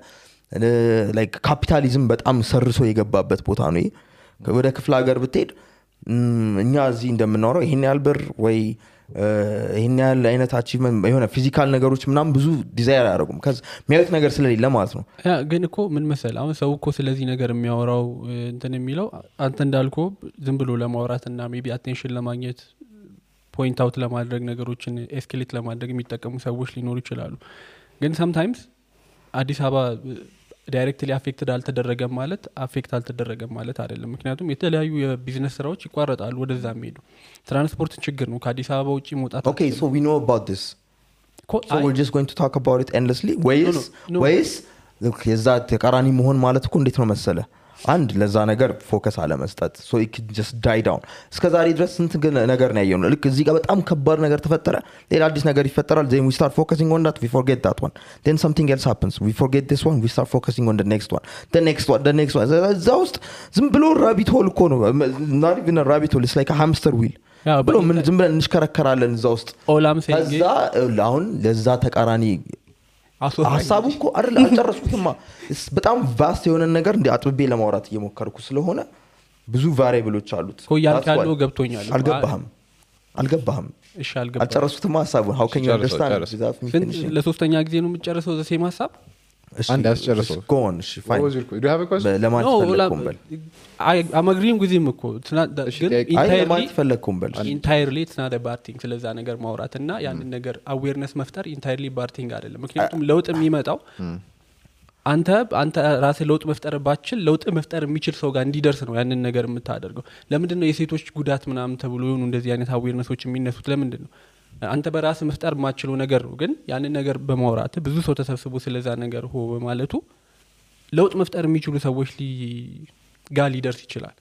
[SPEAKER 1] ላይክ ካፒታሊዝም በጣም ሰርሶ የገባበት ቦታ ነው ወደ ክፍለ ሀገር ብትሄድ እኛ እዚህ እንደምናወራው ይሄን ያህል ብር ወይ ይሄን ያህል አይነት አቺቭመንት የሆነ ፊዚካል ነገሮች ምናምን ብዙ ዲዛይር አያደርጉም የሚያዩት ነገር ስለሌለ ማለት ነው
[SPEAKER 5] ግን እኮ ምን መሰል አሁን ሰው እኮ ስለዚህ ነገር የሚያወራው እንትን የሚለው አንተ እንዳልኮ ዝም ብሎ ለማውራትና ሜቢ አቴንሽን ለማግኘት ፖይንት አውት ለማድረግ ነገሮችን ኤስኬሌት ለማድረግ የሚጠቀሙ ሰዎች ሊኖሩ ይችላሉ ግን sometimes አዲስ አበባ ዳይሬክትሊ አፌክትድ አልተደረገም ማለት አፌክት አልተደረገም ማለት አይደለም ምክንያቱም የተለያዩ የቢዝነስ ስራዎች ይቋረጣሉ ወደዛ የሚሄዱ ትራንስፖርት ችግር ነው ከአዲስ አበባ ውጪ መውጣት
[SPEAKER 1] Okay so we know about this so we're just going to talk about it endlessly ways የዛ ተቃራኒ መሆን ማለት እኮ እንዴት ነው መሰለ አንድ ለዛ ነገር ፎከስ አለ መስጠት so it could just die down እስከዛሬ ድረስ ስንት ነገር ነው ያየው ልክ እዚህ ጋር በጣም ከባድ ነገር ተፈጠረ ሌላ አዲስ ነገር ይፈጠራል then we start focusing on that we forget that one then something else happens we forget this one we start focusing on the next one the next one እዛ ውስጥ ዝም ብሎ rabbit hole እኮ ነው not even a rabbit hole it's like a hamster wheel ብሎ ምን ዝም ብለን እንሽከረከራለን እዛ ውስጥ እዛ አሁን ለዛ ተቃራኒ ሐሳቡ እኮ አይደል አልጨረስኩትማ በጣም ቫስት የሆነ ነገር እንደ አጥብቤ ለማውራት እየሞከርኩ ስለሆነ ብዙ ቫሪያብሎች አሉት
[SPEAKER 5] እኮ ያልካለው ገብቶኛል
[SPEAKER 1] አልገባህም
[SPEAKER 5] እሺ አልገባህም
[SPEAKER 1] አልጨረስኩትማ ሐሳቡን how can you understand
[SPEAKER 5] ለሶስተኛ ጊዜ ነው የምትጨርሰው ዘ ሴም ሐሳብ
[SPEAKER 2] አንድ ያስጨርሰው
[SPEAKER 1] go on እሺ fine
[SPEAKER 2] do you have a question
[SPEAKER 1] ለማን ተፈለኩም በል
[SPEAKER 5] I'm agreeing with him እኮ entirely it's not a bad thing ስለዛ ነገር ማውራትና ያንን ነገር awareness መፍጠር entirely bad thing አይደለም ምክንያቱም ለውጥ የሚመጣው አንተ ራስህ ለውጥ መፍጠር ባችል ለውጥ መፍጠር የሚችል ሰው ጋር እንዲደርስ ነው ያንን ነገር የምታደርገው ለምንድነው የሴቶች ጉዳት ምናምን ተብሎ ይሁን እንደዚህ አይነት awarenessዎች የሚነሱት ለምንድነው አንተ በራስህ መፍጠር ማችለው ነገር ነው ግን ያንን ነገር በማውራት ብዙ ሰው ተሰብስቦ ስለዛ ነገር ሆ በማለቱ ለውጥ መፍጠር የሚችሉ ሰዎች ጋር ሊደርስ ይችላል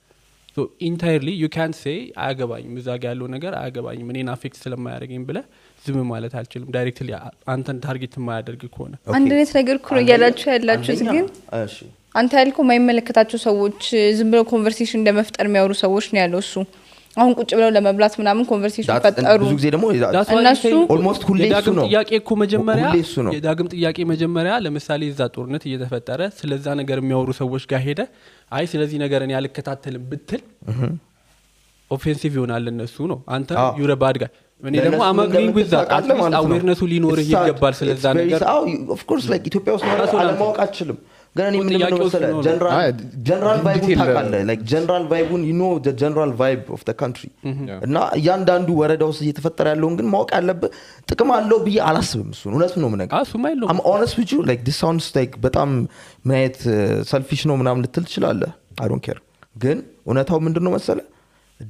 [SPEAKER 5] so entirely you can't say አያገባኝም እዛ ጋር ያለው ነገር አያገባኝም እኔን አፌክት ስለማያደርገኝ ብለ ዝም ማለት አልችልም ዳይሬክትሊ አንተን ታርጌት የማያደርግ ከሆነ
[SPEAKER 4] አንድነት ነገር ኩሩ ያላችሁ ግን እሺ አንተ ያልከው የማይመለከታቸው ሰዎች ዝም ብለው ኮንቨርሴሽን እንደመፍጠር የሚያወሩ ሰዎች ነው ያለው እሱ አሁን ቁጭ ብለው ለመብላት ምናምን ኮንቨርሴሽን ፈጠሩ
[SPEAKER 1] ብዙ ጊዜ ደግሞ
[SPEAKER 5] እነሱ
[SPEAKER 1] almost ሁሌ እሱ ነው
[SPEAKER 5] ጥያቄ እኮ መጀመሪያ የዳግም ጥያቄ መጀመሪያ ለምሳሌ እዛ ጦርነት እየተፈጠረ ስለዛ ነገር የሚያወሩ ሰዎች ጋር ሄደ አይ ስለዚህ ነገር እኔ አልከታተልም ብትል ኦፌንሲቭ ይሆናል እነሱ ነው አንተ you're a bad guy እኔ ደግሞ አማግሪንግ with that awareness ሊኖር ይገባል ስለዛ ነገር
[SPEAKER 1] of course like ኢትዮጵያ ውስጥ አለማወቅ አችልም ግን እኔ ምን ነው መሰለህ general vibe ታውቃለህ like general vibe you know the general vibe of the country እና ያንዳንዱ ወረዳ ውስጥ እየተፈጠረ ያለውን ግን ማወቅ ያለብህ ጥቅም አለው ብዬ አላስብም እሱ እውነት ነው ምነገር I'm honest with you like this sounds like በጣም ማየት selfish ነው ምናምን ልትል ትችላለህ I don't care ግን እውነታው ምንድነው መሰለህ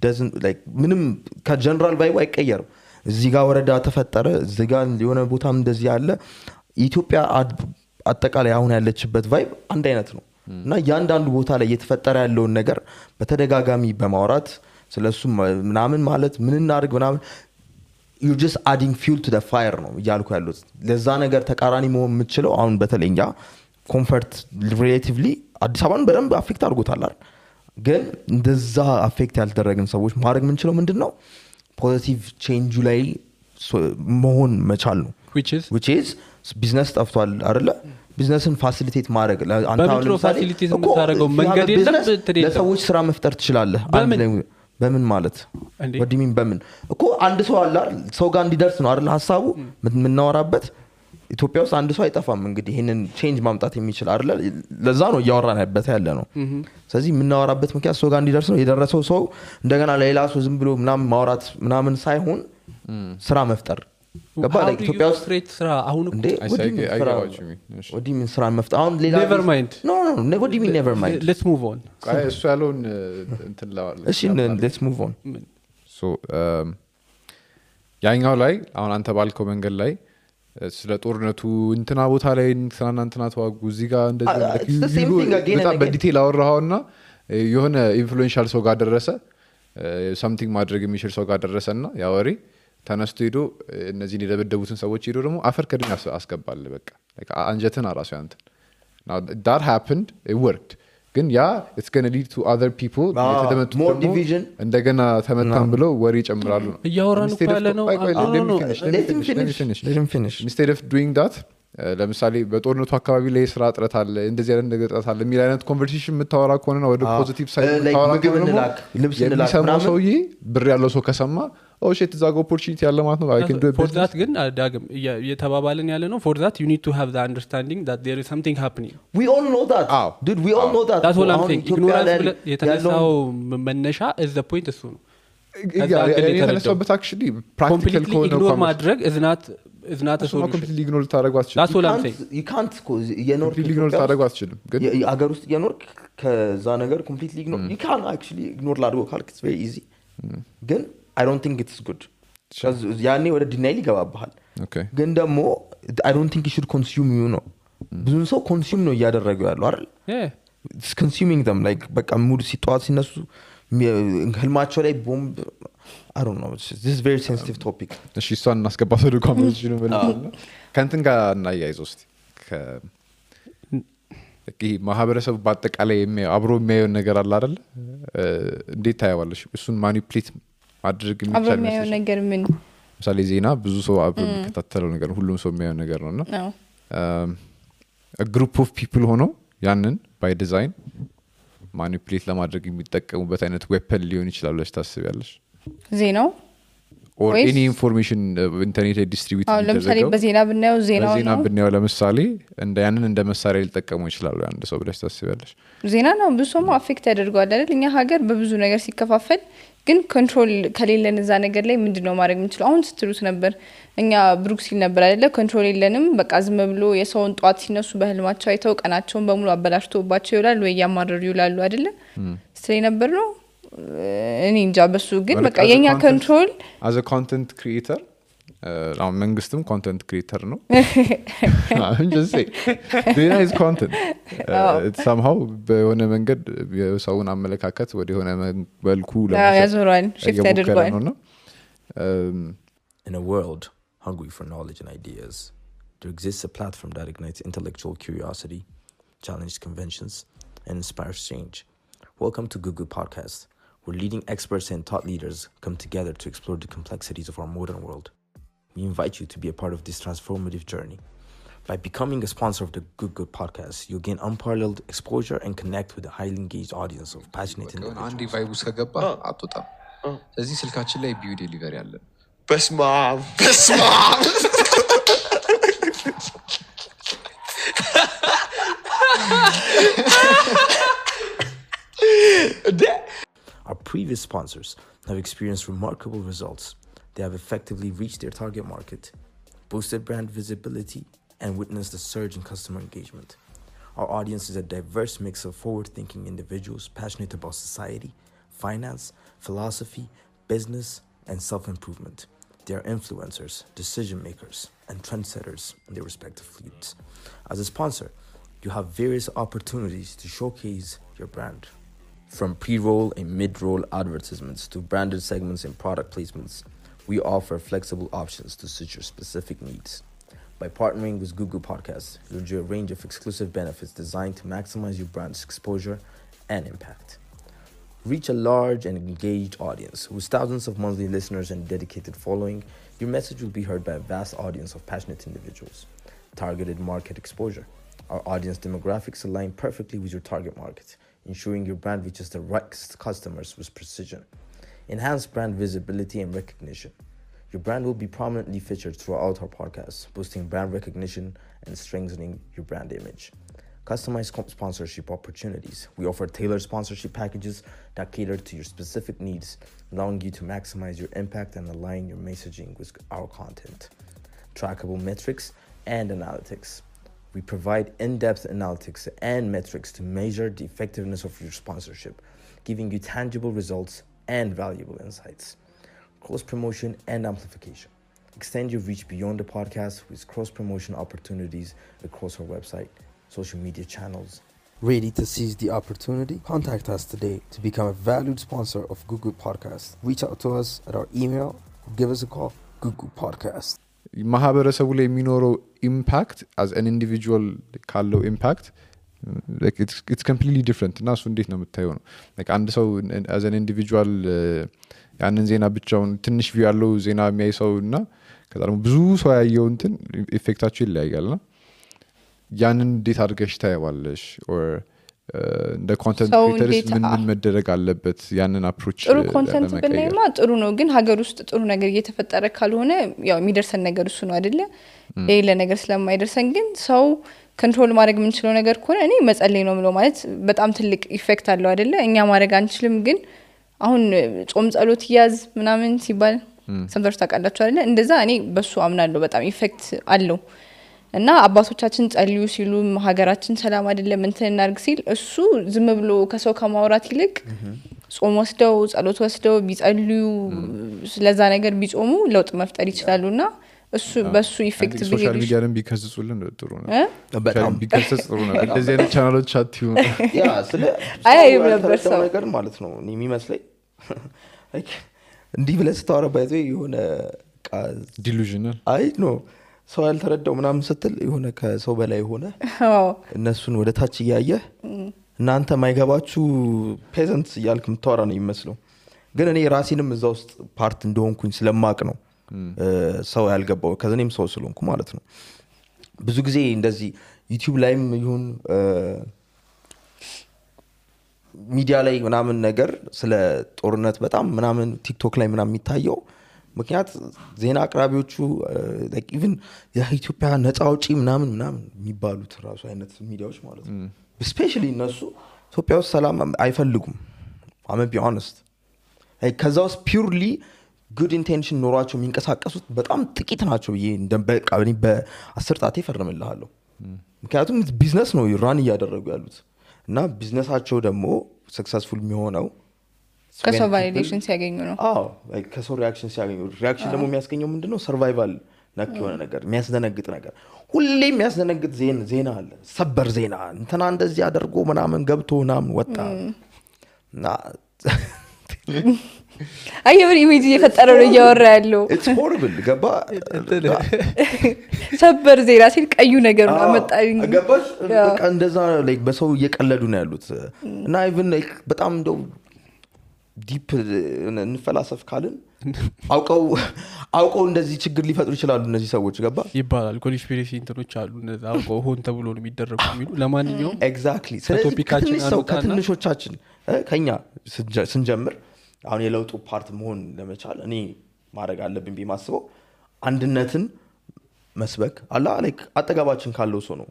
[SPEAKER 1] doesn't like ምንም ከጀነራል ቫይቡ አይቀየርም እዚህ ጋር ወረዳ ተፈጠረ እዚህ ጋር የሆነ ቦታም እንደዚህ ያለ ኢትዮጵያ አጠቃላይ አሁን ያለችበት ቫይብ አንድ አይነት ነው እና ያንዳንዱ ቦታ ላይ እየተፈጠረ ያለውን ነገር በተደጋጋሚ በማውራት ስለሱ ምናምን ማለት ምን እናርግ ምናምን you just adding fuel to the fire ነው ያልኩ ያሉት ለዛ ነገር ተቃራኒ መሆን የምትችለው አሁን በተለይኛ ኮምፎርት ሪሌቲቭሊ አዲስ አበባን በደንብ አፌክት አድርጎታል አይደል ግን እንደዛ አፌክት ያልተደረገን ሰዎች ማድረግ ምንችለው ምንድነው ፖዚቲቭ ቼንጅ ላይ መሆን መቻል ነው which is ቢዝነስ ጠፍቷል አይደለ ቢዝነስን ፋሲሊቴት ማድረግ
[SPEAKER 5] አንተ አሁን ፋሲሊቴት የምታደርገው መንገድ የለም
[SPEAKER 1] ለሰዎች ስራ መፍጠር ትችላለህ በምን ማለት ወዲሚን በምን እኮ አንድ ሰው አለ ሰው ጋር እንዲደርስ ነው አይደል ሐሳቡ ምንናወራበት ኢትዮጵያ ውስጥ አንድ ሰው አይጠፋም እንግዲህ ይሄንን ቼንጅ ማምጣት የሚችል አይደል ለዛ ነው ያወራናበት ያለ ነው ስለዚህ ምናወራበት ምክንያት ሰው ጋር እንዲደርስ ነው የደረሰው ሰው እንደገና ለሌላ ሰው ዝም ብሎ ምናምን ማውራት ምናምን ሳይሆን ስራ መፍጠር ገባ ላይ ኢትዮጵያ ውስጥ
[SPEAKER 5] ስትሬት ስራ አሁን
[SPEAKER 1] እንዴ ወዲሚን ስራ መፍጠር አሁን ሌላ
[SPEAKER 5] never mind
[SPEAKER 1] no ወዲሚን never mind
[SPEAKER 5] let's move on
[SPEAKER 2] እሱ ያለውን እንትን ላዋል
[SPEAKER 1] እሺ let's move on
[SPEAKER 2] so ያኛው ላይ አሁን አንተ ባልከው መንገድ ላይ ስለ ጦርነቱ እንትና ቦታ ላይ እንትና ተዋጉ እዚህ ጋር እንደዚህ በጣም በዲቴል አወራውና የሆነ ኢንፍሉዌንሻል ሰው ጋር ደረሰ something ማድረግ የሚችል ሰው ጋር ደረሰና ያ ወሬ ተነስቶ ሄዶ እነዚህ የደበደቡትን ሰዎች ሄዶ ደግሞ አፈር ከድን አስገባል በቃ like አንጀትን አራሱ ያንተ now that happened it worked ግን ያ it's going to lead to other people የተደመጡ
[SPEAKER 1] more
[SPEAKER 2] ደግሞ
[SPEAKER 1] division
[SPEAKER 2] እንደገና ተመታን ብለው ወሬ ይጨምራሉ ነው
[SPEAKER 5] እያወራን እኮ ያለ ነው
[SPEAKER 1] let him finish
[SPEAKER 2] instead of doing that ለምሳሌ በጦርነቱ አካባቢ ላይ ስራ እጥረት አለ እንደዚህ አይነት ነገር እጥረት አለ የሚል አይነት ኮንቨርሴሽን የምታወራ ከሆነና ወደ ፖዚቲቭ ሳይድ የምታወራ ከሆነ ልብስ እንላክ ሰውዬ ብር ያለው ሰው ከሰማ ኦ ሺት እዛ ጋር ኦፖርቹኒቲ ያለ ማለት ነው I can do it
[SPEAKER 5] for that ግን ዳግም የተባባልን ያለ ነው for that you need to have the understanding that there is something happening
[SPEAKER 1] we all know that dude we all know that
[SPEAKER 5] that's what I'm saying ignorance የተነሳው መነሻ is the point እሱ ነው
[SPEAKER 2] የተነሳበት actually practical ከሆነ
[SPEAKER 5] ignore ማድረግ is not a solution
[SPEAKER 2] completely ignore ታደርገው አትችልም
[SPEAKER 5] that's what I'm saying
[SPEAKER 1] you can't
[SPEAKER 2] completely ignore ታደርገው አትችልም ግን
[SPEAKER 1] አገር ውስጥ እየኖርክ ከዛ ነገር completely ignore you can actually ignore ላድርገው ካልክ it's very easy ግን I don't think it's good because ያኔ ወደ ዲናይል ይገባባል ግን ደግሞ I don't think you should consume you know ብዙ ሰው consume ነው እያደረገው ያለው አይደል it's consuming them like በቃ ሙድ ሲጧት ሲነሱ ህልማቸው ላይ ቦምብ I don't know this is very sensitive topic
[SPEAKER 2] እሺ እሷን እናስገባት ወደ ኮንቨርሴሽኑ ብለናል ከእንትን ጋር እናያይዘው እስቲ ይሄ ማህበረሰቡ በአጠቃላይ አብሮ የሚያየው ነገር አለ አይደል እንዴት ታያዋለሽ እሱን ማኒፑሌት ማድረግ የሚቻል
[SPEAKER 4] የሚያየው ነገር ምን
[SPEAKER 2] ምሳሌ ዜና ብዙ ሰው አብሮ የሚከታተለው ነገር ሁሉም ሰው የሚያየው ነገር ነውና a group of people ሆኖ ያንን by design ማኒፑሌት ለማድረግ የሚጠቀሙበት አይነት ዌፐን ሊሆን ይችላል ለሽ ታስቢያለሽ ዜናው or any information ኢንተርኔት ዲስትሪቢዩት
[SPEAKER 4] አሁን ለምሳሌ በዜና ብናየው
[SPEAKER 2] ዜና ብናየው ለምሳሌ እንደ ያንን እንደ መሳሪያ ሊጠቀሙ ይችላሉ አንድ ሰው ብለሽ ታስቢያለሽ
[SPEAKER 4] ዜና ነው ብዙ ሰው አፌክት ያደርጋል አይደል እኛ ሀገር በብዙ ነገር ሲከፋፈል ግን ኮንትሮል ከሌለን እዛ ነገር ላይ ምንድነው ማድረግ የምንችለው አሁን ስትሉት ነበር እኛ ብሩክሲል ነበር አይደለ ኮንትሮል የለንም በቃ ዝም ብሎ የሰውን ጧት ሲነሱ በህልማቸው አይተው ቀናቸውን በሙሉ አበላሽቶባቸው ይውላል ወይ ያማረሩ ይውላሉ አይደለ ስለይ ነበር ነው እኔ እንጃ በሱ ግን በቃ የኛ ኮንትሮል
[SPEAKER 2] as a content creator አሁን መንግስትም ኮንተንት ክሪኤተር ነው I'm just saying there is content it's somehow በሆነ መንገድ የሰውን አመለካከት ወደ ሆነ መልኩ
[SPEAKER 4] ያዞራል shift ያደርጋል
[SPEAKER 1] in a world hungry for knowledge and ideas there exists a platform that ignites intellectual curiosity challenges conventions and inspires change welcome to Google Podcast where leading experts and thought leaders come together to explore the complexities of our modern world. We invite you to be a part of this transformative journey. By becoming a sponsor of the Good Podcast, you'll gain unparalleled exposure and connect with a highly engaged audience of passionate individuals.
[SPEAKER 7] አንዲ ቫይቡስ ከገባ አጥጣም ስለዚህ ስልካችን ላይ ቢዩ ዴሊቨሪ አለ
[SPEAKER 8] በስማ
[SPEAKER 1] Our previous sponsors have experienced remarkable results. They have effectively reached their target market, boosted brand visibility, and witnessed a surge in customer engagement. Our audience is a diverse mix of forward-thinking individuals passionate about society, finance, philosophy, business, and self-improvement. They are influencers, decision-makers, and trendsetters in their respective fields. As a sponsor, you have various opportunities to showcase your brand. From pre-roll and mid-roll advertisements to branded segments and product placements, we offer flexible options to suit your specific needs. By partnering with Google Podcasts, you'll enjoy a range of exclusive benefits designed to maximize your brand's exposure and impact. Reach a large and engaged audience. With thousands of monthly listeners and dedicated following, your message will be heard by a vast audience of passionate individuals. Targeted market exposure. Our audience demographics align perfectly with your target market, ensuring your brand reaches the right customers with precision. Enhance brand visibility and recognition. Your brand will be prominently featured throughout our podcast, boosting brand recognition and strengthening your brand image. Customized sponsorship opportunities. We offer tailored sponsorship packages that cater to your specific needs, allowing you to maximize your impact and align your messaging with our content. Trackable metrics and analytics. We provide in-depth analytics and metrics to measure the effectiveness of your sponsorship, giving you tangible results and valuable insights. Cross-promotion and amplification. Extend your reach beyond the podcast with cross-promotion opportunities across our website, social media channels. Ready to seize the opportunity? Contact us today to become a valued sponsor of Google Podcast. Reach out to us at our email or give us a call, Google Podcast.
[SPEAKER 2] ማህበረሰቡ ላይ የሚኖረው ኢምፓክት as an individual ካለው ኢምፓክት like it's completely different እና እሱ እንዴት ነው የምታየው ነው like አንድ ሰው as an individual ያንን ዜና ብቻውን ትንሽ ቪው ያለው ዜና የሚያይ ሰው እና ከዛ ደግሞ ብዙ ሰው ያየው እንትን ኢፌክታቸው ይለያያልና ያንን እንዴት አድርገሽ ታየዋለሽ or እንደ ኮንተንት ክሬተርስ ምን መደረግ አለበት ያንን አፕሮች
[SPEAKER 4] ጥሩ ኮንተንት ብናይማ ጥሩ ነው ግን ሀገር ውስጥ ጥሩ ነገር እየተፈጠረ ካልሆነ ያው የሚደርሰን ነገር እሱ ነው አይደለ ሌላ ነገር ስለማይደርሰን ግን ሰው ኮንትሮል ማድረግ የምንችለው ነገር ከሆነ እኔ መጸለይ ነው ምለው ማለት በጣም ትልቅ ኢፌክት አለው አይደለ እኛ ማድረግ አንችልም ግን አሁን ጾም ጸሎት ያዝ ምናምን ሲባል ሰምተርስ ታውቃላችሁ አይደለ እንደዛ እኔ በሱ አምናለሁ በጣም ኢፌክት አለው እና አባቶቻችን ጸልዩ ሲሉ ሀገራችን ሰላም አይደለም እንትን እናርግ ሲል እሱ ዝም ብሎ ከሰው ከማውራት ይልቅ ጾም ወስደው ጸሎት ወስደው ቢጸልዩ ስለዛ ነገር ቢጾሙ ለውጥ መፍጠር ይችላሉና እሱ በሱ ኢፌክት
[SPEAKER 2] ሶሻል ሚዲያን ቢከስጹልን ጥሩ ነው በጣም ቢከስጽ ጥሩ ነው እንደዚህ አይነት ቻናሎች አትዩ
[SPEAKER 1] ያ ስለ
[SPEAKER 4] አይ ነበር ሰው
[SPEAKER 1] ነገር ማለት ነው እኔ የሚመስለኝ like እንዲህ ብለህ ስታወራ ባይዘ የሆነ
[SPEAKER 2] ዲሉዥናል
[SPEAKER 1] አይ ኖ ሰው ያልተረዳው ምናምን ስትል የሆነ ከሰው በላይ ሆነ እነሱን ወደ ታች ያያየ እናንተ ማይገባችሁ ፔዘንትስ ያልክ ምታወራ ነው ይመስለው ግን እኔ ራሴንም እዛ ውስጥ ፓርት እንደሆንኩኝ ስለማቅ ነው ሰው ያልገባው ከዘኔም ሰው ስለሆንኩ ማለት ነው ብዙ ጊዜ እንደዚህ ዩቲዩብ ላይም ይሁን ሚዲያ ላይ ምናምን ነገር ስለ ጦርነት በጣም ምናምን ቲክቶክ ላይ ምናምን የሚታየው ምክንያት ዜና አቅራቢዎቹ like even የኢትዮጵያ ነፃ አውጪ ምናምን የሚባሉት ራሱ አይነት ሚዲያዎች ማለት ነው especially እነሱ ኢትዮጵያ ውስጥ ሰላም አይፈልጉም I'm be honest like ከዛ ውስጥ purely good intention ኖሯቸው የሚንቀሳቀሱት በጣም ጥቂት ናቸው ይሄ እንደበቃ በ10 ጣቴ ፈርምልሃለሁ ምክንያቱም ቢዝነስ ነው ራን እያደረጉ ያሉት እና ቢዝነሳቸው ደግሞ ሰክሰስፉል የሚሆነው
[SPEAKER 4] ከሰው ቫሊዴሽን ሲያገኙ ነው
[SPEAKER 1] አዎ like ከሰው ሪአክሽን ሲያገኙ ሪአክሽን ደግሞ የሚያስገኘው ምንድነው ሰርቫይቫል ነክ የሆነ ነገር የሚያስደነግጥ ነገር ሁሌ የሚያስደነግጥ ዜና አለ ሰበር ዜና እንትና እንደዚህ አድርጎ ምናምን ገብቶ ምናምን ወጣ እና
[SPEAKER 4] አየር ኢሜጅ እየፈጠረው ነው እያወራ ያለው
[SPEAKER 1] it's horrible ገባ
[SPEAKER 4] ሰበር ዜና ሲል ቀዩ ነገር ነው አመጣኝ
[SPEAKER 1] ገባሽ በቃ እንደዛ like በሰው እየቀለዱ ነው ያሉት እና even like በጣም እንደው ዲፕ እንፈላሰፍ ካልን አውቀው እንደዚህ ችግር ሊፈጥሩ ይችላሉ እነዚህ ሰዎች ገባ
[SPEAKER 5] ይባላል ኮንስፒሬሲ እንትኖች አሉ እንደዛ አውቀው ሆን ተብሎ ነው የሚደረጉ የሚሉ ለማንኛውም
[SPEAKER 1] ኤግዛክትሊ ስለዚህ ከትንሾቻችን ከኛ ስንጀምር አሁን የለውጡ ፓርት መሆን ለመቻል እኔ ማድረግ አለብኝ ቢማስበው አንድነትን መስበክ አላ like አጠገባችን ካለው ሰው ነው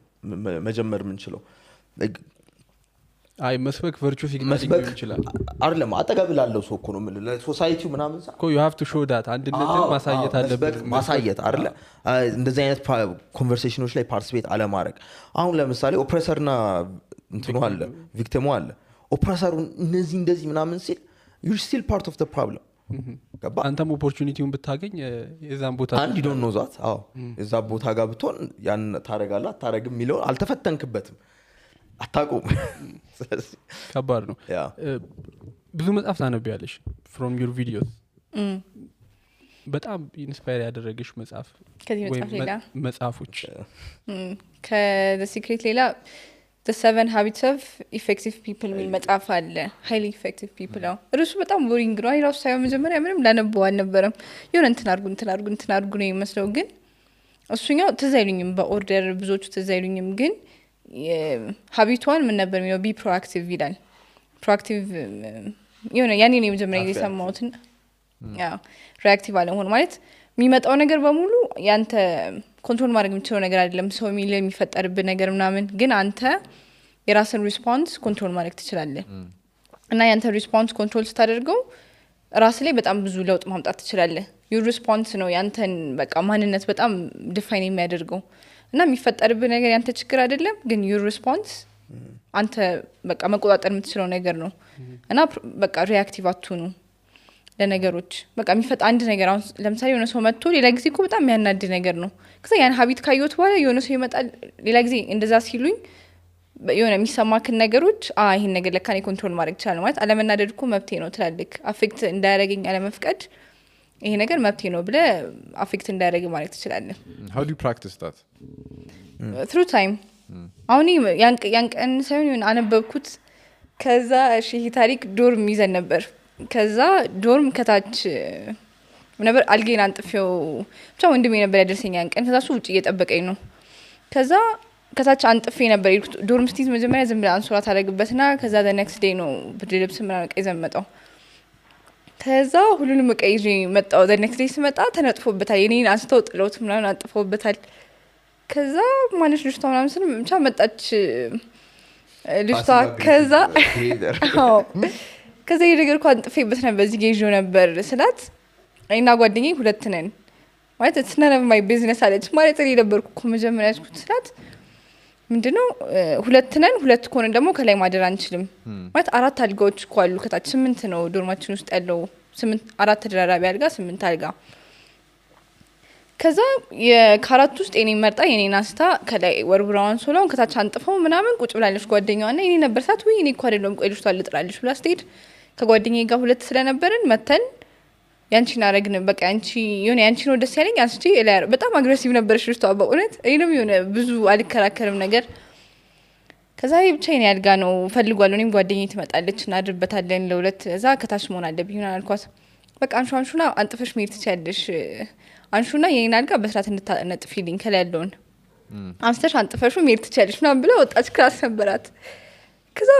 [SPEAKER 1] መጀመር ምንችለው
[SPEAKER 5] አይ መስበክ ቨርቹ ሲግናል ይችላል
[SPEAKER 1] አይደለም አጠገብ ላለው ሰው እኮ ነው ለሶሳይቲው ምናምን
[SPEAKER 5] እኮ you have to show that አንድነትን ማሳየት አለበት
[SPEAKER 1] ማሳየት አይደለ እንደዚህ አይነት ኮንቨርሴሽኖች ላይ ፓርቲሲፔት አለ ማድረግ አሁን ለምሳሌ ኦፕሬሰርና እንትኑ አለ ቪክቲሙ አለ ኦፕሬሰሩ እንደዚህ ምናምን ሲል you're still part of the problem ገባ
[SPEAKER 5] አንተም ኦፖርቹኒቲውን ብታገኝ የዛን ቦታ
[SPEAKER 1] አንድ you don't know that አዎ እዛ ቦታ ጋር ብትሆን ያን ታረጋለህ አታረግም ሚለው አልተፈተንክበትም አታቆም
[SPEAKER 5] ከባድ ነው ብዙ መጽሐፍ ታነቢያለሽ from your videos በጣም ኢንስፓየር ያደረገሽ መጽሐፍ
[SPEAKER 4] ከዚህ መጽሐፍ ሌላ
[SPEAKER 5] መጽሐፎች
[SPEAKER 4] ከthe secret ሌላ the 7 habits of effective people ሚል መጽሐፍ አለ highly effective people ነው እርሱ በጣም ቦሪንግ ነው አይራሱ ሳይሆን መጀመሪያ ምንም ላነበው አልነበረም የሆነ እንትን አድርጉ ነው የሚመስለው ግን እሱኛው ትዝ አይሉኝም በኦርደር ብዙዎቹ ትዝ አይሉኝም ግን ሀቢቷን ምን ነበር የሚለው ቢ ፕሮአክቲቭ ይላል ፕሮአክቲቭ የሆነ ያኔ ነው መጀመሪያ የሰማሁት ያው ሪአክቲቭ አለመሆን ማለት የሚመጣው ነገር በሙሉ ያንተ ኮንትሮል ማድረግ የምትችለው ነገር አይደለም ሰው የሚፈጠርብህ ነገር ምናምን ግን አንተ የራስን ሪስፖንስ ኮንትሮል ማድረግ ትችላለህ እና ያንተ ሪስፖንስ ኮንትሮል ስታደርገው ራስ ላይ በጣም ብዙ ለውጥ ማምጣት ትችላለህ ዩር ሪስፖንስ ነው ያንተን በቃ ማንነት በጣም ዲፋይን የሚያደርገው እና የሚፈጠርብህ ነገር ያንተ ችግር አይደለም ግን ዩር ሪስፖንስ አንተ በቃ መቆጣጠር የምትችለው ነገር ነው እና በቃ ሪአክቲቭ አትሁኑ ለነገሮች በቃ የሚፈጠር አንድ ነገር አሁን ለምሳሌ የሆነ ሰው መጥቶ ሌላ ጊዜ እኮ በጣም የሚያናድ ነገር ነው ከዛ ያን ሀቢት ካየሁት በኋላ የሆነ ሰው ይመጣል ሌላ ጊዜ እንደዛ ሲሉኝ የሆነ የሚሰማክን ነገሮች ይሄን ነገር ለካ እኔ ኮንትሮል ማድረግ ይችላል ማለት አለመናደድ እኮ መብቴ ነው ትላልክ አፌክት እንዳያረገኝ አለመፍቀድ ይሄ ነገር መብቴ ነው ብለ አፌክት እንዳያረግ ማድረግ ትችላለህ
[SPEAKER 2] how do you practice that
[SPEAKER 4] through time አሁን ያን ቀን ሳይሆን አነበብኩት ከዛ እሺ ይሄ ታሪክ ዶርም ይዘን ነበር ከዛ ዶርም ከታች ነበር አልጌን አንጥፌው ብቻ ወንድሜ ነበር ያደርሰኝ ያን ቀን ከዛ እሱ ውጪ እየጠበቀኝ ነው ከዛ ከታች አንጥፌ ነበር ዶርም ስቲዝ መጀመሪያ ዝም ብላ አንሶላ ታደርግበትና ከዛ the next day ነው ብርድ ልብስ ምናምን ቀይ ዘመጣው ከዛ ሁሉንም ቀይዤ መጣው the next day ስመጣ ተነጥፎበታል የኔን አንስተው ጥለውት ምናምን አንጥፎበታል ከዛ ማንሽ ልጅቷ ምናምን ስለ ብቻ መጣች ልጅቷ ከዛ ከዛ የነገርኩ አንጥፌበት ነበር እዚህ ጌጆ ነበር ስላት አይና ጓደኛዬ ሁለት ነን ማለት it's none of my business አለች ማለት እኔ ነበርኩ እኮ መጀመሪያ ያስኩት ስላት ምንድነው ሁለት ነን ሁለት ኮን ደግሞ ከላይ ማደር አንችልም ማለት አራት አልጋዎች እኮ አሉ ከታች 8 ነው ዶርማችን ውስጥ ያለው 8 አራት ተደራራቢ አልጋ 8 አልጋ ከዛ የካራት ውስጥ እኔ መርጣ የኔን አስታ ከላይ ወርብራውን ሶላውን ከታች አንጥፈው ምናምን ቁጭ ብላለች ጓደኛዋና እኔ ነበር ሳት ወይ እኔ እኮ አይደለም ቆይ ልጅቷ ልጥራለች ብላ ስትሄድ ከጓደኛዬ ጋር ሁለት ስለነበርን መተን ያንቺን አረግን በቃ አንቺ የሆነ ያንቺ ነው ደስ ያለኝ አንቺ በጣም አግሬሲቭ ነበርሽ ልጅቷ በእውነት እኔም የሆነ ብዙ አልከራከርም ነገር ከዛ ብቻዬን ያልጋ ነው ፈልጓል እኔም ጓደኛዬ ትመጣለች እናድርበታለን ለሁለት እዛ ከታች መሆን አለብኝ ሆነ አልኳት በቃ አንሹና አንጥፈሽ መሄድ ትችያለሽ አንሹና የኔን አልጋ በስራት እንድታነጥፊልኝ ከላይ ያለውን አንስተሽ አንጥፈሽ መሄድ ትችያለሽ ምናምን ብላ ወጣች ክላስ ነበራት ከዛ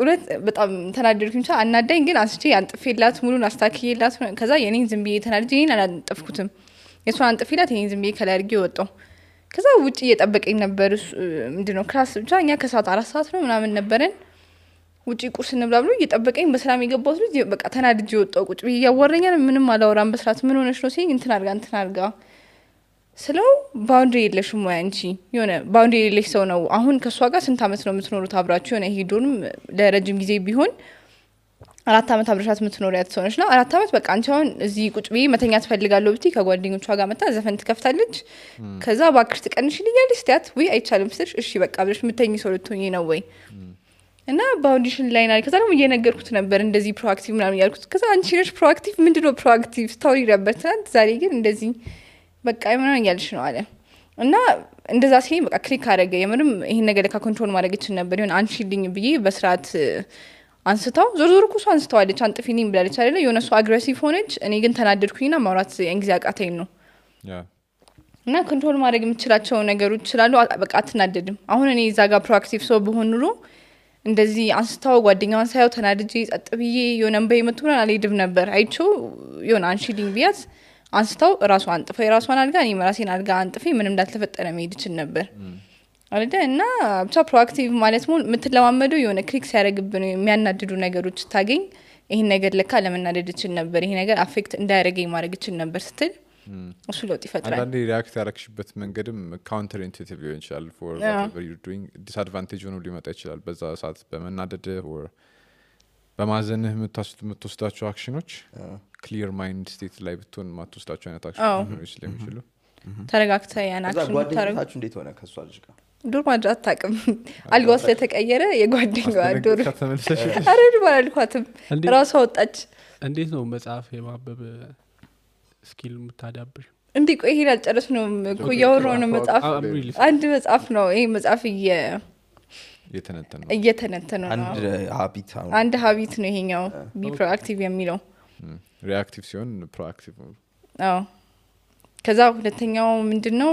[SPEAKER 4] ሁለት በጣም ተናደድኩኝ አናዳኝ ግን አንስቼ አንጥፌላት ሙሉን አስተካክዬላት ከዛ የኔን ዝም ብዬ ተናድጄ እኔን አላንጥፍኩትም የሷን አንጥፌላት የኔን ዝም ብዬ ከላይ አድርጌ ወጣሁ ከዛ ውጪ እየጠበቀኝ ነበር ምንድነው ክላስ ብቻ እኛ ከሰዓት 4 ሰዓት ነው ምናምን ነበረን ውጪ ቁርስ እንብላ ብሎ እየጠበቀኝ በሰላም የገባሁት ልጅ በቃ ተናድጄ ወጣሁ ቁጭ ብዬ ያወራኛል ምንም አላወራም በስራት ምን ሆነሽ ነው ሲኝ እንትን አርጋ ስለው ባውንደሪ የለሽም ወይ አንቺ የሆነ ባውንደሪ የለሽ ሰው ነው አሁን ከሷ ጋር ስንት አመት ነው የምትኖሩት አብራችሁ የሆነ ሄዶንም ለረጅም ጊዜ ቢሆን 4 አመት አብረሻት የምትኖሪያት ሰው ነሽና 4 አመት በቃ አንቺ አሁን እዚህ ቁጭ ብዬ መተኛ ትፈልጋለሁ ብትይ ከጓደኞቿ ጋር መጣ ዘፈን ትከፍታለች ከዛ ባክሽ ትቀንሽልኛለሽ ስታት ወይ አይቻልም ስትልሽ እሺ በቃ ብለሽ ምተኝ ሰው ልትሆኚ ነው ወይ እና ባውንዴሽን ላይ ናይ ከዛ ደግሞ እየነገርኩት ነበር እንደዚህ ፕሮአክቲቭ ምናምን ያልኩት ከዛ አንቺ ነሽ ፕሮአክቲቭ ምንድነው ፕሮአክቲቭ ስቶሪ ነበር ትናንት ዛሬ ግን እንደዚህ በቃ ምናምን ያልሽ ነው አለ እና እንደዛ ሲሄድ በቃ ክሊክ አደረገ የምርም ይሄን ነገር ለካ ኮንትሮል ማድረግ ይችላል ነበር ይሁን አንቺልኝ ብዬ በስርዓት አንስታው ዞር እኮ አንስታዋለች አንጥፊልኝ ብላለች አይደለ የሆነ ሰው አግሬሲቭ ሆነች እኔ ግን ተናደድኩኝና ማውራት እንግዲህ አቃተኝ ነው እና ኮንትሮል ማድረግ የምችላቸው ነገሮች ይችላሉ በቃ አትናደድም አሁን እኔ እዛ ጋር ፕሮአክቲቭ ሰው በሆን ኑሮ እንደዚህ አንስታው ጓደኛዋን ሳይው ተናድጄ ጸጥ ብዬ የሆነ እንበይ መጥቶና አልሄድም ነበር አይቼው የሆነ አንቺልኝ ቢያት አንስታው ራሱ አንጥፈ የራሷን አልጋ እኔ ራሴን አልጋ አንጥፌ ምንም እንዳልተፈጠረ መሄድ ይችላል ነበር አይደለ እና ብቻ ፕሮአክቲቭ ማለት ምን የምትለማመደው የሆነ ክሊክ ሲያደርግብን የሚያናድዱ ነገሮች ታገኝ ይሄን ነገር ለካ ለመናደድ ይችላል ነበር ይሄ ነገር አፌክት እንዳያደርገኝ ማድረግ ይችላል ነበር ስትል እሱ ለውጥ ይፈጥራል
[SPEAKER 2] አንዳንዴ ሪአክት ያረክሽበት መንገድም ካውንተር ኢንቱኢቲቭ ሊሆን ይችላል for whatever you're doing disadvantage ሆኖ ሊመጣ ይችላል በዛ ሰዓት በመናደድ or በማዘንህ የምትወስዳቸው አክሽኖች ክሊር ማይንድ ስቴት ላይ ብትሆን ማትወስዳቸው አይነት አክሽኖች ስለሚችሉ
[SPEAKER 4] ተረጋግተ ያን አክሽን
[SPEAKER 1] ጓደኛታችሁ እንዴት ሆነ ከሷ ልጅ ጋር
[SPEAKER 4] ዶር ማድራት ታቅም አልጋው ስለተቀየረ የጓደኛዋ ዶር አረድ ባልኳትም ራሷ ወጣች
[SPEAKER 5] እንዴት ነው መጽሐፍ የማበብ ስኪል የምታዳብር
[SPEAKER 4] እንዴ ቆይ ይሄን አልጨረስ ነው እኮ ያወራው ነው መጽሐፍ አንድ መጽሐፍ ነው ይሄ መጽሐፍ እየተነተነ ነው አንድ ሀቢት ነው ይሄኛው ቢ ፕሮአክቲቭ የሚለው
[SPEAKER 2] ሪአክቲቭ ሲሆን ፕሮአክቲቭ
[SPEAKER 4] አዎ ከዛ ሁለተኛው ምንድነው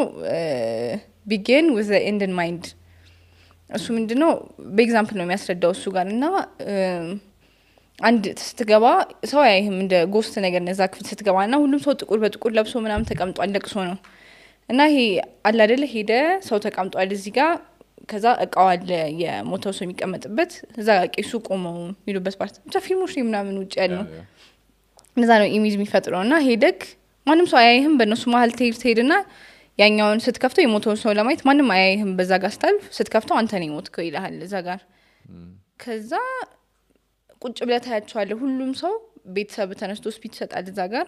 [SPEAKER 4] begin with the end in mind እሱ ምንድነው በኤግዛምፕል ነው የሚያስረዳው እሱ ጋር እና አንድ ስትገባ ሰው አይህም እንደ ጎስት ነገር ነዛ ክፍል ስትገባና ሁሉም ሰው ጥቁር በጥቁር ለብሶ ምናምን ተቀምጧል ለቅሶ ነው እና ይሄ አለ አይደለ ሄደ ሰው ተቀምጧል እዚህ ጋር ከዛ እቃው አለ የሞተው ሰው የሚቀመጥበት እዛ ቄሱ ቆመው የሚሉበት ፓርት ብቻ ፊልሞች ምናምን ውጭ ያለው እንደዛ ነው ኢሜጅ የሚፈጥረውና ሄደክ ማንም ሰው አያይህም በእነሱ መሀል ትሄድና ያኛውን ስትከፍተው የሞተው ሰው ለማየት ማንም አያይህም በዛ ጋር ስታልፍ ስትከፍተው አንተ ነው የሞትከው ይልሃል እዛ ጋር ከዛ ቁጭ ብለህ ታያቸዋለህ ሁሉም ሰው ቤተሰብ ተነስቶ ስፒች ይሰጣል እዛ ጋር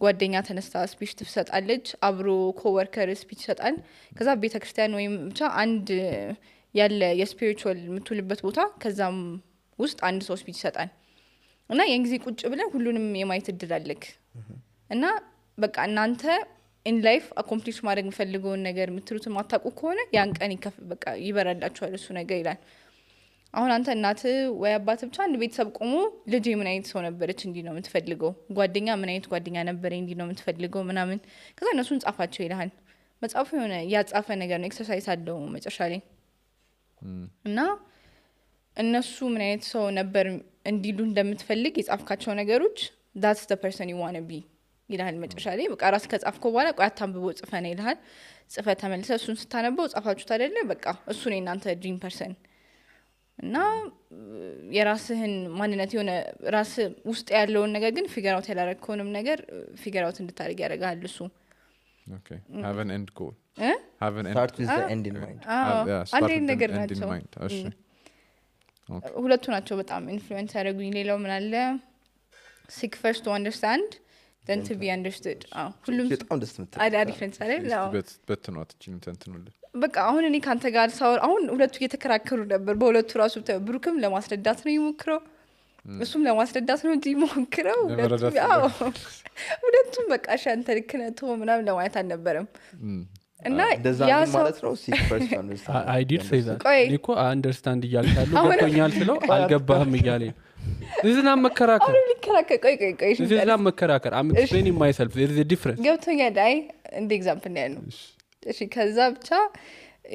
[SPEAKER 4] ጓደኛ ተነስታ ስፒች ትሰጣለች አብሮ ኮወርከር ስፒች ይሰጣል ከዛ ቤተክርስቲያን ወይም ብቻ አንድ ያለ የስፒሪቹዋል የምትውልበት ቦታ ከዛም ውስጥ አንድ ሰው ስፒች ይሰጣል እና የእንግዲህ ቁጭ ብለህ ሁሉንም የማየት እድል አለክ እና በቃ እናንተ ኢን ላይፍ አኮምፕሊሽ ማድረግ የምፈልገውን ነገር የምትሉት ማታውቁ ከሆነ ያን ቀን በቃ ይበራላችኋል እሱ ነገር ይላል። አሁን አንተ እናት ወይ አባት ብቻ አንድ ቤተሰብ ቆሞ ልጅ ምን አይነት ሰው ነበረች እንዲህ ነው የምትፈልገው፣ ጓደኛ ምን አይነት ጓደኛ ነበረ እንዲህ ነው የምትፈልገው ምናምን፣ ከዛ እነሱን ጻፋቸው ይልሃል። መጽሐፉ የሆነ ያጻፈ ነገር ነው፣ ኤክሰርሳይዝ አለው መጨረሻ ላይ እና እነሱ ምን አይነት ሰው ነበር እንዲሉ እንደምትፈልግ የጻፍካቸው ነገሮች that's the person you want to be ይልሃል መጨረሻ ላይ። በቃ ራስ ከጻፍከው በኋላ ቆይ አታንብቦ ጽፈና ይልሃል። ጽፈ ተመልሰ እሱን ስታነበው ጻፋችሁት አይደለ በቃ እሱ ነው እናንተ ድሪም ፐርሰን እና የራስህን ማንነት የሆነ ራስ ውስጥ ያለውን ነገር ግን ፊገር አውት ያላረከውንም ነገር ፊገር አውት እንድታደርግ ያደርጋል እሱ።
[SPEAKER 2] Okay, have an end goal.
[SPEAKER 1] have an start with the end in mind.
[SPEAKER 4] አንድ ነገር ናቸው ሁለቱ ናቸው በጣም ኢንፍሉዌንስ ያደረጉኝ። ሌላው ምን አለ seek first to understand then to be understood። ሁሉም
[SPEAKER 1] በጣም ደስ ምትል
[SPEAKER 4] አሪፍ እንሳለን ነው
[SPEAKER 2] በትኗት እቺን ተንትኑልኝ።
[SPEAKER 4] በቃ አሁን እኔ ካንተ ጋር ሳወር አሁን ሁለቱ እየተከራከሩ ነበር። በሁለቱ ራሱ ብሩክም ለማስረዳት ነው ይሞክረው እሱም ለማስረዳት ነው እንጂ ይሞክረው። ሁለቱም በቃ ሻንተ ልክ ነህ ተው ምናምን ለማለት አልነበረም። እና ያ
[SPEAKER 1] ማለት ነው seek first to understand
[SPEAKER 5] I did say that እኮ አንደርስታንድ እያልካለሁ ገብቶኛል ስለው አልገባህም እያለኝ እዚህና መከራከር
[SPEAKER 4] ቆይ
[SPEAKER 5] እዚህና መከራከር I'm explaining myself there is a difference
[SPEAKER 4] ገብቶኛል። አይ እንደ ኤግዛምፕል ነው። እሺ ከዛ ብቻ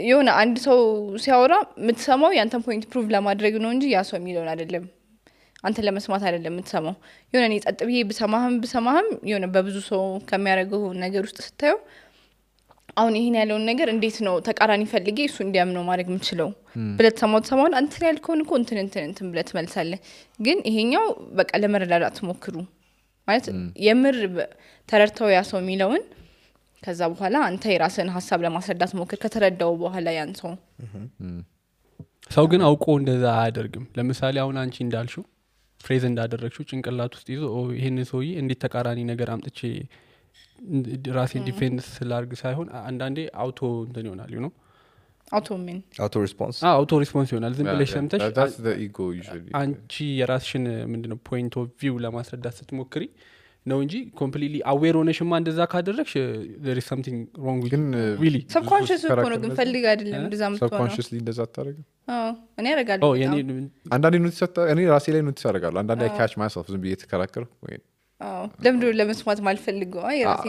[SPEAKER 4] የሆነ አንድ ሰው ሲያወራ የምትሰማው ያንተን ፖይንት ፕሩቭ ለማድረግ ነው እንጂ ያ ሰው የሚለውን አይደለም፣ አንተ ለመስማት አይደለም የምትሰማው። የሆነ እኔ ጸጥ ብዬ ብሰማህም የሆነ በብዙ ሰው ከሚያደርገው ነገር ውስጥ ስታየው አሁን ይሄን ያለውን ነገር እንዴት ነው ተቃራኒ ፈልጌ እሱ እንዲያምነው ማድረግ የምችለው ብለህ ተሰማውን አንተ ያልከውን እኮ እንትን ብለህ ትመልሳለህ። ግን ይሄኛው በቃ ለመረዳዳት ሞክሩ ማለት የምር ተረድተው ያ ሰው የሚለውን ከዛ በኋላ አንተ የራስህን ሐሳብ ለማስረዳት ሞክር። ከተረዳው በኋላ ያን
[SPEAKER 5] ሰው ግን አውቆ እንደዛ አያደርግም። ለምሳሌ አሁን አንቺ እንዳልሽው ፍሬዝ እንዳደረግሽው ጭንቅላት ውስጥ ይዞ ይሄን ሰውዬ እንዴት ተቃራኒ ነገር አምጥቼ ራሴን ዲፌንስ ስላርግ ሳይሆን አንዳንዴ አውቶ እንትን ይሆናል you know አውቶ ሪስፖንስ ይሆናል። ዝም ብለሽ ሰምተሽ
[SPEAKER 2] that's the ego usually
[SPEAKER 5] አንቺ የራስሽን ምንድነው ፖይንት ኦፍ ቪው ለማስረዳት ስትሞክሪ ነው እንጂ completely aware ሆነሽማ እንደዛ ካደረግሽ there is something wrong with really
[SPEAKER 4] subconscious እኮ ነው ግን ፈልግ አይደለም እንደዛ ምትሆነው
[SPEAKER 2] subconsciously እንደዛ አታረጋም።
[SPEAKER 4] እኔ አረጋለሁ
[SPEAKER 2] አንዳንዴ ኖቲስ እኔ ራሴ ላይ ኖቲስ አረጋለሁ። አንዳንዴ I catch myself ዝም ብዬ ተከራከርኩ ወይ
[SPEAKER 4] ለምንድን ነው ለመስማት ማልፈልገው የራሴ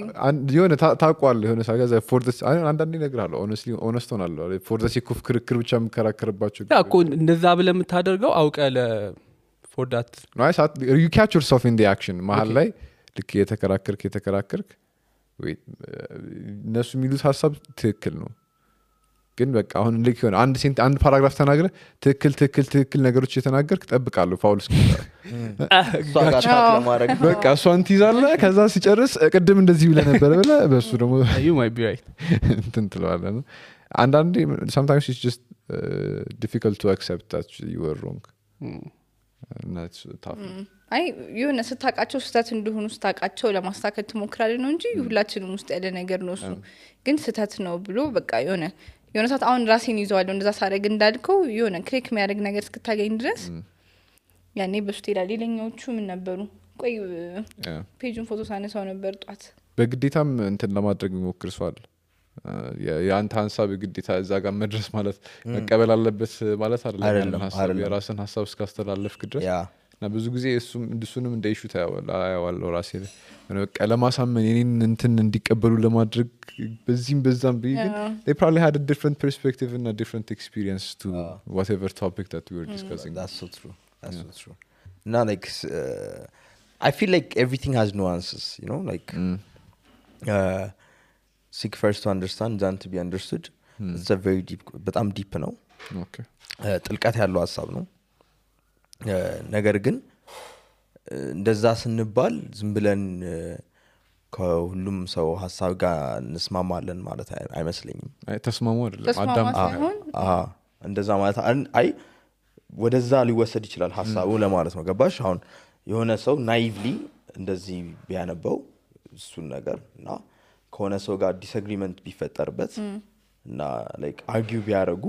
[SPEAKER 2] የሆነ ታውቋል የሆነ ሳገዛ for this አንዳንዴ እነግርሃለሁ honestly honest ሆናለሁ for the sake of ክርክር ብቻ የምከራከርባቸው
[SPEAKER 5] እኮ እንደዛ ብለህ የምታደርገው አውቀህ for that
[SPEAKER 2] no you catch yourself in the action መሀል ላይ ልክ የተከራከርክ ወይ እነሱ የሚሉት ሀሳብ ትክክል ነው ግን በቃ አሁን ልክ ይሆን አንድ ፓራግራፍ ተናግረ ትክክል ነገሮች የተናገርክ ጠብቃለሁ ፋውል እስኪሆን በቃ እሷን ትይዛለህ። ከዛ ሲጨርስ ቅድም እንደዚህ ብለህ ነበር ብለህ በሱ ደግሞ
[SPEAKER 5] you might be right
[SPEAKER 2] እንትን ትለዋለህ ነው። አንዳንዴ sometimes it's just difficult to accept that you were wrong and that's tough
[SPEAKER 4] አይ የሆነ ስታቃቸው ስህተት እንደሆኑ ስታቃቸው ለማስተካከል ትሞክራለህ ነው እንጂ ሁላችንም ውስጥ ያለ ነገር ነው እሱ። ግን ስህተት ነው ብሎ በቃ የሆነ ሰዓት አሁን ራሴን ይዘዋለሁ እንደዛ ሳደርግ እንዳልከው የሆነ ክሊክ የሚያደርግ ነገር እስክታገኝ ድረስ ያኔ በሱ ይላል። ሌላኛዎቹ ምን ነበሩ? ቆይ ፔጁን ፎቶ ሳነሳው ነበር ጧት።
[SPEAKER 2] በግዴታም እንትን ለማድረግ የሚሞክር ሰው አለ። የአንተ ሀሳብ ግዴታ እዛ ጋር መድረስ ማለት መቀበል አለበት ማለት አይደለም። የራስን ሀሳብ እስካስተላለፍክ ድረስ እና ብዙ ጊዜ እሱንም እንደ ኢሹ ታያዋለሁ ራሴ ላይ በቃ ለማሳመን የኔን እንትን እንዲቀበሉ ለማድረግ በዛም ግን they probably had a different perspective and a different experience to whatever topic that we were discussing.
[SPEAKER 1] That's so true. Now like I feel like everything has nuances, you know, like seek first to understand then to be understood. It's a very deep በጣም ዲፕ ነው።
[SPEAKER 2] okay
[SPEAKER 1] ጥልቀት ያለው ሀሳብ ነው። ነገር ግን እንደዛ ስንባል ዝም ብለን ከሁሉም ሰው ሐሳብ ጋር እንስማማለን ማለት አይመስለኝም።
[SPEAKER 2] ተስማሙ አይደለም አዳም
[SPEAKER 1] እንደዛ ማለት አይ ወደዛ ሊወሰድ ይችላል ሐሳቡ ለማለት ነው። ገባሽ? አሁን የሆነ ሰው ናይቭሊ እንደዚህ ቢያነበው እሱን ነገር እና ከሆነ ሰው ጋር ዲስአግሪመንት ቢፈጠርበት እና ላይክ አርጊው ቢያረጉ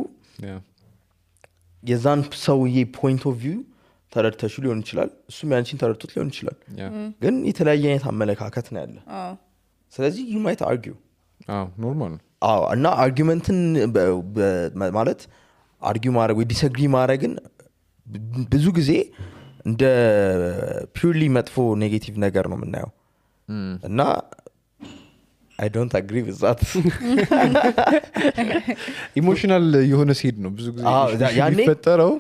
[SPEAKER 1] የዛን ሰውዬ ፖይንት ኦፍ ቪው ተረድተሽ ሊሆን ይችላል፣ እሱም ያንቺን ተረድቶት ሊሆን ይችላል። ግን የተለያየ አይነት አመለካከት ነው ያለ ስለዚህ you might argue
[SPEAKER 2] ኖርማል ነው
[SPEAKER 1] እና አርጊመንትን ማለት አርጊው ማድረግ ወይ ዲስአግሪ ማድረግን ብዙ ጊዜ እንደ ፒውርሊ መጥፎ ኔጌቲቭ ነገር ነው የምናየው እና I don't agree with that
[SPEAKER 2] ኢሞሽናል የሆነ ሲድ ነው ብዙ ጊዜ የሚፈጠረው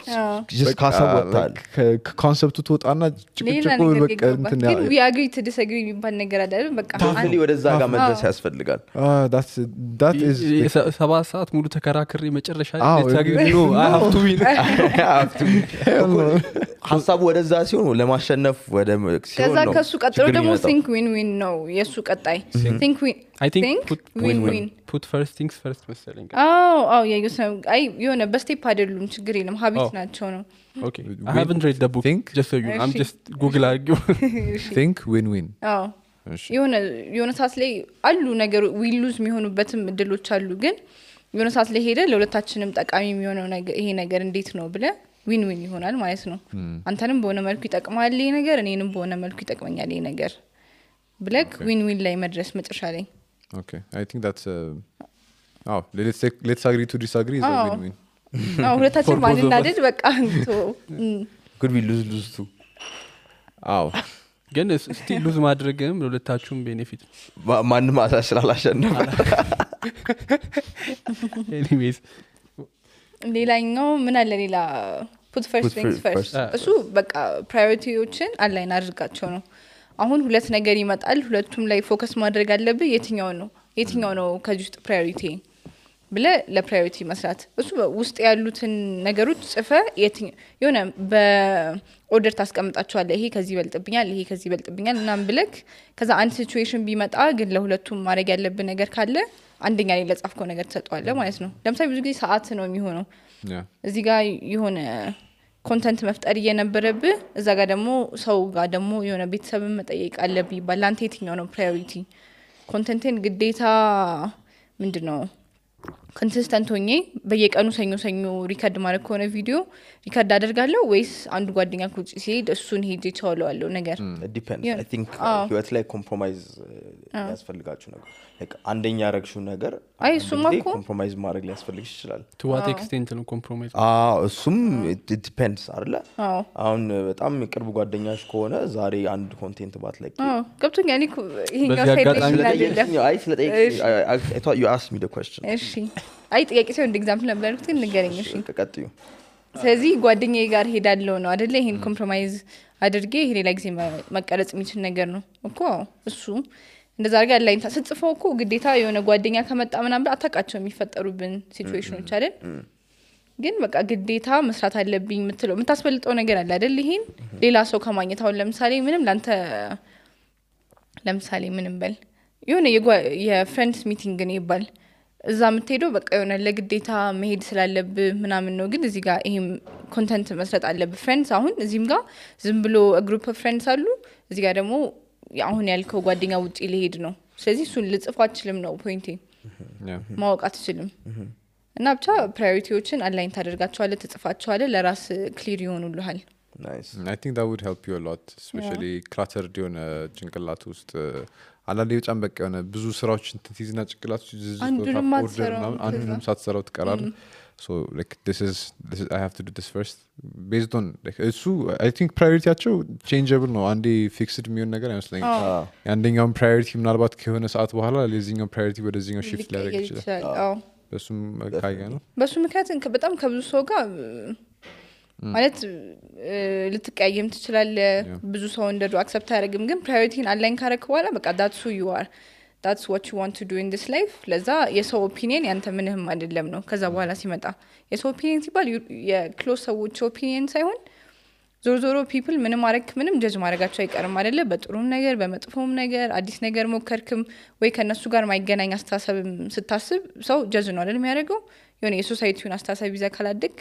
[SPEAKER 1] just ካሰወጣል
[SPEAKER 2] ከኮንሰፕቱ ትወጣና ጭቅጭቁ በቃ እንትን
[SPEAKER 4] ግን we agree to disagree የሚባል ነገር አይደል በቃ
[SPEAKER 1] ታፍሊ ወደዛ ጋር መድረስ ያስፈልጋል
[SPEAKER 2] that is
[SPEAKER 5] 7 ሰዓት ሙሉ ተከራክሬ መጨረሻ ነው I have to win
[SPEAKER 1] ሀሳቡ ወደዛ ሲሆን ለማሸነፍ ወደ ሲሆን
[SPEAKER 4] ከዛ ከሱ ቀጥሎ ደግሞ think win win ነው የሱ ቀጣይ think win
[SPEAKER 5] I think
[SPEAKER 4] win
[SPEAKER 5] put first things first መሰለኝ
[SPEAKER 4] አይ የሆነ በስቴፕ አይደሉም ችግር የለም ሀቢት ናቸው ነው
[SPEAKER 5] okay I haven't read the book
[SPEAKER 2] think
[SPEAKER 5] just so you know I'm just google argue
[SPEAKER 2] think win win
[SPEAKER 4] የሆነ ሰዓት ላይ አሉ ነገር we lose የሚሆኑበትም እድሎች አሉ ግን የሆነ ሰዓት ላይ ሄደ ለሁለታችንም ጠቃሚ የሚሆነው ነገር ይሄ ነገር እንዴት ነው ብለ ዊን ዊን ይሆናል ማለት ነው አንተንም በሆነ መልኩ ይጠቅማል ይሄ ነገር እኔንም በሆነ መልኩ ይጠቅመኛል ይሄ ነገር ብለክ ዊን ዊን ላይ መድረስ መጨረሻ ላይ
[SPEAKER 2] okay I think that's let's agree to disagree is a win win
[SPEAKER 4] ሁለታችን ማንናደድ በቃ
[SPEAKER 1] could we lose too
[SPEAKER 5] ግን ስቲል ሉዝ ማድረግም ለሁለታችሁም ቤኔፊት
[SPEAKER 1] ማንም አሳስላላሸነፈ
[SPEAKER 5] anyways
[SPEAKER 4] ሌላኛው ምን አለ ሌላ put first things first እሱ በቃ ፕራዮሪቲዎችን አላይን አድርጋቸው ነው አሁን ሁለት ነገር ይመጣል ሁለቱም ላይ ፎከስ ማድረግ አለብህ የትኛው ነው ከዚህ ውስጥ ፕራዮሪቲ ብለ ለፕራዮሪቲ መስራት እሱ ውስጥ ያሉትን ነገሮች ጽፈ የሆነ በኦርደር ታስቀምጣቸዋለህ ይሄ ከዚህ ይበልጥብኛል እናም ብለክ ከዛ አንድ ሲቹዌሽን ቢመጣ ግን ለሁለቱም ማድረግ ያለብህ ነገር ካለ አንደኛ ላይ ለጻፍከው ነገር ተሰጥቷል ማለት ነው ለምሳሌ ብዙ ጊዜ ሰዓት ነው የሚሆነው እዚህ ጋር የሆነ ኮንተንት መፍጠር እየነበረብህ እዛ ጋር ደግሞ ሰው ጋር ደግሞ የሆነ ቤተሰብን መጠየቅ አለብህ ይባል አንተ የትኛው ነው ፕራዮሪቲ ኮንተንትን ግዴታ ምንድነው ኮንሲስተንት ሆኜ በየቀኑ ሰኞ ሪከርድ ማድረግ ከሆነ ቪዲዮ ሪከርድ አደርጋለሁ ወይስ አንዱ ጓደኛ ኩጭ ሲሄድ እሱን ሄጄ ቻውለዋለሁ ነገር
[SPEAKER 1] depends I think ህይወት ላይ ኮምፕሮማይዝ ያስፈልጋችሁ ነገር like አንደኛ ያረግሽው ነገር
[SPEAKER 4] አይ እሱማ እኮ
[SPEAKER 1] ኮምፕሮማይዝ ማድረግ ሊያስፈልግሽ ይችላል
[SPEAKER 5] to what extent ነው ኮምፕሮማይዝ
[SPEAKER 1] እሱም it depends አይደለ አሁን በጣም ቅርብ ጓደኛሽ ከሆነ ዛሬ አንድ ኮንቴንት ባትለቂ
[SPEAKER 4] ገብቶኛል ይሄኛው ሳይድ
[SPEAKER 1] አይ ስለጠይቅሽ I thought you asked me the question
[SPEAKER 4] እሺ አይ ጥያቄ ሲሆን እንደ ኤግዛምፕል ነበርኩት ንገረኝ እሺ
[SPEAKER 1] ቀጥዩ
[SPEAKER 4] ስለዚህ ጓደኛዬ ጋር ሄዳለሁ ነው አይደለ ይሄን ኮምፕሮማይዝ አድርጌ ይሄ ሌላ ጊዜ መቀረጽ የሚችል ነገር ነው እኮ እሱ እንደዛ አድርጋ ላይን ተጽፈው እኮ ግዴታ የሆነ ጓደኛ ከመጣ ምናምን አታውቃቸው የሚፈጠሩብን ሲቹዌሽኖች አይደል ግን በቃ ግዴታ መስራት አለብኝ የምትለው የምታስፈልጠው ነገር አለ አይደል ይሄን ሌላ ሰው ከማግኘት አሁን ለምሳሌ ምንም በል የሆነ የፍሬንድስ ሚቲንግ ነው ይባል እዛ የምትሄደው በቃ የሆነ ለግዴታ መሄድ ስላለብህ ምናምን ነው ግን እዚህ ጋር ይሄም ኮንተንት መስራት አለብህ ፍሬንድስ አሁን እዚህም ጋር ዝም ብሎ ግሩፕ ኦፍ ፍሬንድስ አሉ እዚህ ጋር ደግሞ አሁን ያልከው ጓደኛ ውጪ ሊሄድ ነው ስለዚህ እሱን ልጽፍ አትችልም ነው ፖይንቴ ማወቅ አትችልም እና ብቻ ፕራዮሪቲዎችን አላይን ታደርጋቸዋለህ ትጽፋቸዋለህ ለራስ ክሊር ይሆኑልሃል
[SPEAKER 1] nice
[SPEAKER 2] I think that would help you a lot especially cluttered የሆነ ጭንቅላት ውስጥ አንዳንዴ በጣም በቃ የሆነ ብዙ ስራዎች ትይዝና ጭንቅላት ውስጥ አንዱንም ሳትሰራው ትቀራለህ so like this is I have to do this first based on like እሱ I think priorityያቸው changeable ነው አንዴ fixed የሚሆን ነገር አይመስለኝም አንደኛው priority ምናልባት ከሆነ ሰዓት በኋላ ለዚህኛው priority ወደዚህኛው shift ሊያደርግ ይችላል በሱም ካያ ነው
[SPEAKER 4] በሱ ምክንያት በጣም ከብዙ ሰው ጋር ማለት ልትቀያየም ትችላለህ ብዙ ሰው እንደዱ አክሰፕት አያደርግም ግን ፕራዮሪቲን አላይን ካረክ በኋላ በቃ that's who you are that's what you want to do in this life ለዛ የሰው ኦፒኒየን ያንተ ምንም አይደለም ነው ከዛ በኋላ ሲመጣ የሰው ኦፒኒየን ሲባል የክሎዝ ሰዎች ኦፒኒየን ሳይሆን ዞሮ ፒፕል ምንም ጀጅ ማድረጋቸው አይቀርም አይደለ በጥሩም ነገር በመጥፎም ነገር አዲስ ነገር ሞከርክም ወይ ከነሱ ጋር ማይገናኝ አስተሳሰብ ስታስብ ሰው ጀጅ ነው አይደል የሚያደርገው የሆነ የሶሳይቲውን አስተሳሰብ ይዛ ካላደግ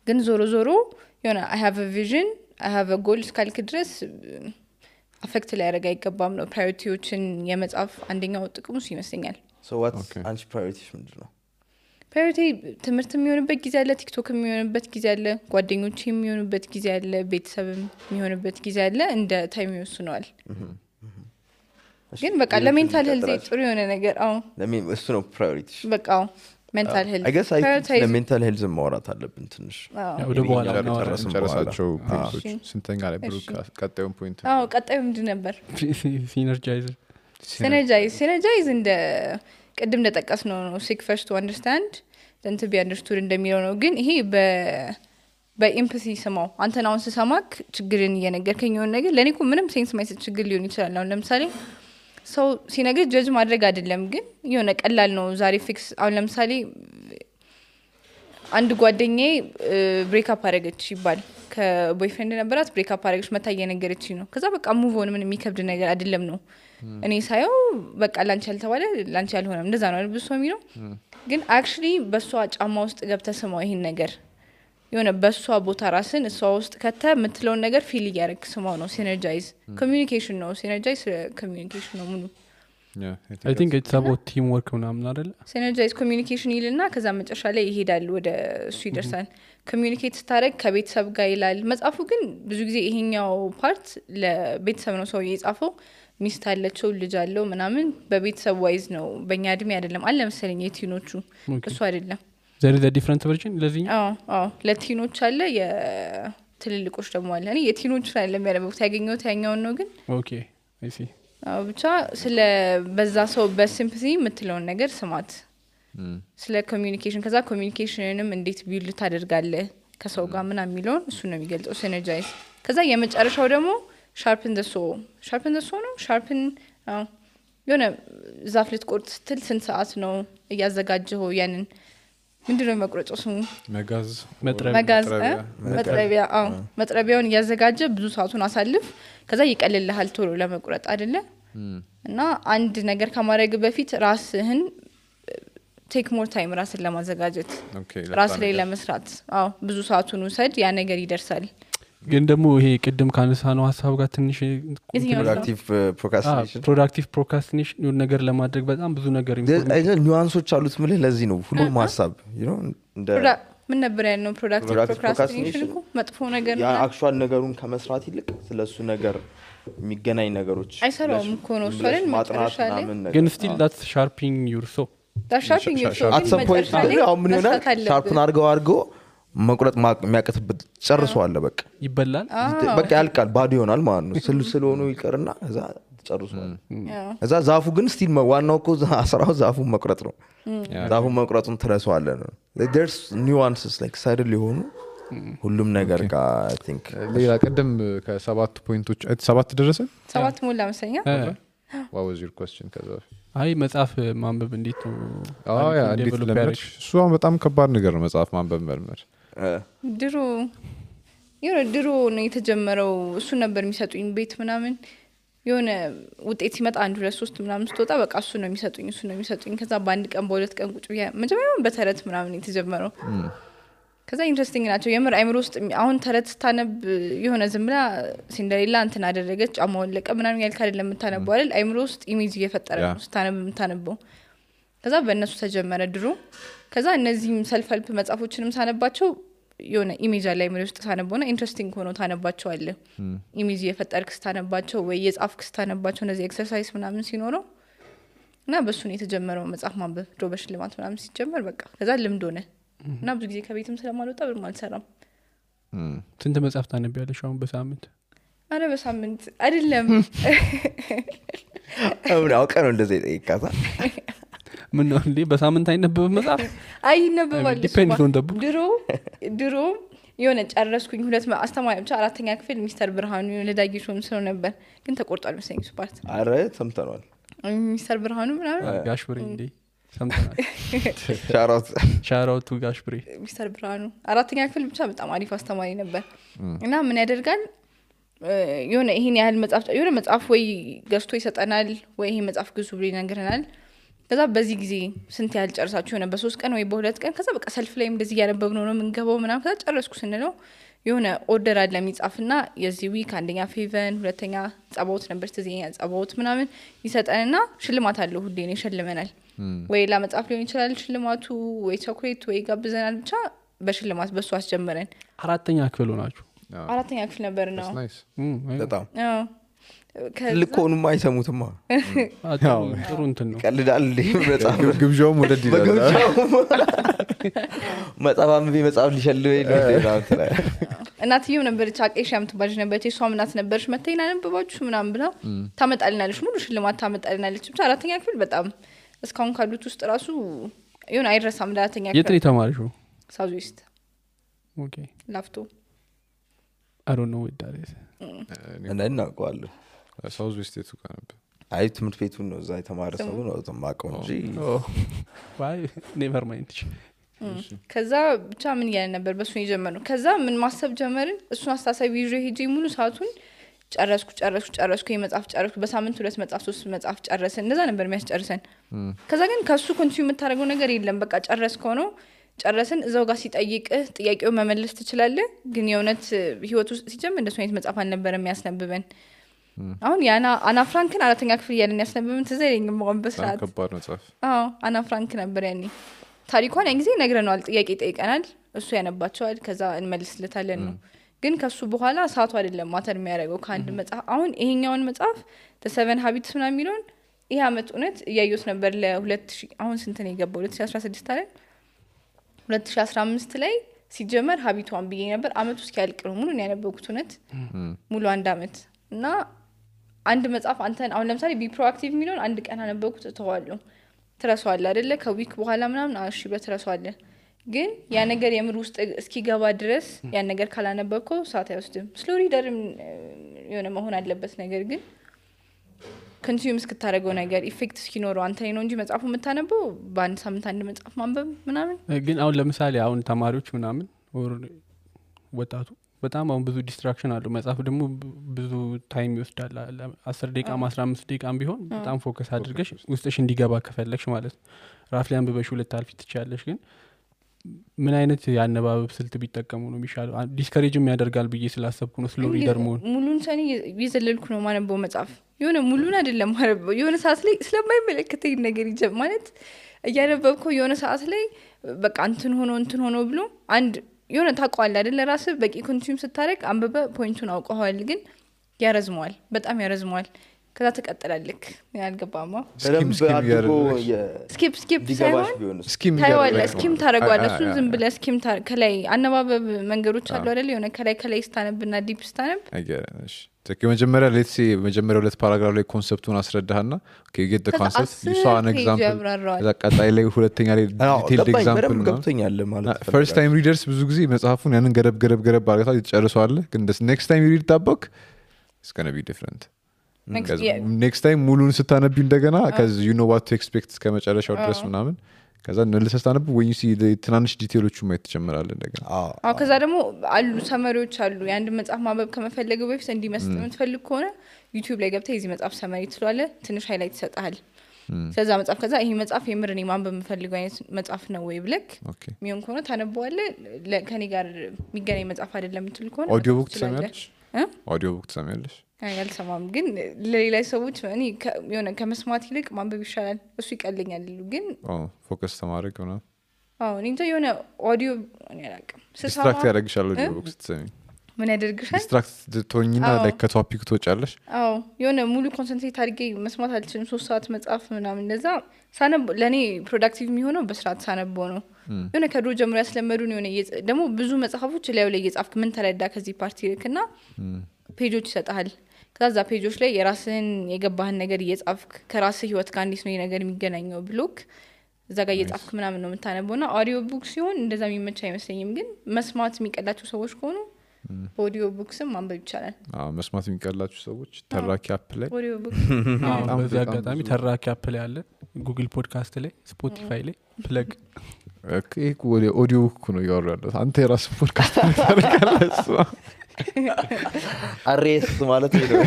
[SPEAKER 4] ግን ዞሮ የሆነ I have a vision I have a goal እስካልክ ድረስ አፌክት ላይ ያደርግ አይገባም ነው ፕራዮሪቲዎችን የመጻፍ አንደኛው ጥቅሙ ይመስለኛል
[SPEAKER 1] so what's አንቺ ፕራዮሪቲሽ ምንድነው
[SPEAKER 4] ፕራዮሪቲ ትምህርት የሚሆንበት ጊዜ አለ ቲክቶክ የሚሆንበት ጊዜ አለ ጓደኞች የሚሆንበት ጊዜ አለ ቤተሰብ የሚሆንበት ጊዜ አለ እንደ ታይም ይወስነዋል ግን በቃ ለሜንታል ሄልዝ ጥሩ የሆነ ነገር
[SPEAKER 1] እሱ ነው ፕራዮሪቲ
[SPEAKER 4] በቃ ሜንታል ሄልዝ
[SPEAKER 1] I guess ለሜንታል ሄልዝ ማውራት አለብን ትንሽ
[SPEAKER 5] ወደ በኋላ
[SPEAKER 2] ጨረሳቸው ፖይንቶች ስንተኛ ላይ ብሩክ ቀጣዩን ፖይንት
[SPEAKER 4] ቀጣዩ ምንድን ነበር
[SPEAKER 5] ሲነርጃይዝ
[SPEAKER 4] ሲነርጃይዝ እንደ ቅድም እንደጠቀስ ነው seek first to understand then to be understood እንደሚለው ነው ግን ይሄ በኢምፓቲ ስማው አንተን አሁን ስሰማክ ችግርን እየነገርከኝ የሆነ ነገር ለኔ እኮ ምንም ሴንስ ማይሰጥ ችግር ሊሆን ይችላል አሁን ለምሳሌ ሰው ሲነግር ጀጅ ማድረግ አይደለም ግን የሆነ ቀላል ነው ዛሬ ፊክስ አሁን ለምሳሌ አንድ ጓደኛዬ ብሬክ አፕ አደረገች ይባል ከቦይፍሬንድ ነበራት ብሬክ አፕ አደረገች መታ እየነገረችኝ ነው ከዛ በቃ ሙቭ ኦን ምን የሚከብድ ነገር አይደለም ነው እኔ ሳየው በቃ ላንቺ ያልተባለ ላንቺ ያልሆነም እንደዛ ነው አይደል ብሶ የሚለው ግን አክቹሊ በሷ ጫማ ውስጥ ገብተህ ስማው ይሄን ነገር የሆነ በሷ ቦታ ራስን እሷ ውስጥ ከተ የምትለውን ነገር ፊል እያደረግ ስማው ነው ሲነርጃይዝ ኮሚኒኬሽን ነው ሲነርጃይዝ ኮሚኒኬሽን ነው ሙሉ
[SPEAKER 5] I think it's about teamwork ምናምን አይደለ
[SPEAKER 4] ሲነርጃይዝ ኮሚኒኬሽን ይልና ከዛ መጨረሻ ላይ ይሄዳል ወደ እሱ ይደርሳል ኮሚኒኬት ስታደርግ ከቤተሰብ ጋር ይላል መጽሐፉ ግን ብዙ ጊዜ ይሄኛው ፓርት ለቤተሰብ ነው ሰው የጻፈው ሚስት አለችው ልጅ አለው ምናምን በቤተሰብ ዋይዝ ነው በእኛ እድሜ አይደለም አለ መሰለኝ የቲኖቹ እሱ አይደለም
[SPEAKER 5] there is a different version ለዚህኛው
[SPEAKER 4] ለቲኖች አለ የትልልቆች ደግሞ አለ እኔ የቲኖች ላይ ለሚያደርጉት ያገኘሁት ያኛውን ነው ግን
[SPEAKER 5] ኦኬ I see
[SPEAKER 4] ብቻ ስለ በዛ ሰው በሲምፓቲ የምትለውን ነገር ስማት ስለ ኮሚኒኬሽን ከዛ ኮሚኒኬሽንንም እንዴት ቢልድ ታደርጋለህ ከሰው ጋር ምናምን የሚለውን እሱ ነው የሚገልጸው ሲነርጃይዝ ከዛ የመጨረሻው ደግሞ sharpen the saw ነው sharpen የሆነ ዛፍ ልትቆርጥ ስትል ስንት ሰዓት ነው እያዘጋጀው ያንን ምንድነው መቁረጫው ስሙ
[SPEAKER 2] መጋዝ
[SPEAKER 4] መጥረቢያውን እያዘጋጀ ብዙ ሰዓቱን አሳልፍ ከዛ ይቀልልሃል ቶሎ ለመቁረጥ አይደለ እና አንድ ነገር ከማድረግ በፊት ራስህን ቴክ ሞር ታይም ራስን ለማዘጋጀት ራስ ላይ ለመስራት ብዙ ሰዓቱን ውሰድ ያ ነገር ይደርሳል
[SPEAKER 5] ግን ደግሞ ይሄ ቅድም ካነሳ ነው ሐሳብ ጋር ትንሽ ፕሮዳክቲቭ ፕሮክራስቲኔሽን ነገር ለማድረግ በጣም ብዙ ነገር
[SPEAKER 1] ኒዋንሶች አሉት ምልህ ለዚህ ነው ሁሉም ሐሳብ እንደ
[SPEAKER 4] ምን ነበር ያለው ፕሮዳክቲቭ ፕሮክራስቲኔሽን እኮ መጥፎ ነገር ነው
[SPEAKER 1] አክቹዋል ነገሩን ከመስራት ይልቅ ስለሱ ነገር የሚገናኝ ነገሮች
[SPEAKER 4] አይሰራውም እኮ ነው እሱን ማጥናት
[SPEAKER 5] ግን still that's sharpening your soul
[SPEAKER 1] at some point ምን ይሆናል ሻርፕን አድርገው መቁረጥ የሚያቀትበት ጨርሷል በቃ
[SPEAKER 5] ይበላል
[SPEAKER 1] በቃ ያልቃል ባዶ ይሆናል ማለት ነው ስለሆነ ይቀርና እዛ ጨርሷል እዛ ዛፉ ግን ስቲል ዋናው እኮ አስራው ዛፉ መቁረጥ ነው ዛፉ መቁረጡን ትረሳዋለህ ነው there's nuances like ሳይድል የሆኑ ሁሉም ነገር ጋር I think
[SPEAKER 2] ሌላ ቀደም ከሰባት ፖይንቶች ሰባት ደረሰ
[SPEAKER 4] ሰባት ሞላ መሰለኝ
[SPEAKER 2] what was your question ከዛ
[SPEAKER 5] አይ መጽሐፍ ማንበብ እንዴት ነው
[SPEAKER 2] እንዴት ለምርሽ እሱ በጣም ከባድ ነገር ነው መጽሐፍ ማንበብ መልመድ
[SPEAKER 4] ድሮ ነው የተጀመረው እሱ ነበር የሚሰጡኝ ቤት ምናምን የሆነ ውጤት ሲመጣ 1 2 3 ምናምን ስትወጣ በቃ እሱ ነው የሚሰጡኝ ከዛ በአንድ ቀን በሁለት ቀን ቁጭ ብያ መጀመሪያ በተረት ምናምን የተጀመረው ከዛ ኢንትረስቲንግ ናቸው የምር አይምሮ ውስጥ አሁን ተረት ስታነብ የሆነ ዝምላ ሲንደሬላ እንትን አደረገች ጫማውን ለቀ ምናምን ያልካ አይደለም የምታነበው አይደል አይምሮ ውስጥ ኢሜጅ እየፈጠረ ነው ስታነብ የምታነበው ከዛ በእነሱ ተጀመረ ድሮ ከዛ እነዚህም ሰልፍ ሄልፕ መጽሐፎችንም ሳነባቸው የሆነ ኢሜጅ አለ አይምሮ ውስጥ ሳነበውና ኢንትረስቲንግ ሆኖ ታነባቸው አለ ኢሜጅ እየፈጠርክ ስታነባቸው ወይ የጻፍክ ስታነባቸው እነዚህ ኤክሰርሳይዝ ምናምን ሲኖረው እና በሱ ነው የተጀመረው መጽሐፍ ማንበብ ድሮ በሽልማት ምናምን ሲጀመር በቃ ከዛ ልምድ ሆነ እና ብዙ ጊዜ ከቤትም ስለማልወጣ ብር ማልሰራም
[SPEAKER 5] ስንት መጽሐፍ ታነቢያለሽ አሁን በሳምንት
[SPEAKER 4] አረ በሳምንት አይደለም
[SPEAKER 1] አሁን አውቀህ ነው እንደዚህ ጠይቃታ
[SPEAKER 5] ምን ነው እንዴ በሳምንት አይነበብም መጽሐፍ
[SPEAKER 4] አይነበባል
[SPEAKER 5] ዲፔንድ ኦን ደቡ
[SPEAKER 4] ድሮ የሆነ ጨረስኩኝ ሁለት አስተማሪ ብቻ አራተኛ ክፍል ሚስተር ብርሃኑ ለዳጊሾም ስለ ነበር ግን ተቆርጧል መሰለኝ እሱ ፓርት
[SPEAKER 1] አረ ሰምተናል
[SPEAKER 4] ሚስተር ብርሃኑ ምናምን
[SPEAKER 5] ጋሽ ብሬ እንዴ ሰምተናል ሻራውቱ ጋሽ ብሬ
[SPEAKER 4] ሚስተር ብርሃኑ አራተኛ ክፍል ብቻ በጣም አሪፍ አስተማሪ ነበር እና ምን ያደርጋል የሆነ ይሄን ያህል መጽሐፍ የሆነ መጽሐፍ ወይ ገዝቶ ይሰጠናል ወይ ይሄ መጽሐፍ ግዙ ብሎ ይነግረናል ከዛ በዚህ ጊዜ ስንት ያህል ጨርሳችሁ ሆነ በ3 ቀን ወይ በ2 ቀን ከዛ በቃ ሰልፍ ላይ እንደዚህ ያነበብነው ነው የምንገባው ምናምን ከዛ ጨረስኩ ስንለው የሆነ ኦርደር አለ የሚጻፍና የዚህ ዊክ አንደኛ ፌቨን ሁለተኛ ጸባውት ነበር ተዚኛ ጸባውት ምናምን ይሰጠንና ሽልማት አለው ሁሌ ነው ይሸልመናል ወይ ለመጽሐፍ ሊሆን ይችላል ሽልማቱ ወይ ቾኮሌት ወይ ጋብዘናል ብቻ በሽልማት በሱ አስጀመረን
[SPEAKER 5] አራተኛ ክፍል ሆናችሁ
[SPEAKER 4] አራተኛ ክፍል ነበር ነው
[SPEAKER 1] በጣም ትልቅ ሆኑማ አይሰሙትማ
[SPEAKER 5] ጥሩ እንትን ነው
[SPEAKER 1] ቀልዳል መጽሐፍ
[SPEAKER 2] ግብዣውም ወደ
[SPEAKER 1] መጽሐፍ አንብቤ መጽሐፍ ሊሸልበ
[SPEAKER 4] እናትየው ነበረች አቄሻ የምትባል ነበረች እሷም እናት ነበረች መተይና ነብባችሁ ምናምን ብላ ታመጣልናለች ሙሉ ሽልማት ታመጣልናለች ብቻ አራተኛ ክፍል በጣም እስካሁን ካሉት ውስጥ ራሱ ይሁን አይረሳም ለአራተኛ ክፍል
[SPEAKER 5] የት ነው የተማርሽው
[SPEAKER 4] ሳውዝ ዌስት
[SPEAKER 5] ኦኬ
[SPEAKER 4] ላፍቶ
[SPEAKER 5] I don't know what that is
[SPEAKER 1] እናውቀዋለን
[SPEAKER 2] ሳውዝ ዌስት የቱ ጋር ነበር
[SPEAKER 1] አይ ትምህርት ቤቱን ነው እዛ የተማረ ሰው ነው ተማቀው እንጂ
[SPEAKER 5] why never mind
[SPEAKER 4] ከዛ ብቻ ምን ያለ ነበር በሱ የጀመረው ከዛ ምን ማሰብ ጀመርን እሱን አስተሳሰብ ይዤ ሄጄ ሙሉ ሰዓቱን ጨረስኩ የመጽሐፍ ጨረስኩ በሳምንት 2 መጽሐፍ 3 መጽሐፍ ጨረስን እንደዛ ነበር የሚያስጨርሰን ከዛ ግን ከሱ ኮንቲኒው የምታደርገው ነገር የለም በቃ ጨረስከው ነው ጨረስን እዛው ጋር ሲጠይቅህ ጥያቄው መመለስ ትችላለህ ግን የእውነት ህይወት ውስጥ ሲጀምር እንደሱ አይነት መጽሐፍ አልነበረም የሚያስነብበን አሁን ያና አና ፍራንክን አራተኛ ክፍል ያለን ያስነብበን ተዘለኝም ማን በስራት
[SPEAKER 2] ከባድ መጽሐፍ
[SPEAKER 4] አና ፍራንክ ነበር ያኔ ታሪኳን ያን ጊዜ ነግረናል ጥያቄ ጠይቀናል እሱ ያነባቸዋል ከዛ እንመልስለታለን ነው ግን ከሱ በኋላ ሰዓቱ አይደለም ማተር የሚያደርገው ከአንድ መጽሐፍ አሁን ይሄኛውን መጽሐፍ the 7 habits ምናምን የሚለውን ይሄ አመት እውነት እያየሁት ነበር ለ2000 አሁን ስንት ነው የገባው 2016 አይደል 2015 ላይ ሲጀመር ሀቢቷን ብዬ ነበር አመቱ እስኪያልቅ ነው ሙሉ ያነበብኩት እውነት ሙሉ አንድ አመት እና አንድ መጽሐፍ አንተን አሁን ለምሳሌ ቢ ፕሮአክቲቭ የሚለውን አንድ ቀን አነበብኩት ተዋለሁ ትረሳዋለህ አይደለ ከዊክ በኋላ ምናምን እሺ በትረሳዋለህ ግን ያ ነገር የምር ውስጥ እስኪገባ ድረስ ያ ነገር ካላነበብከው ሰዓት አይወስድም ስሎ ሪደርም የሆነ መሆን አለበት ነገር ግን ኮንሱም እስክታረገው ነገር ኢፌክት እስኪኖረው አንተ ነው እንጂ መጽሐፉ የምታነበው በአንድ ሳምንት አንድ መጽሐፍ ማንበብ ምናምን
[SPEAKER 5] ግን አሁን ለምሳሌ አሁን ተማሪዎች ምናምን ወጣቱ በጣም አሁን ብዙ ዲስትራክሽን አለው መጽሐፍ ደግሞ ብዙ ታይም ይወስዳል 10 ደቂቃ 15 ደቂቃ ቢሆን በጣም ፎከስ አድርገሽ ውስጥሽ እንዲገባ ከፈለግሽ ማለት ራፍሊ አንብበሽ ሁለት አልፊ ትቻለሽ ግን ምን አይነት ያነባበብ ስልት ቢጠቀሙ ነው የሚሻለው ዲስከሬጅም ያደርጋል ብዬ ስላሰብኩ ነው ስሎ ሪደር መሆን
[SPEAKER 4] ሙሉን ሰኔ ይዘልልኩ ነው ማነበው መጽሐፍ የሆነ ሙሉን አይደለም ማነበው የሆነ ሰዓት ላይ ስለማይመለከተኝ ነገር ይጀም ማለት እያነበብከው የሆነ ሰዓት ላይ በቃ እንትን ሆኖ ብሎ አንድ የሆነ ታቋል አይደል ራስ በቂ ኮንሱም ስታረግ አንበበ ፖይንቱን አውቀዋል ግን ያረዝመዋል በጣም ያረዝመዋል ከዛ ተቀጥላለክ ያልገባማ ስኪፕ ሳይሆን ስኪም ታረጋለህ እሱ ዝም ብለህ ስኪም ከላይ አነባበብ መንገዶች አሉ አይደል የሆነ ከላይ ስታነብና ዲፕ ስታነብ
[SPEAKER 2] አይገርምሽ መጀመሪያ ሌትስ መጀመሪያ ሁለት ፓራግራፍ ላይ ኮንሰፕቱን አስረዳህና okay get the concept you saw an example እዛ ቀጣይ ላይ ሁለተኛ ላይ detailed example
[SPEAKER 1] ገብቶኛል ማለት
[SPEAKER 2] first time readers ብዙ ጊዜ መጽሐፉን ያንን ገረብ አድርገው ይጨርሳሉ ግን next time you read that book it's going to be different next time ሙሉን ስታነቢ እንደገና cuz you know what to expect ከመጨረሻው ድረስ ምናምን ከዛ መልሰህ ስታነብ when you see the ትናንሽ ዲቴሎቹ ማየት ትጀምራለህ እንደገና
[SPEAKER 4] ከዛ ደግሞ አሉ ሰመሪዎች አሉ የአንድ መጽሐፍ ማንበብ ከመፈለገው በፊት እንዲመስጥ የምትፈልግ ከሆነ YouTube ላይ ገብተህ እዚህ መጽሐፍ ሰመሪ ትሏለህ ትንሽ ሃይላይት ይሰጣል ስለዛ መጽሐፍ ከዛ ይሄ መጽሐፍ የምርኔ ማንበብ የምፈልገው አይነት መጽሐፍ ነው ወይ ብለክ ሚሆን ከሆነ ታነበዋለህ ከኔ ጋር የሚገናኝ መጽሐፍ አይደለም የምትል ከሆነ
[SPEAKER 2] ኦዲዮ ቡክ ትሰማለሽ ኦዲዮ ቡክ ትሰማለሽ
[SPEAKER 4] ያልሰማም ግን ለሌላ ሰዎች እኔ የሆነ ከመስማት ይልቅ ማንበብ ይሻላል እሱ ይቀልኛል ግን
[SPEAKER 2] ፎከስ ተማረግ ነው
[SPEAKER 4] እኔ እንጃ የሆነ ኦዲዮ እኔ አላውቅም
[SPEAKER 2] ዲስትራክት ያደርግሻል ኦዲዮ ቡክ ስትሰሚ
[SPEAKER 4] ምን ያደርግሻል
[SPEAKER 2] ዲስትራክት ትሆኝና ላይ ከቶፒክ ትወጫለሽ
[SPEAKER 4] የሆነ ሙሉ ኮንሰንትሬት አድርጌ መስማት አልችልም 3 ሰዓት መጽሐፍ ምናምን እንደዛ ሳነብ ለኔ ፕሮዳክቲቭ የሚሆነው በስርዓት ሳነበው ነው የሆነ ከድሮ ጀምሮ ያስለመዱን የሆነ ደግሞ ብዙ መጽሐፎች ላይ እየጻፍክ ምን ተረዳ ከዚህ ፓርቲ ልክና ፔጆች ይሰጣል ከዛ ፔጆች ላይ የራስህን የገባህን ነገር እየጻፍክ ከራስህ ህይወት ጋር እንዴት ነው ነገር የሚገናኘው ብሎክ እዛ ጋር እየጻፍክ ምናምን ነው የምታነበውና ኦዲዮ ቡክ ሲሆን እንደዛ የሚመች አይመስለኝም ግን መስማት የሚቀላቸው ሰዎች ከሆኑ ኦዲዮ ቡክስም ማንበብ ይቻላል
[SPEAKER 2] መስማት የሚቀላቸው ሰዎች ተራኪ አፕ ላይ
[SPEAKER 4] ኦዲዮ ቡክ
[SPEAKER 5] በዚህ አጋጣሚ ተራኪ አፕ ላይ አለ ጉግል ፖድካስት ላይ ስፖቲፋይ ላይ ፕለግ
[SPEAKER 2] ኦዲዮ ቡክ ነው ያወራለው አንተ የራስህ ፖድካስት ታደርጋለህ
[SPEAKER 1] አሬስ ማለት ነው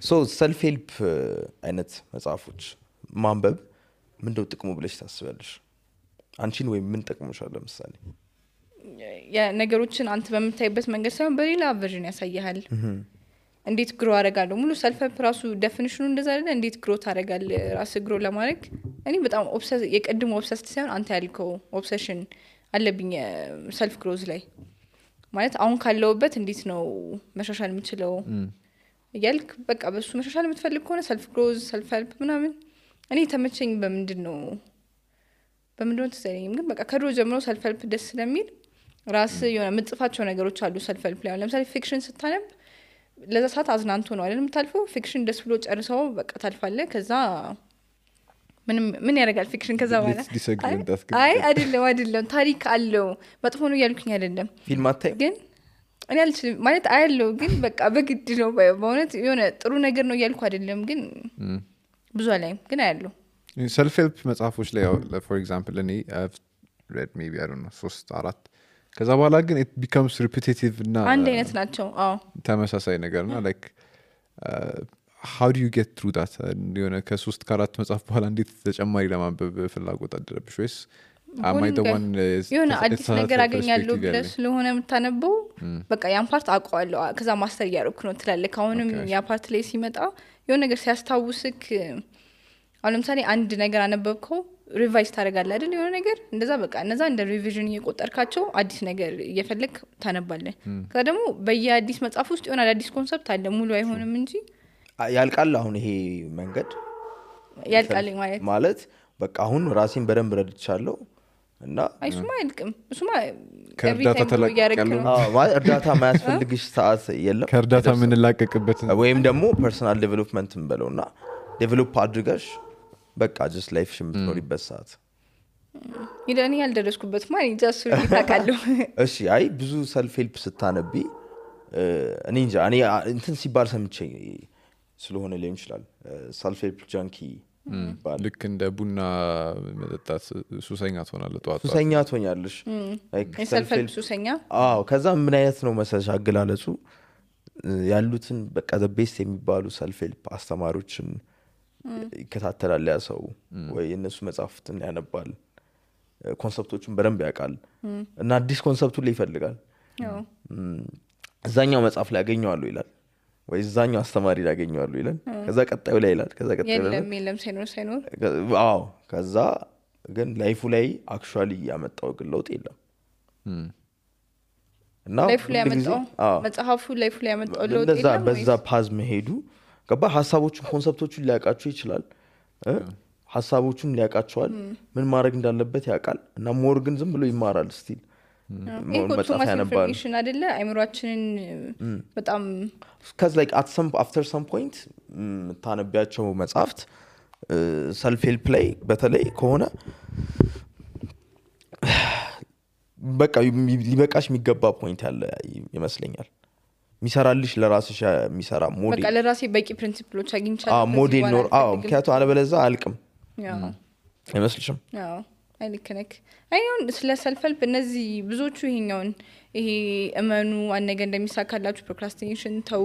[SPEAKER 1] ሶ ሰልፍ ሄልፕ አይነት መጽሐፎች ማንበብ ምንድነው ጥቅሙ ብለሽ ታስባለሽ አንቺን ወይ ምን ጠቅሞሻል ለምሳሌ
[SPEAKER 4] ነገሮችን አንተ በምታይበት መንገድ ሳይሆን በሌላ ቨርዥን ያሳያል እንዴት ግሮ አደርጋለሁ ሙሉ ሰልፍ ሄልፕ ራሱ ዴፊኒሽኑ እንደዛ አይደለ እንዴት ግሮ ታደርጋለህ ራስ ግሮ ለማድረግ እኔ በጣም ኦብሰስ የቀድሞ ኦብሰስ ሳይሆን አንተ ያልከው ኦብሰሽን አለብኝ ሰልፍ ግሮዝ ላይ ማለት አሁን ካለውበት እንዴት ነው መሻሻል የምችለው እያልክ በቃ በሱ መሻሻል የምትፈልግ ከሆነ ሰልፍ ግሮዝ ሰልፍ ሄልፕ ምናምን እኔ ተመቸኝ በምንድነው ተሰለኝ ግን በቃ ከድሮ ጀምሮ ሰልፍ ሄልፕ ደስ ስለሚል ራስ የሆነ የምትጽፋቸው ነገሮች አሉ ሰልፍ ሄልፕ ላይ ለምሳሌ ፊክሽን ስታነብ ለዛ ሰዓት አዝናንቶ ነው አይደል የምታልፈው ፊክሽን ደስ ብሎ ጨርሰው በቃ ታልፋለህ ከዛ ምን ያደርጋል ፊክሽን ከዛ በኋላ አይ አይደለም ታሪክ አለው መጥፎ ነው ያልኩኝ አይደለም
[SPEAKER 1] ፊልም አታይ
[SPEAKER 4] ግን እኔ አልችልም ማለት አይደለም ግን በቃ በግድ ነው በእውነት የሆነ ጥሩ ነገር ነው ያልኩ አይደለም ግን ብዙ አላይም ግን አይደለም
[SPEAKER 2] ሰልፍ ሄልፕ መጽሐፎች ላይ for example እኔ I've read maybe I don't know 3-4 ከዛ በኋላ ግን it becomes repetitive እና
[SPEAKER 4] አንድ አይነት ናቸው
[SPEAKER 2] ተመሳሳይ ነገርና like how do you get through that የሆነ ከ3-4 መጽሐፍ በኋላ እንዴት ተጨማሪ ለማንበብ ፍላጎት አደረብሽ ወይስ am I the one
[SPEAKER 4] የሆነ አዲስ ነገር አገኛለሁ ብለህ ስለሆነ የምታነበው በቃ ያን ፓርት አውቀዋለሁ ከዛ ማስተር እያደረኩ ነው ትላለህ አሁንም ያ ፓርት ላይ ሲመጣ የሆነ ነገር ሲያስታውስክ አሁን ለምሳሌ አንድ ነገር አነበብከው ሪቫይዝ ታደርጋለህ አይደል የሆነ ነገር እንደዛ በቃ እነዛ እንደ ሪቪዥን እየቆጠርካቸው አዲስ ነገር እየፈለክ ታነባለህ ከዛ ደግሞ በየአዲስ መጽሐፍ ውስጥ የሆነ አዲስ ኮንሰፕት አለ ሙሉ አይሆንም እንጂ
[SPEAKER 1] ያልቃል አሁን ይሄ መንገድ
[SPEAKER 4] ያልቃል
[SPEAKER 1] ማለት በቃ አሁን ራሴን በደንብ ረድቻለሁ እና
[SPEAKER 4] አይሱማ አይልቅም እሱማ
[SPEAKER 2] ከእርዳታ ተላቀቀሉ
[SPEAKER 1] እርዳታ ማያስፈልግሽ ሰዓት የለም
[SPEAKER 2] ከእርዳታ ምን ላቀቅበት
[SPEAKER 1] ወይም ደግሞ ፐርሰናል ዴቨሎፕመንት እንበለውና ዴቨሎፕ አድርገሽ በቃ just life የምትኖሪበት ሰዓት
[SPEAKER 4] ይደኔ ያልደረስኩበት ማለት ጃሱ ይታቃለሁ
[SPEAKER 1] እሺ አይ ብዙ ሰልፍ ሄልፕ ስታነቢ እኔ እንጃ እኔ እንትን ሲባል ሰምቼ ስለሆነ ሊሆን ይችላል ሰልፍ ሄልፕ ጃንኪ
[SPEAKER 2] ልክ እንደ ቡና መጠጣት ሱሰኛ ትሆናለህ ጧት
[SPEAKER 1] ሱሰኛ ትሆኛለሽ
[SPEAKER 4] ሰልፍ ሄልፕ ሱሰኛ
[SPEAKER 1] ከዛ ምን አይነት ነው መሰለሽ አገላለጹ ያሉትን በቃ the best የሚባሉ ሰልፍ ሄልፕ አስተማሪዎችን ይከታተላል ያ ሰው ወይ እነሱ መጽሐፍትን ያነባል ኮንሰፕቶችን በደንብ ያውቃል እና አዲስ ኮንሰፕቱን ላይ ይፈልጋል እዛኛው መጽሐፍ ላይ ያገኘዋለሁ ይላል ወይ እዛኛው አስተማሪ ላይ ያገኘዋለሁ ይላል ከዛ ቀጣዩ ላይ ይላል ከዛ ቀጣዩ ላይ
[SPEAKER 4] የለም ሳይኖር
[SPEAKER 1] ከዛ ግን ላይፉ ላይ አክቹአሊ ያመጣው ግን ለውጥ የለም እና
[SPEAKER 4] ላይፉ ላይ ያመጣው መጽሐፉ ላይፉ ላይ ያመጣው ለውጥ የለም
[SPEAKER 1] በዛ ፓዝ መሄዱ ገባ ሀሳቦቹን ኮንሰፕቶቹን ሊያውቃቸው ይችላል ሀሳቦቹን ሊያውቃቸዋል ምን ማድረግ እንዳለበት ያውቃል እና ሞር ግን ዝም ብሎ ይማራል ስቲል
[SPEAKER 4] መጽሐፍ ያነባል ኢንፎርሜሽን አይደለ አይምሮአችንን በጣም
[SPEAKER 1] cuz like after some point ታነቢያቸው መጽሐፍት ሰልፍ ሄልፕ ላይ በተለይ ከሆነ በቃ ሊበቃሽ የሚገባ ፖይንት ያለ ይመስለኛል ሚሰራልሽ ለራስሽ የሚሰራ ሞዴል
[SPEAKER 4] በቃ ለራሴ በቂ ፕሪንሲፕሎች አግኝቻለሁ
[SPEAKER 1] ሞዴል ኖር ምክንያቱም አለበለዚያ አልቅም አይመስልሽም
[SPEAKER 4] አይልከነክ አይሁን ስለ ሰልፍ ሄልፕ እነዚህ ብዙዎቹ ይሄ እመኑ አንገ እንደሚሳካላችሁ ፕሮክራስቲኔሽን ተው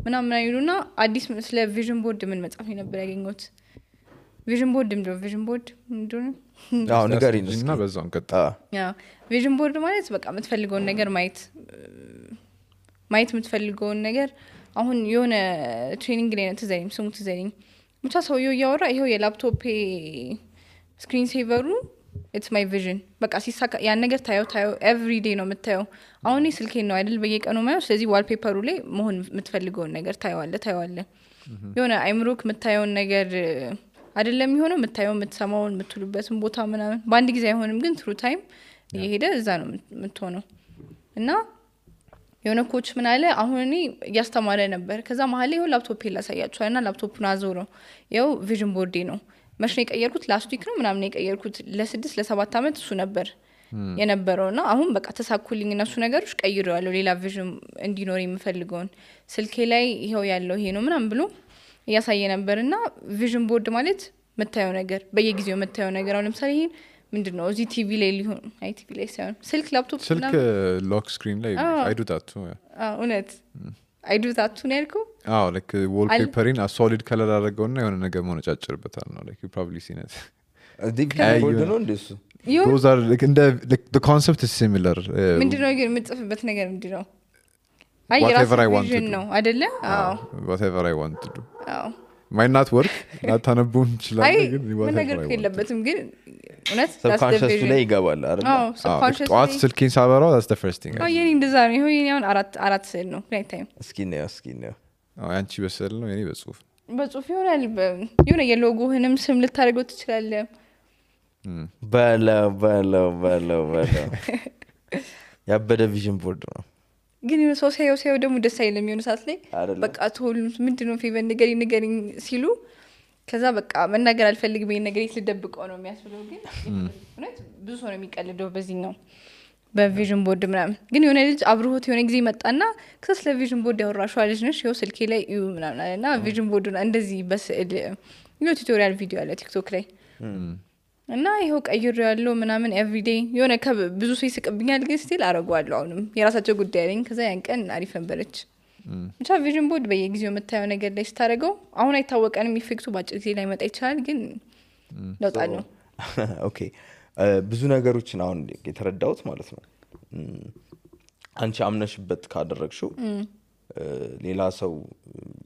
[SPEAKER 4] ምናምን አይሉና አዲስ ስለ ቪዥን ቦርድ ምን መጽሐፍ ነበር ያገኘሁት ቪዥን ቦርድ ምንድነው
[SPEAKER 1] ነገር ይነስና
[SPEAKER 2] በዛው እንቀጣ
[SPEAKER 4] ቪዥን ቦርድ ማለት በቃ የምትፈልገውን ነገር ማየት የምትፈልገውን ነገር አሁን የሆነ ትሬኒንግ ላይ ነው ትዘሪኝ ብቻ ሰውየው ያወራ ይሄው የላፕቶፕ ስክሪን ሴቨሩ it's my vision በቃ ሲሳካ ያን ነገር ታየው every day ነው የምታየው አሁን ስልኬን ነው አይደል በየቀኑ ማየው ስለዚህ ዋልፔፐሩ ላይ መሆን የምትፈልገውን ነገር ታየዋለህ የሆነ አይምሮክ የምታየውን ነገር አይደለም የሚሆነው የምታየው የምትሰማውን የምትሉበትን ቦታ ምናምን በአንድ ጊዜ አይሆንም ግን through time እየሄደ እዛ ነው የምትሆነው እና የሆነ ኮች ምን አለ አሁን እኔ ያስተማረ ነበር ከዛ መሀል ላይ ላፕቶፕ ላሳያችኋልና ላፕቶፑን አዞረው ያው ቪዥን ቦርዴ ነው መሽኔ ቀየርኩት ላስት ዊክ ነው ምናምን ቀየርኩት ለ6-7 አመት እሱ ነበር የነበረውና አሁን በቃ ተሳኩልኝ እነሱ ነገሮች ቀይሬዋለሁ ሌላ ቪዥን እንዲኖር የምፈልገውን ስልኬ ላይ ይሄው ያለው ይሄ ነው ምናምን ብሎ ያሳየ ነበርና ቪዥን ቦርድ ማለት መታየው ነገር በየጊዜው መታየው ነገር አሁን ለምሳሌ ይሄን ምንድነው እዚህ ቲቪ ላይ ሊሆን አይ ቲቪ ላይ ሳይሆን ስልክ ላፕቶፕ
[SPEAKER 2] ስልክ ሎክ ስክሪን ላይ I do that too
[SPEAKER 4] እውነት I do that too ነርኩ
[SPEAKER 2] like wallpapering a solid color አደረገውና የሆነ ነገር መነጫጭርበታል ነው like you probably seen it
[SPEAKER 1] ቦርድ ነው እንደሱ
[SPEAKER 2] those are like the concept is similar
[SPEAKER 4] ምንድነው ግን የምጽፍበት ነገር ምንድነው
[SPEAKER 2] whatever I want to do
[SPEAKER 4] ነው አይደለ
[SPEAKER 2] whatever I want to do ማይ ናት ወርክ ላታነበው ይችላል
[SPEAKER 4] አይ
[SPEAKER 2] ግን
[SPEAKER 4] ምን ነገር የለበትም ግን እውነት
[SPEAKER 1] ሰብኮንሽስ ላይ ይገባል አይደል
[SPEAKER 4] ሰብኮንሽስ
[SPEAKER 2] ጠዋት ስልኬን ሳበራው that's the first thing
[SPEAKER 4] የኔ እንደዛ ነው ይሄ አሁን አራት ስዕል ነው ናይት ታይም
[SPEAKER 1] እስኪ ነው
[SPEAKER 2] አንቺ በስዕል ነው የኔ በጽሁፍ
[SPEAKER 4] በጽሁፍ ይሆናል የሆነ የሎጎህንም ስም ልታደርገው ትችላለህ
[SPEAKER 1] በለው ያበደ ቪዥን ቦርድ ነው
[SPEAKER 4] ግን የሆነ ሰው ሳይው ደግሞ ደስ አይልም የሆነ ሰዓት ላይ በቃ ቶል ምንድነው ፌቨን ንገሪኝ ሲሉ ከዛ በቃ መናገር አልፈልግም ይሄን ነገር ልደብቀው ነው የሚያስብለው ግን እውነት ብዙ ሰው ነው የሚቀልደው በዚህኛው በቪዥን ቦርድ ምናምን ግን የሆነ ልጅ አብሮት የሆነ ጊዜ መጣና ከዛ ስለ ቪዥን ቦርድ ያወራሽው ልጅ ነሽ ይኸው ስልኬ ላይ እዩ ምናምን አለና ቪዥን ቦርዱን እንደዚህ በስዕል የሆነ ቱቶሪያል ቪዲዮ አለ ቲክቶክ ላይ እና ይሄው ቀይሮ ያለው ምናምን ኤቭሪዴይ የሆነ ብዙ ሰው ይስቅብኛል ግን ስቲል አረጋዋለሁ አሁንም የራሳቸው ጉዳይ አለኝ ከዛ ያን ቀን አሪፍ ነበረች ብቻ ቪዥን ቦርድ በየጊዜው የምታየው ነገር ላይ ስታደርገው አሁን አይታወቀንም ኢፌክቱ ባጭር ጊዜ ላይ መጣ ይችላል ግን ለውጣለሁ
[SPEAKER 1] ኦኬ ብዙ ነገሮችን አሁን የተረዳሁት ማለት ነው አንቺ አምነሽበት ካደረግሽው ሌላ ሰው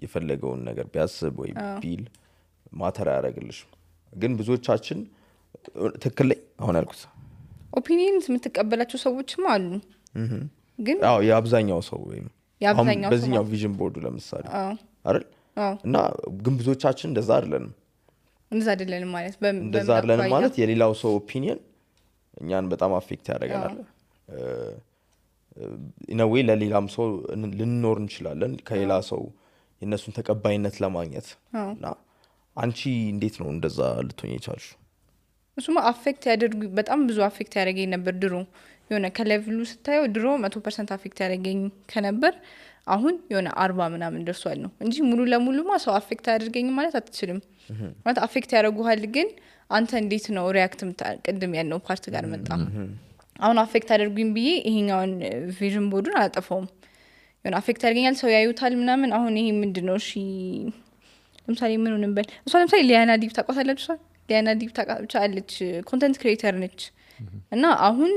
[SPEAKER 1] የፈለገውን ነገር ቢያስብ ወይ ቢል ማተር ያደርግልሽ ግን ብዙዎቻችን ትክክል ላይ አሁን ያልኩት
[SPEAKER 4] ኦፒኒየንስ የምትቀበላቸው ሰዎችም አሉ ግን
[SPEAKER 1] የአብዛኛው ሰው ወይም በዚህኛው ቪዥን ቦርዱ ለምሳሌ አይደል እና ግን ብዙዎቻችን እንደዛ አይደለንም እንደዛ አይደለንም ማለት የሌላው ሰው ኦፒኒየን እኛን በጣም አፌክት ያደርገናል ኢነዌይ ለሌላም ሰው ልንኖር እንችላለን ከሌላ ሰው የነሱን ተቀባይነት ለማግኘት እና አንቺ እንዴት ነው እንደዛ ልትሆኚ የቻልሽው
[SPEAKER 4] እሱማ አፌክት ያደርጉ በጣም ብዙ አፌክት ያደርገኝ ነበር ድሮ የሆነ ከሌቭሉ ስታየው ድሮ 100% አፌክት ያደርገኝ ከነበር አሁን የሆነ 40 ምናምን ደርሷል ነው እንጂ ሙሉ ለሙሉማ ሰው አፌክት ያደርገኝ ማለት አትችልም ማለት አፌክት ያደርጉሃል ግን አንተ እንዴት ነው ሪአክት ቅድም ያለው ፓርት ጋር መጣ አሁን አፌክት አደርጉኝ ብዬ ይሄኛውን ቪዥን ቦርዱን አላጠፋውም የሆነ አፌክት ያደርገኛል ሰው ያዩታል ምናምን አሁን ይሄ ምንድነው እሺ ለምሳሌ ምን እንበል እሷ ለምሳሌ ሊያና ዲፕ ታቋታለች ሊያና ዲፕ ታቋታለች አለች ኮንቴንት ክሬተር ነች እና አሁን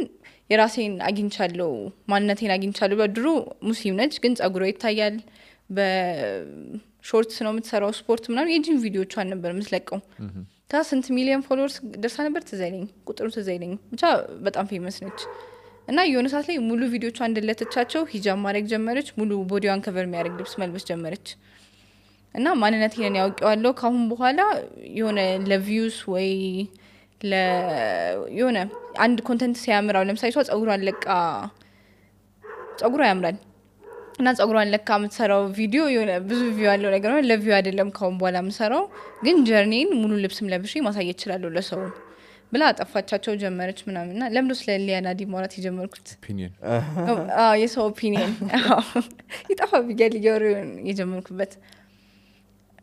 [SPEAKER 4] የራሴን አግኝቻለሁ ማንነቴን አግኝቻለሁ በድሮ ሙስሊም ነች ግን ጸጉሯ ይታያል በሾርትስ ነው የምትሰራው ስፖርት ምናምን የጂም ቪዲዮቿን ነበር የምትለቀው ስንት ሚሊዮን ፎሎወርስ ደርሳ ነበር ትዘይለኝ ቁጥሩ ትዘይለኝ ብቻ በጣም ፌመስ ነች እና የሆነ ሰዓት ላይ ሙሉ ቪዲዮቿ እንደለተቻቸው ሂጃብ ማድረግ ጀመረች ሙሉ ቦዲዋን ከቨር የሚያደርግ ልብስ መልበስ ጀመረች እና ማንነቴን ያውቀዋለሁ ካሁን በኋላ የሆነ ለቪውስ ወይ የሆነ አንድ ኮንቴንት ሲያምራው ለምሳሌ ሰው ጸጉሯን ለቃ ጸጉሯ ያምራል እና ጸጉሯን ለካ የምትሰራው ቪዲዮ የሆነ ብዙ ቪው ያለው ነገር ነው ለቪው አይደለም ካሁን በኋላ የምሰራው ግን ጀርኒን ሙሉ ልብስም ለብሼ ማሳየት ይችላል ለሰው ብላ አጠፋቻቸው ጀመረች ምናምንና ለምዶ ስለ ሊያና ዲ ማውራት የጀመርኩት
[SPEAKER 2] ኦፒኒየን
[SPEAKER 4] የሰው ኦፒኒየን ይጣፋ ቢገል የጀመርኩበት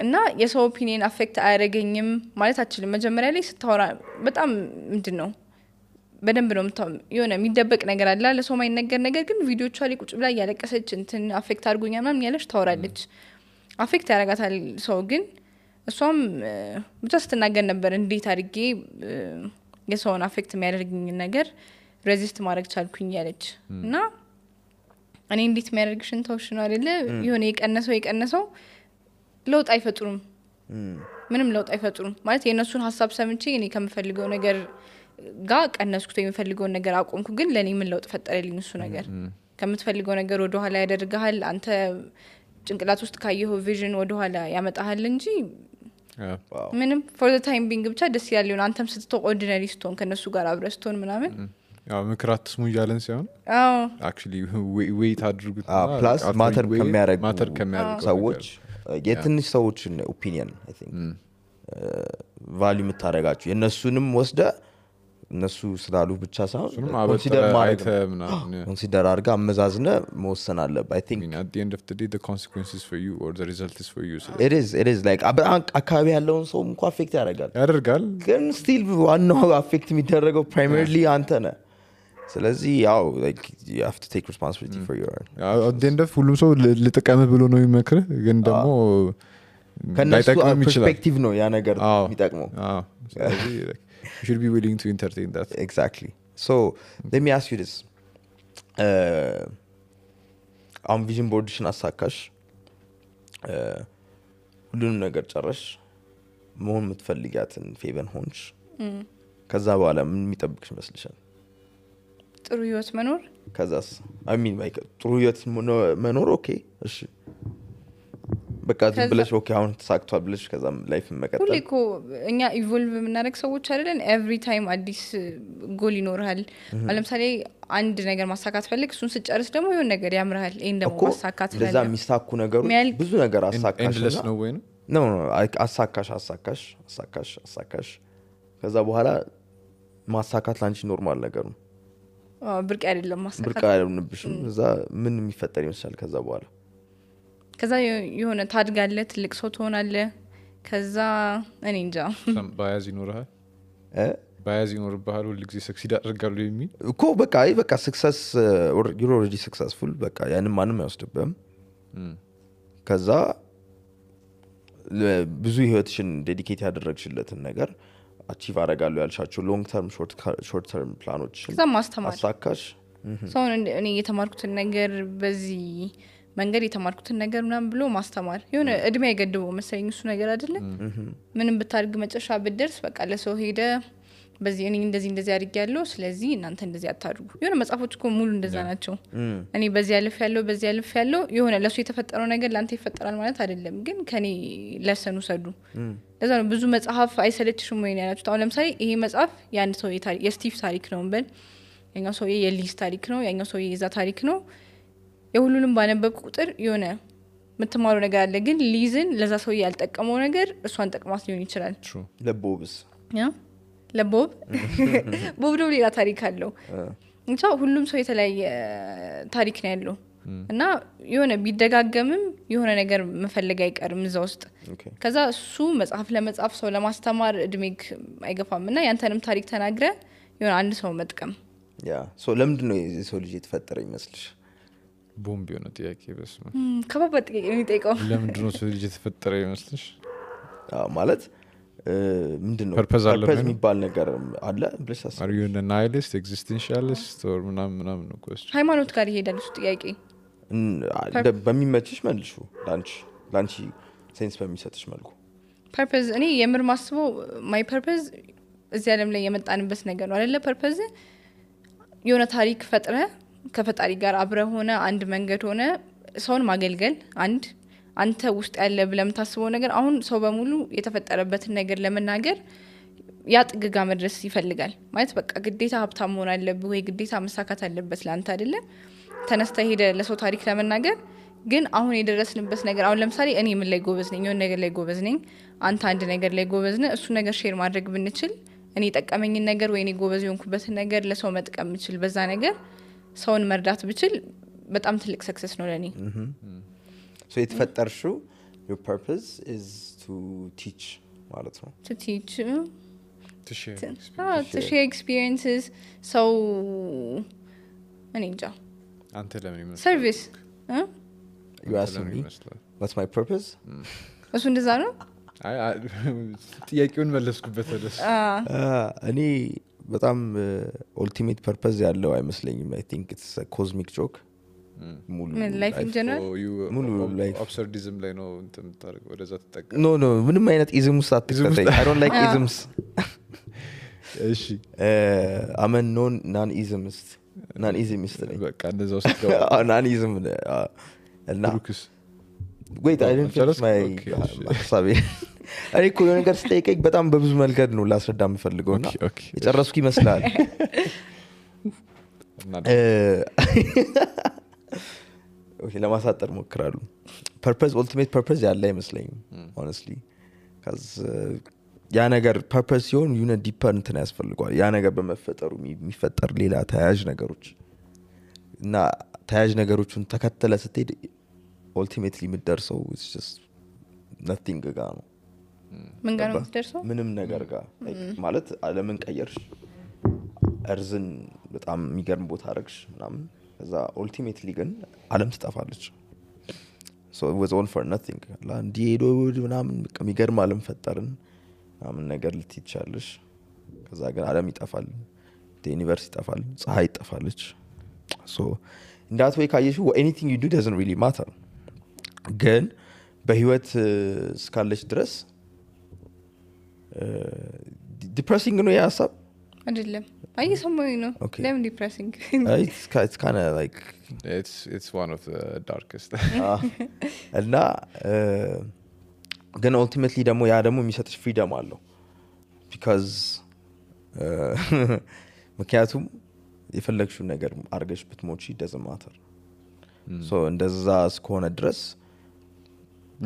[SPEAKER 4] እና የሰው ኦፒኒየን አፌክት አያደርገኝም ማለት አችልም መጀመሪያ ላይ ስታወራ በጣም ምንድነው በደንብ ነው የሆነ የሚደበቅ ነገር አለ ለሰው ማይነገር ነገር ግን ቪዲዮቿ ላይ ቁጭ ብላ ያለቀሰች እንትን አፌክት አድርጎኛል ምናምን ያለች ታወራለች አፌክት ያደርጋታል ሰው ግን እሷም ብቻ ስትናገር ነበር እንዴት አድርጌ የሰውን አፌክት የሚያደርግኝ ነገር ሬዚስት ማድረግ ቻልኩኝ ያለች እና እኔ እንዴት የሚያደርግሽን ተውሽ ነው አይደለ የሆነ የቀነሰው ለውጥ አይፈጥሩም ምንም ለውጥ አይፈጥሩም ማለት የነሱን ሐሳብ ሰምቼ እኔ ከምፈልገው ነገር ጋር ቀነስኩት የሚፈልገውን ነገር አቆምኩ ግን ለኔ ምን ለውጥ ፈጠረልኝ እሱ ነገር ከምትፈልገው ነገር ወደ ኋላ ያደርጋል አንተ ጭንቅላት ውስጥ ካየው ቪዥን ወደ ኋላ ያመጣሃል እንጂ ምንም for the time being ብቻ ደስ ይላል አንተም ስትተው ኦርዲናሪ ስቶን ከነሱ ጋር አብረስቶን ምናምን
[SPEAKER 2] ያው ምክራት ስሙ ይያለን ሳይሆን actually wait አድርጉት
[SPEAKER 1] ፕላስ ማተር ከሚያደርጉ ሰዎች የትንሽ ሰዎችን ኦፒኒየን I think ቫልዩ የምታረጋችሁ የነሱንም ወስደ እነሱ ስላሉ ብቻ ሳይሆን ኮንሲደር አድርጋ አመዛዝነ መወሰን አለብህ I think
[SPEAKER 2] at the end of the day the consequences for you or the result is for you so
[SPEAKER 1] it is like አካባቢ ያለውን ሰው እንኳን አፌክት ያደርጋል ግን still ዋናው አፌክት የሚደረገው primarily አንተ ነህ ስለዚህ ያው like you have to take responsibility for your
[SPEAKER 2] at the end of ሁሉም ሰው ልጥቀም ብሎ ነው የሚመክር ግን ደግሞ
[SPEAKER 1] ከነሱ ፐርስፔክቲቭ ነው ያ ነገር የሚጠቅመው
[SPEAKER 2] ስለዚህ you should be willing to entertain that
[SPEAKER 1] exactly so let me ask you this vision board ሽን አሳካሽ ሁሉንም ነገር ጨረሽ መሆን የምትፈልጊያትን ፌቨን ሆንሽ ከዛ በኋላ ምን የሚጠብቅሽ ይመስልሻል
[SPEAKER 4] ጥሩ ህይወት መኖር
[SPEAKER 1] ከዛስ ጥሩ ህይወት መኖር ኦኬ እሺ በቃ ብለሽ ኦኬ አሁን ተሳክቷል ብለሽ ከዛም ላይፍ መቀጠል
[SPEAKER 4] ሁሌ እኮ እኛ ኢቮልቭ የምናደርግ ሰዎች አይደለን ኤቭሪ ታይም አዲስ ጎል ይኖርሃል ለምሳሌ አንድ ነገር ማሳካት ፈልግ እሱን ስጨርስ ደግሞ የሆነ ነገር ያምርሃል ይሄን ደግሞ ማሳካት ፈልግ
[SPEAKER 1] ለዛ የሚሳኩ ነገሮች ብዙ ነገር አሳካሽ
[SPEAKER 2] ነው ወይ
[SPEAKER 1] ነው አሳካሽ ከዛ በኋላ ማሳካት ላንቺ ኖርማል ነገር ነው
[SPEAKER 4] ብርቅ አይደለም ማሳካት
[SPEAKER 1] ብርቅ አይደለምብሽም እዛ ምን የሚፈጠር ይመስላል ከዛ
[SPEAKER 4] የሆነ ታድጋለህ ትልቅ ሰው ትሆናለህ ከዛ እኔ እንጃ
[SPEAKER 2] ባያዝ ይኖርሃል ባያዝ ይኖርብሃል ሁሉ ጊዜ ሰክሲድ አድርጋለሁ የሚል
[SPEAKER 1] እኮ በቃ ሰክሰስ you're already successful በቃ ያንን ማንም አይወስድብህም ከዛ ብዙ ህይወትሽን ዴዲኬት ያደረግሽለትን ነገር አቺቭ አደርጋለሁ ያልሻቸው ሎንግ ተርም ሾርት ተርም ፕላኖች
[SPEAKER 4] ከዛ ማስተማር
[SPEAKER 1] አሳካሽ
[SPEAKER 4] ሰውን እኔ የተማርኩትን ነገር በዚህ መንገድ የተማርኩትን ነገር ምናምን ብሎ ማስተማር የሆነ እድሜ አይገድበው መሰለኝ እሱ ነገር አይደለ ምንም ብታርግ መጨረሻ ብትደርስ በቃ ለሰው ሄደ በዚህ እኔ እንደዚህ አድርጌያለሁ ስለዚህ እናንተ እንደዚህ አታድርጉ የሆነ መጽሐፎች እኮ ሙሉ እንደዛ ናቸው እኔ በዚህ ያልፍ ያለው የሆነ ለሱ የተፈጠረው ነገር ላንተ ይፈጠራል ማለት አይደለም ግን ከኔ ለሰኑ ሰዱ ለዛ ነው ብዙ መጽሐፍ አይሰለችሽም ወይ ያላችሁት አሁን ለምሳሌ ይሄ መጽሐፍ ያን ሰው የስቲቭ ታሪክ ነው እንበል ያኛው ሰው የሊዝ ታሪክ ነው ያኛው ሰው የዛ ታሪክ ነው የሁሉንም ባነበብኩ ቁጥር የሆነ የምትማረው ነገር አለ ግን ሊዝን ለዛ ሰው ያልጠቀመው ነገር እሷን ጠቅማት ሊሆን ይችላል
[SPEAKER 1] ለቦብስ
[SPEAKER 4] ለቦብ ቦብ ደግሞ ሌላ ታሪክ አለው እንቻ ሁሉም ሰው የተለያየ ታሪክ ነው ያለው እና የሆነ ቢደጋገምም የሆነ ነገር መፈለግ አይቀርም እዛ ውስጥ ከዛ እሱ መጽሐፍ ለመጻፍ ሰው ለማስተማር እድሜክ አይገፋም እና ያንተንም ታሪክ ተናግረ የሆነ አንድ ሰው መጥቀም
[SPEAKER 1] ለምንድነው የሰው ልጅ የተፈጠረ ይመስልሽ
[SPEAKER 2] ቦምብ የሆነ ጥያቄ በስመ
[SPEAKER 4] ከባድ ጥያቄ ነው የሚጠይቀው
[SPEAKER 2] ለምንድነው ሰው ልጅ የተፈጠረ ይመስልሽ
[SPEAKER 1] ማለት ምንድነው
[SPEAKER 2] ፐርፐዝ
[SPEAKER 1] የሚባል ነገር አለ ብለሽ ታስብ
[SPEAKER 2] are you a nihilist existentialist or ምናምን ነው question
[SPEAKER 4] ሃይማኖት ጋር ይሄዳል እሱ ጥያቄ
[SPEAKER 1] በሚመችሽ መልሹ ላንቺ ሴንስ በሚሰጥሽ መልኩ
[SPEAKER 4] ፐርፐዝ እኔ የምር ማስበው ማይ ፐርፐዝ እዚህ ዓለም ላይ የመጣንበት ነገር ነው አይደለ ፐርፐዝ የሆነ ታሪክ ፈጥረ ከፈጣሪ ጋር አብረ ሆነ አንድ መንገድ ሆነ ሰውን ማገልገል አንተ ውስጥ ያለ ብለም ታስበው ነገር አሁን ሰው በሙሉ የተፈጠረበትን ነገር ለመናገር ያጥግጋ መድረስ ይፈልጋል ማለት በቃ ግዴታ ሀብታም መሆን አለብህ ወይ ግዴታ መሳካት አለበት ላንተ አይደለ ተነስተ ሄደ ለሰው ታሪክ ለመናገር ግን አሁን የደረስንበት ነገር አሁን ለምሳሌ እኔ ምን ላይ ጎበዝ ነኝ የሆነ ነገር ላይ ጎበዝ ነኝ አንተ አንድ ነገር ላይ ጎበዝ ነህ እሱ ነገር ሼር ማድረግ ብንችል እኔ ጠቀመኝን ነገር ወይ እኔ ጎበዝ የሆንኩበትን ነገር ለሰው መጥቀም ምችል በዛ ነገር ሰውን መርዳት ብችል በጣም ትልቅ ሰክሰስ ነው ለኔ
[SPEAKER 1] so የተፈጠርሽው your purpose is to teach ማለት ነው
[SPEAKER 4] to teach
[SPEAKER 2] to
[SPEAKER 4] share experiences so እኔ እንጃ
[SPEAKER 2] አንተ ለምን ይመስላል
[SPEAKER 4] service
[SPEAKER 1] you asked me what's my purpose
[SPEAKER 4] እሱ እንደዛ ነው
[SPEAKER 2] ጥያቄውን መለስኩበት ወደስ
[SPEAKER 1] እኔ በጣም ultimate purpose ያለው አይመስለኝም I think it's a cosmic joke ሙሉ
[SPEAKER 4] life in general
[SPEAKER 1] ሙሉ life
[SPEAKER 2] absurdism ላይ ነው እንትን ታርግ ወደዛ ተጠቀ
[SPEAKER 1] no ምንም አይነት ism ውስጥ አትከተይ I don't like isms
[SPEAKER 2] እሺ
[SPEAKER 1] I'm a non-ismist
[SPEAKER 2] በቃ እንደዛ ውስጥ ገባ
[SPEAKER 1] non-ism እና
[SPEAKER 2] ብሩክስ
[SPEAKER 1] wait I didn't finish my ሀሳቤ እኔ እኮ የሆነ ነገር ስጠይቀኝ በጣም በብዙ መልገድ ነው ላስረዳ የምፈልገውና የጨረስኩ ይመስላል ኦኬ ለማሳጠር ሞክራለሁ ፐርፐዝ ultimate purpose ያለ አይመስለኝም honestly cuz ያ ነገር ፐርፐዝ ሲሆን የሆነ ዲፐር እንትን ያስፈልጋል ያ ነገር በመፈጠሩ የሚፈጠር ሌላ ተያያዥ ነገሮች እና ተያያዥ ነገሮችን ተከተለ ስትሄድ ultimately የምትደርሰው it's just nothing ጋር ነው
[SPEAKER 4] ምን ጋር ነው የምትደርሰው
[SPEAKER 1] ምንም ነገር ጋር ማለት ዓለምን ቀየርሽ እርዝን በጣም የሚገርም ቦታ አረግሽ ምናምን ከዛ ultimately ግን ዓለም ትጠፋለች so it was all for nothing ላንዲዶ ምናምን የሚገርም ዓለም ፈጠርን ምናምን ነገር ልትይቻለሽ ከዛ ግን ዓለም ይጠፋል ዩኒቨርስ ይጠፋል ፀሐይ ይጠፋለች so in that way ካየሽው anything you do doesn't really matter ግን በህይወት እስካለች ድረስ ዲፕሬሲንግ ነው የሀሳብ
[SPEAKER 4] አይደለም አየሰማኝ ነው
[SPEAKER 1] Okay.
[SPEAKER 4] ለምን ዲፕሬሲንግ
[SPEAKER 1] it's kind of like
[SPEAKER 2] it's one of the darkest
[SPEAKER 1] እና ግን ultimately ደግሞ ያ ደግሞ የሚሰጥሽ ፍሪደም አለው because ምክንያቱም የፈለግሽውን ነገር አርገሽ ብትሞቺ doesn't matter so እንደዛ እስከሆነ ድረስ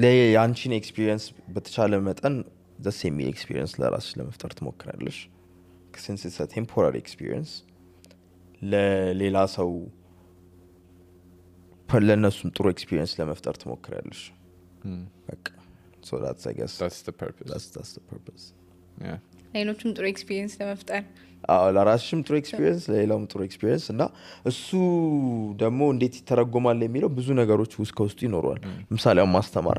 [SPEAKER 1] ለያንቺን ኤክስፒሪየንስ በተቻለ መጠን the same experience ለራስሽ ለመፍጠር ትሞክራለሽ since it's a temporary experience ለሌላ ሰው ለነሱም ጥሩ ኤክስፒሪየንስ ለመፍጠር ትሞክራለሽ በቃ so that's I guess
[SPEAKER 2] that's the purpose
[SPEAKER 1] that's the purpose
[SPEAKER 2] yeah
[SPEAKER 4] ሌሎችም ጥሩ ኤክስፒሪየንስ ለመፍጠር
[SPEAKER 1] ለራስሽም ጥሩ ኤክስፒሪየንስ ለሌላውም ጥሩ ኤክስፒሪየንስ እና እሱ ደግሞ እንዴት ይተረጎማል የሚለው ብዙ ነገሮች ውስጥ ከውስጡ ይኖረዋል ለምሳሌ ማስተማር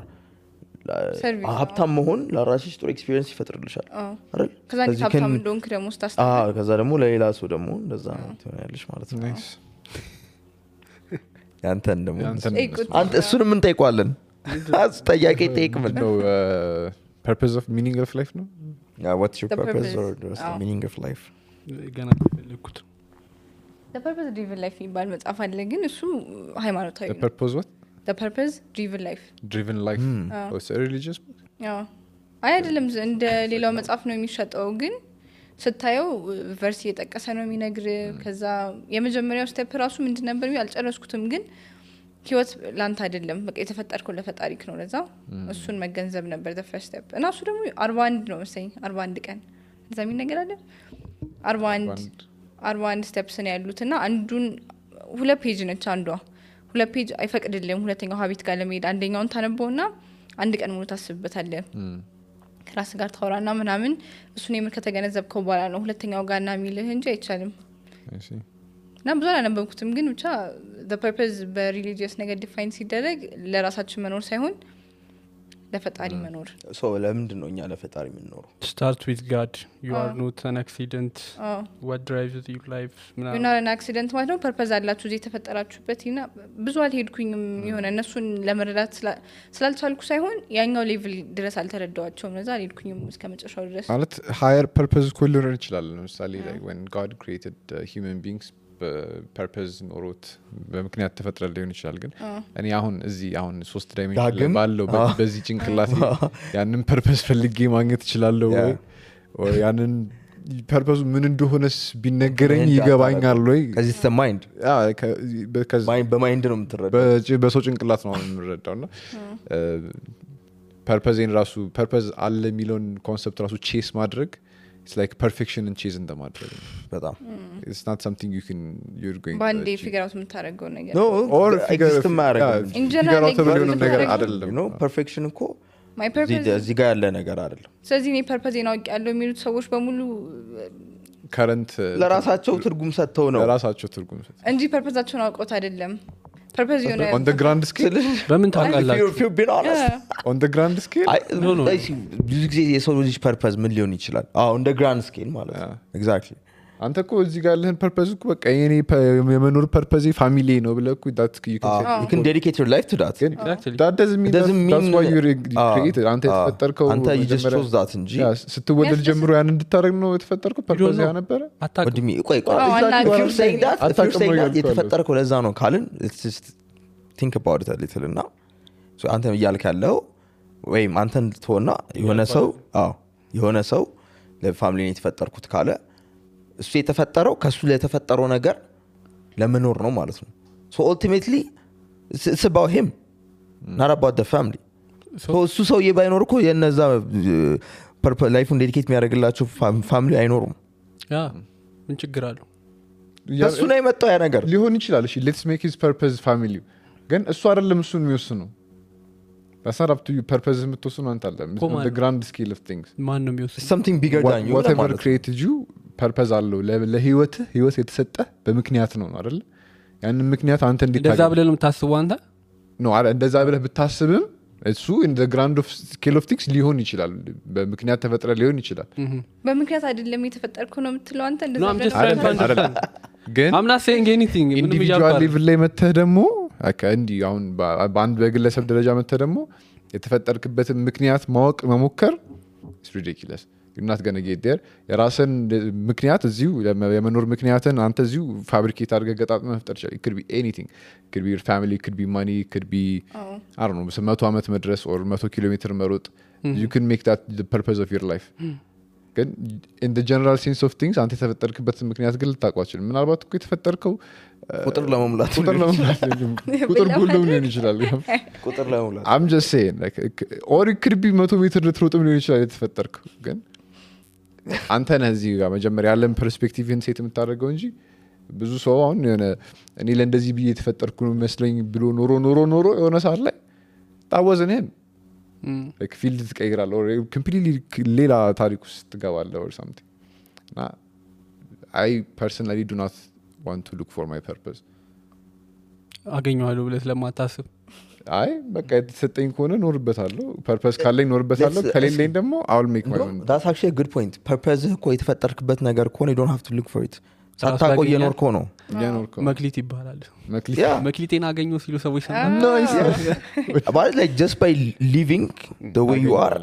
[SPEAKER 1] ሀብታም መሆን ለራስሽ ጥሩ ኤክስፒሪየንስ ይፈጥርልሻል አይደል
[SPEAKER 4] ከዛ ሀብታም እንደሆንክ ደግሞ ስታስተምር
[SPEAKER 1] ከዛ ደግሞ ለሌላ ሰው ደግሞ እንደዛ ትሆናለሽ ማለት ነው
[SPEAKER 2] nice
[SPEAKER 1] ያንተን ደግሞ
[SPEAKER 4] ጠይቁት።
[SPEAKER 1] አንተ እሱንም እንጠይቋለን ጠያቄ ጠይቅ ምን
[SPEAKER 2] no purpose of meaning of life no
[SPEAKER 1] what's your
[SPEAKER 4] The
[SPEAKER 1] purpose
[SPEAKER 4] purpose.
[SPEAKER 1] or what's the meaning of life
[SPEAKER 5] ገና ፈለኩት
[SPEAKER 4] the purpose driven life የሚባል መጽሐፍ አለ ግን እሱ ሃይማኖታዊ
[SPEAKER 2] the
[SPEAKER 4] ነው
[SPEAKER 2] purpose what
[SPEAKER 4] the purpose driven life
[SPEAKER 2] driven life oh it's a religious book
[SPEAKER 4] አዎ አይ አይደለም እንደ ሌላው መጽሐፍ ነው የሚሸጠው ግን ስታየው ቨርስ እየጠቀሰ ነው የሚነግር ከዛ የመጀመሪያው ስቴፕ ራሱ ምንድን ነበር አልጨረስኩትም ግን ህይወት ላንተ አይደለም በቃ የተፈጠርከው ለፈጣሪክ ነው ለዛ እሱን መገንዘብ ነበር the first step እና እሱ ደግሞ 41 ነው መሰለኝ 41 ቀን እዛ ምን ነገር አለ 41 ስቴፕስ ነው ያሉትና አንዱን ሁለት ፔጅ ነች አንዷ ሁለት ፔጅ አይፈቅድልም ሁለተኛው ሀቢት ጋር ለመሄድ አንደኛውን ታነበውና አንድ ቀን ሙሉ ታስብበታለህ ከራስ ጋር ታወራና ምናምን እሱን የምር ከተገነዘብከው በኋላ ነው ሁለተኛው ጋርና የሚልህ እንጂ አይቻልም
[SPEAKER 2] I see
[SPEAKER 1] እና ብዙ አላነበብኩትም ግን ብቻ the purpose በሪሊጂየስ ነገር ዲፋይን ሲደረግ ለራሳችን መኖር ሳይሆን ለፈጣሪ መኖር
[SPEAKER 2] ሶ ለምንድን ነው እኛ ለፈጣሪ የምንኖረው?
[SPEAKER 5] start with God. You are not an accident. What drives your life?
[SPEAKER 1] you're not an accident ማለት ነው ፐርፐዝ አላችሁ እዚህ የተፈጠራችሁበት እና ብዙ አልሄድኩኝም የሆነ እነሱን ለመረዳት ስላልቻልኩ ሳይሆን ያኛው ሌቭል ድረስ አልተረዳዋቸውም ለዛ አልሄድኩኝም እስከ መጨረሻው ድረስ
[SPEAKER 2] ማለት higher purpose እኮ ሊኖር ይችላል ለምሳሌ like when God created human beings ፐርፐዝ ኖሮት በምክንያት ተፈጥረ ሊሆን ይችላል ግን እኔ አሁን እዚህ አሁን 3 ዳይሜንሽን ባለው በዚህ ጭንቅላት ያንን ፐርፐዝ ፈልጌ ማግኘት እችላለሁ ወይ ያንን ፐርፐዙ ምን እንደሆነስ ቢነገረኝ ይገባኛል ወይ
[SPEAKER 1] ከዚህ ማይንድ በማይንድ ነው የምትረዳው
[SPEAKER 2] በሰው ጭንቅላት ነው የምንረዳውና ፐርፐዝን ራሱ ፐርፐዝ አለ የሚለውን ኮንሰፕት ራሱ ቼስ ማድረግ it's like perfection and chase in the matter
[SPEAKER 1] በጣም
[SPEAKER 2] it's not something you're going
[SPEAKER 1] band
[SPEAKER 2] to
[SPEAKER 1] figure out የምታረገው ነገር
[SPEAKER 2] no or
[SPEAKER 1] exist ማረጋው
[SPEAKER 2] in general ነገር አይደለም
[SPEAKER 1] you know perfection እኮ
[SPEAKER 4] my purpose
[SPEAKER 1] እዚህ ጋር ያለ ነገር አይደለም
[SPEAKER 4] ስለዚህ እኔ ፐርፐዝ ነው ያለው የሚሉት ሰዎች በሙሉ
[SPEAKER 2] current
[SPEAKER 1] ለራሳቸው ትርጉም ሰጥተው ነው
[SPEAKER 2] ለራሳቸው ትርጉም ሰጥተው
[SPEAKER 4] እንጂ ፐርፐዛቸውን አውቀውት አይደለም ፐርፐዝ የሆነ
[SPEAKER 2] on the grand scale
[SPEAKER 5] በምን ታውቃላችሁ
[SPEAKER 1] if you've been honest
[SPEAKER 2] on the grand scale
[SPEAKER 1] ብዙ ጊዜ የሰው ልጅ ፐርፐዝ ምን ሊሆን ይችላል on the grand scale ማለት ነው exactly
[SPEAKER 2] አንተ እኮ እዚህ ጋር ያለህን ፐርፐዝ እኮ በቃ የኔ የመኖር ፐርፐዝ ፋሚሊ ነው ብለህ እኮ that
[SPEAKER 1] you can dedicate your life to that
[SPEAKER 2] that doesn't mean that's why you created አንተ የተፈጠርከው
[SPEAKER 1] አንተ you just chose that እንጂ
[SPEAKER 2] ስትወለድ ጀምሮ ያን እንድታረግ ነው የተፈጠርከው ፐርፐዝ ያ ነበር
[SPEAKER 1] ወድሚ ቆይ if you're saying that የተፈጠርከው ለዛ ነው ካልን let's just think about it a little እና so አንተ እያልክ ያለው ወይም አንተን ትሆና የሆነ ሰው ለፋሚሊ ነው የተፈጠርኩት ካለ እሱ የተፈጠረው ከሱ ለተፈጠረው ነገር ለመኖር ነው ማለት ነው so ultimately it's about him not about the family so እሱ ሰውዬ ባይኖር እኮ የነዛ ፐርፐዝ ላይፉን ዴዲኬት የሚያደርግላቸው ፋሚሊ አይኖሩም
[SPEAKER 5] ያ ምን ችግር አለው
[SPEAKER 1] እሱ ነው የመጣው ያ ነገር
[SPEAKER 2] ሊሆን ይችላል እሺ let's make his purpose family ግን እሱ አይደለም እሱን የሚወስነው that's not up to you purpose የምትወስነው አንተ አይደለም on the grand scale of things
[SPEAKER 5] ማን ነው የሚወስነው
[SPEAKER 1] something bigger than you
[SPEAKER 2] whatever created you purpose አለው ለህይወት የተሰጠ በምክንያት ነው አይደል ያንን ምክንያት አንተ
[SPEAKER 5] እንደዛ ብለህ ነው የምታስበው አንተ
[SPEAKER 2] ነው እንደዛ ብለህ ብታስብም እሱ in the grand of scale of things ሊሆን ይችላል በምክንያት ተፈጥረ ሊሆን ይችላል
[SPEAKER 4] በምክንያት አይደለም የተፈጠርከው ነው የምትለው አንተ
[SPEAKER 2] እንደዛ ግን
[SPEAKER 5] I'm not saying anything
[SPEAKER 2] individual level ላይ መተህ ደግሞ እንዲ አሁን በአንድ በግለሰብ ደረጃ መተህ ደግሞ የተፈጠርክበትን ምክንያት ማወቅ መሞከር is ridiculous. You're not going to get there. የራስን ምክንያት እዚሁ የመኖር ምክንያትን አንተ እዚሁ ፋብሪኬት አድርገህ ገጣጥመህ መፍጠር ይችላል. It could be anything. It could be your family, it could be money, it could be I don't know 100 ዓመት መድረስ or 100 ኪሎ ሜትር መሮጥ. You can make that the purpose of your life. ግን in the general sense of things አንተ የተፈጠርክበትን ምክንያት ግን ልታውቀው አትችልም። ምናልባት እኮ የተፈጠርከው
[SPEAKER 1] ቁጥር ለመሙላት
[SPEAKER 2] ቁጥር ጎልም ሊሆን ይችላል።
[SPEAKER 1] ቁጥር ለመሙላት
[SPEAKER 2] I'm just saying like or it could be 100 ሜትር ልትሮጥም ሊሆን ይችላል የተፈጠርከው። ግን አንተ ነህ እዚህ ጋር መጀመሪያ ያለን ፐርስፔክቲቭን ሴት የምታደርገው እንጂ ብዙ ሰው አሁን የሆነ እኔ ለእንደዚህ ብዬ የተፈጠርኩ ነው መስለኝ ብሎ ኖሮ የሆነ ሰዓት ላይ ታወዝንህም like field ትቀይራለህ or completely ሌላ ታሪክ ውስጥ ትገባለህ or something. I personally do not want to look for my purpose.
[SPEAKER 5] አገኘዋለሁ ብለህ ስለማታስብ
[SPEAKER 2] አይ በቃ የተሰጠኝ ከሆነ ኖርበታለሁ ፐርፐስ ካለኝ ኖርበታለሁ ከሌለኝ ደግሞ I'll make my own.
[SPEAKER 1] That's actually a good point. purpose እኮ የተፈጠርክበት ነገር ከሆነ you don't have to look for it. ሳታቆይ የኖርከው ነው
[SPEAKER 5] መክሊት ይባላል።
[SPEAKER 1] Yeah.
[SPEAKER 5] መክሊቴን አገኘው ሲሉ ሰዎች
[SPEAKER 1] But like just by living the way you are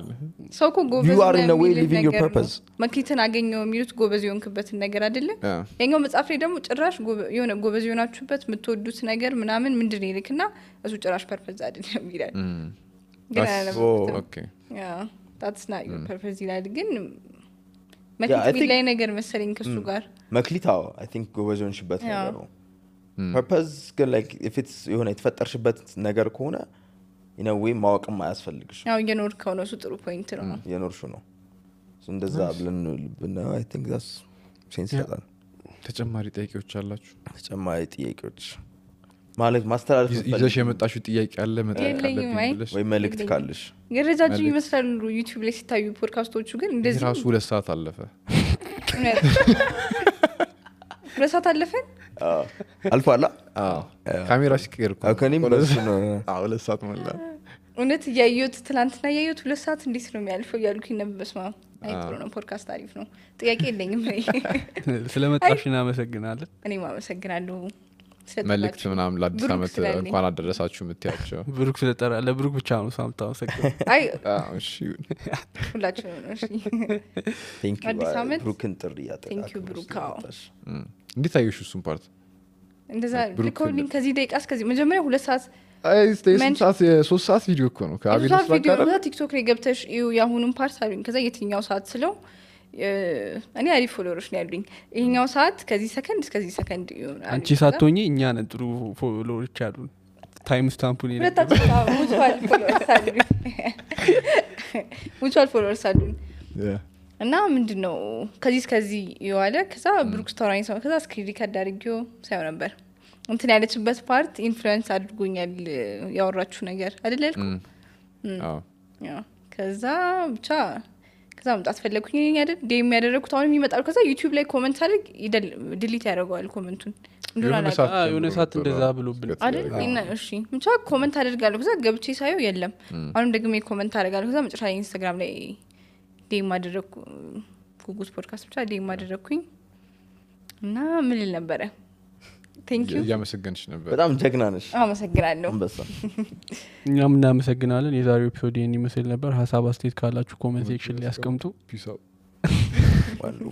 [SPEAKER 4] ሰው እኮ ጎበዝ
[SPEAKER 1] you are in a way
[SPEAKER 4] የሚልህ
[SPEAKER 1] living your
[SPEAKER 4] ነገር ነው።
[SPEAKER 1] purpose.
[SPEAKER 4] መክሊትን አገኘው የሚሉት ጎበዝ የሆንክበትን ነገር አይደለም።
[SPEAKER 2] Yeah.
[SPEAKER 4] የኛው መጽሐፍ ላይ ደግሞ ጭራሽ የሆነ ጎበዝ የሆናችሁበት የምትወዱት ነገር ምናምን ምንድን ነው ይልክና እሱ ጭራሽ ፐርፐዝ አይደለም ይላል። ግን አላነበብኩትም።
[SPEAKER 2] Okay.
[SPEAKER 4] Yeah, that's not your purpose ይላል። ግን
[SPEAKER 1] I
[SPEAKER 4] መክሊት
[SPEAKER 1] think-
[SPEAKER 4] ላይ ነገር መሰለኝ ከሱ ጋር
[SPEAKER 1] መክሊታው I think ጎበዝ የሆንሽበት ነገር ነው። purpose ግን like if it's የሆነ የተፈጠርሽበት ነገር ከሆነ in a way ማወቅም አያስፈልግሽ
[SPEAKER 4] ያው እየኖርከው ነው። እሱ ጥሩ ፖይንት ነው።
[SPEAKER 1] የኖርሹ ነው እንደዛ ብለን ብናየው I think that's sense ይሰጣል።
[SPEAKER 2] ተጨማሪ ጥያቄዎች አላችሁ?
[SPEAKER 1] ተጨማሪ ጥያቄዎች ማለት ማስተላለፍ
[SPEAKER 2] ይዘሽ የመጣሽው ጥያቄ አለ መጠየቅ
[SPEAKER 4] የለኝም፣
[SPEAKER 2] አለብኝ
[SPEAKER 4] አይ።
[SPEAKER 2] ብለሽ
[SPEAKER 1] ወይ መልእክት ካለሽ
[SPEAKER 4] ገረጃጅም ይመስላሉ ዩቲዩብ ላይ ሲታዩ ፖድካስቶቹ ግን እንደዚህ
[SPEAKER 2] ራሱ 2 ሰዓት አለፈ።
[SPEAKER 4] እውነት 2 ሰዓት አለፈን።
[SPEAKER 1] አልፏላ
[SPEAKER 2] ካሜራ ሲቀየር እኮ
[SPEAKER 1] ከኔም በሱ ነው
[SPEAKER 2] 2 ሰዓት ሞላ።
[SPEAKER 4] እውነት እያየሁት ትናንትና እያየሁት 2 ሰዓት እንዴት ነው የሚያልፈው እያልኩኝ ነበር። በስመ አብ። አይ ጥሩ ነው ፖድካስት አሪፍ ነው። ጥያቄ የለኝም።
[SPEAKER 5] ስለመጣሽ እናመሰግናለን።
[SPEAKER 4] እኔም አመሰግናለሁ።
[SPEAKER 2] መልእክት ምናምን ለአዲስ
[SPEAKER 4] ብሩክ
[SPEAKER 2] ዓመት
[SPEAKER 4] ስላለኝ።
[SPEAKER 2] እንኳን አደረሳችሁ የምትያቸው?
[SPEAKER 5] ብሩክ ስለጠራ ለብሩክ ብቻ ነው ሳምታ አመሰግናለሁ።
[SPEAKER 4] አይ
[SPEAKER 2] እሺ
[SPEAKER 4] ሁላችንም ነው። እሺ
[SPEAKER 1] thank you
[SPEAKER 4] አዲስ ዓመት።
[SPEAKER 1] ብሩክን ጥሪ
[SPEAKER 4] Thank you ብሩክ። አዎ።
[SPEAKER 2] እንዴት አየሽ እሱን ፓርት?
[SPEAKER 4] እንደዛ
[SPEAKER 2] ብሩክ
[SPEAKER 4] ልኮልኝ ከዚህ ደቂቃ እስከዚህ መጀመሪያ 2 ሰዓት
[SPEAKER 2] አይ ስቴሽን ሰዓት 3 ሰዓት ቪዲዮ እኮ ነው ከአቤል
[SPEAKER 4] የሶስት ቪዲዮ
[SPEAKER 2] ስላቀረ
[SPEAKER 4] ነው። ቲክቶክ ላይ ገብተሽ እዩ ያሁኑን ፓርት አሉኝ። ከዛ የትኛው ሰዓት ስለው እኔ አሪፍ ፎሎወሮች ነው ያሉኝ። ይሄኛው ሰዓት ከዚህ ሰከንድ እስከዚህ ሰከንድ ይሆናል።
[SPEAKER 5] አንቺ ሳትሆኚ እኛ ነን ጥሩ ፎሎወሮች ያሉን። ታይም ስታምፑን ይሄ
[SPEAKER 4] ሁለታችን ሙቹዋል ፎሎወርስ አሉኝ። ሙቹዋል ፎሎወርስ አሉኝ። እና ምንድነው ከዚህ እስከዚህ ይዋለ። ከዛ ብሩክ ስቶራኝ ሰው ከዛ ስክሪን ሪከርድ አድርጌው ሳይሆን ነበር እንትን ያለችበት ፓርት ኢንፍሉዌንስ አድርጎኛል ያወራችሁ ነገር አይደል ያልኩ። ያው ከዛ ብቻ ከዛ መምጣት ፈለኩኝ አይደል ዴም ያደረኩት አሁን የሚመጣው ከዛ ዩቲዩብ ላይ ኮሜንት አድርግ ዲሊት ያደርገዋል ኮሜንቱን እንደሆነ
[SPEAKER 5] የሆነ ሰዓት እንደዛ ብሎብን
[SPEAKER 4] አይደል እና እሺ ብቻ ኮሜንት አድርጋለሁ። ከዛ ገብቼ ሳየው የለም። አሁን ደግሞ ኮሜንት አደርጋለሁ። ከዛ መጨረሻ ላይ ኢንስታግራም ላይ ዴም አደረኩ ጉጉስ ፖድካስት ብቻ ዴም አደረኩኝ እና ምን ልል ነበረ ቴንክ ዩ
[SPEAKER 2] እያመሰገንሽ ነበር።
[SPEAKER 1] በጣም ጀግና ነሽ።
[SPEAKER 4] አመሰግናለሁ።
[SPEAKER 1] አንበሳ
[SPEAKER 5] እኛም እናመሰግናለን። የዛሬው ኤፒሶድ ይህን ይመስል ነበር። ሀሳብ አስተያየት ካላችሁ ኮሜንት ሴክሽን ላይ ያስቀምጡ።
[SPEAKER 2] ፒስ አውት።
[SPEAKER 1] ዋው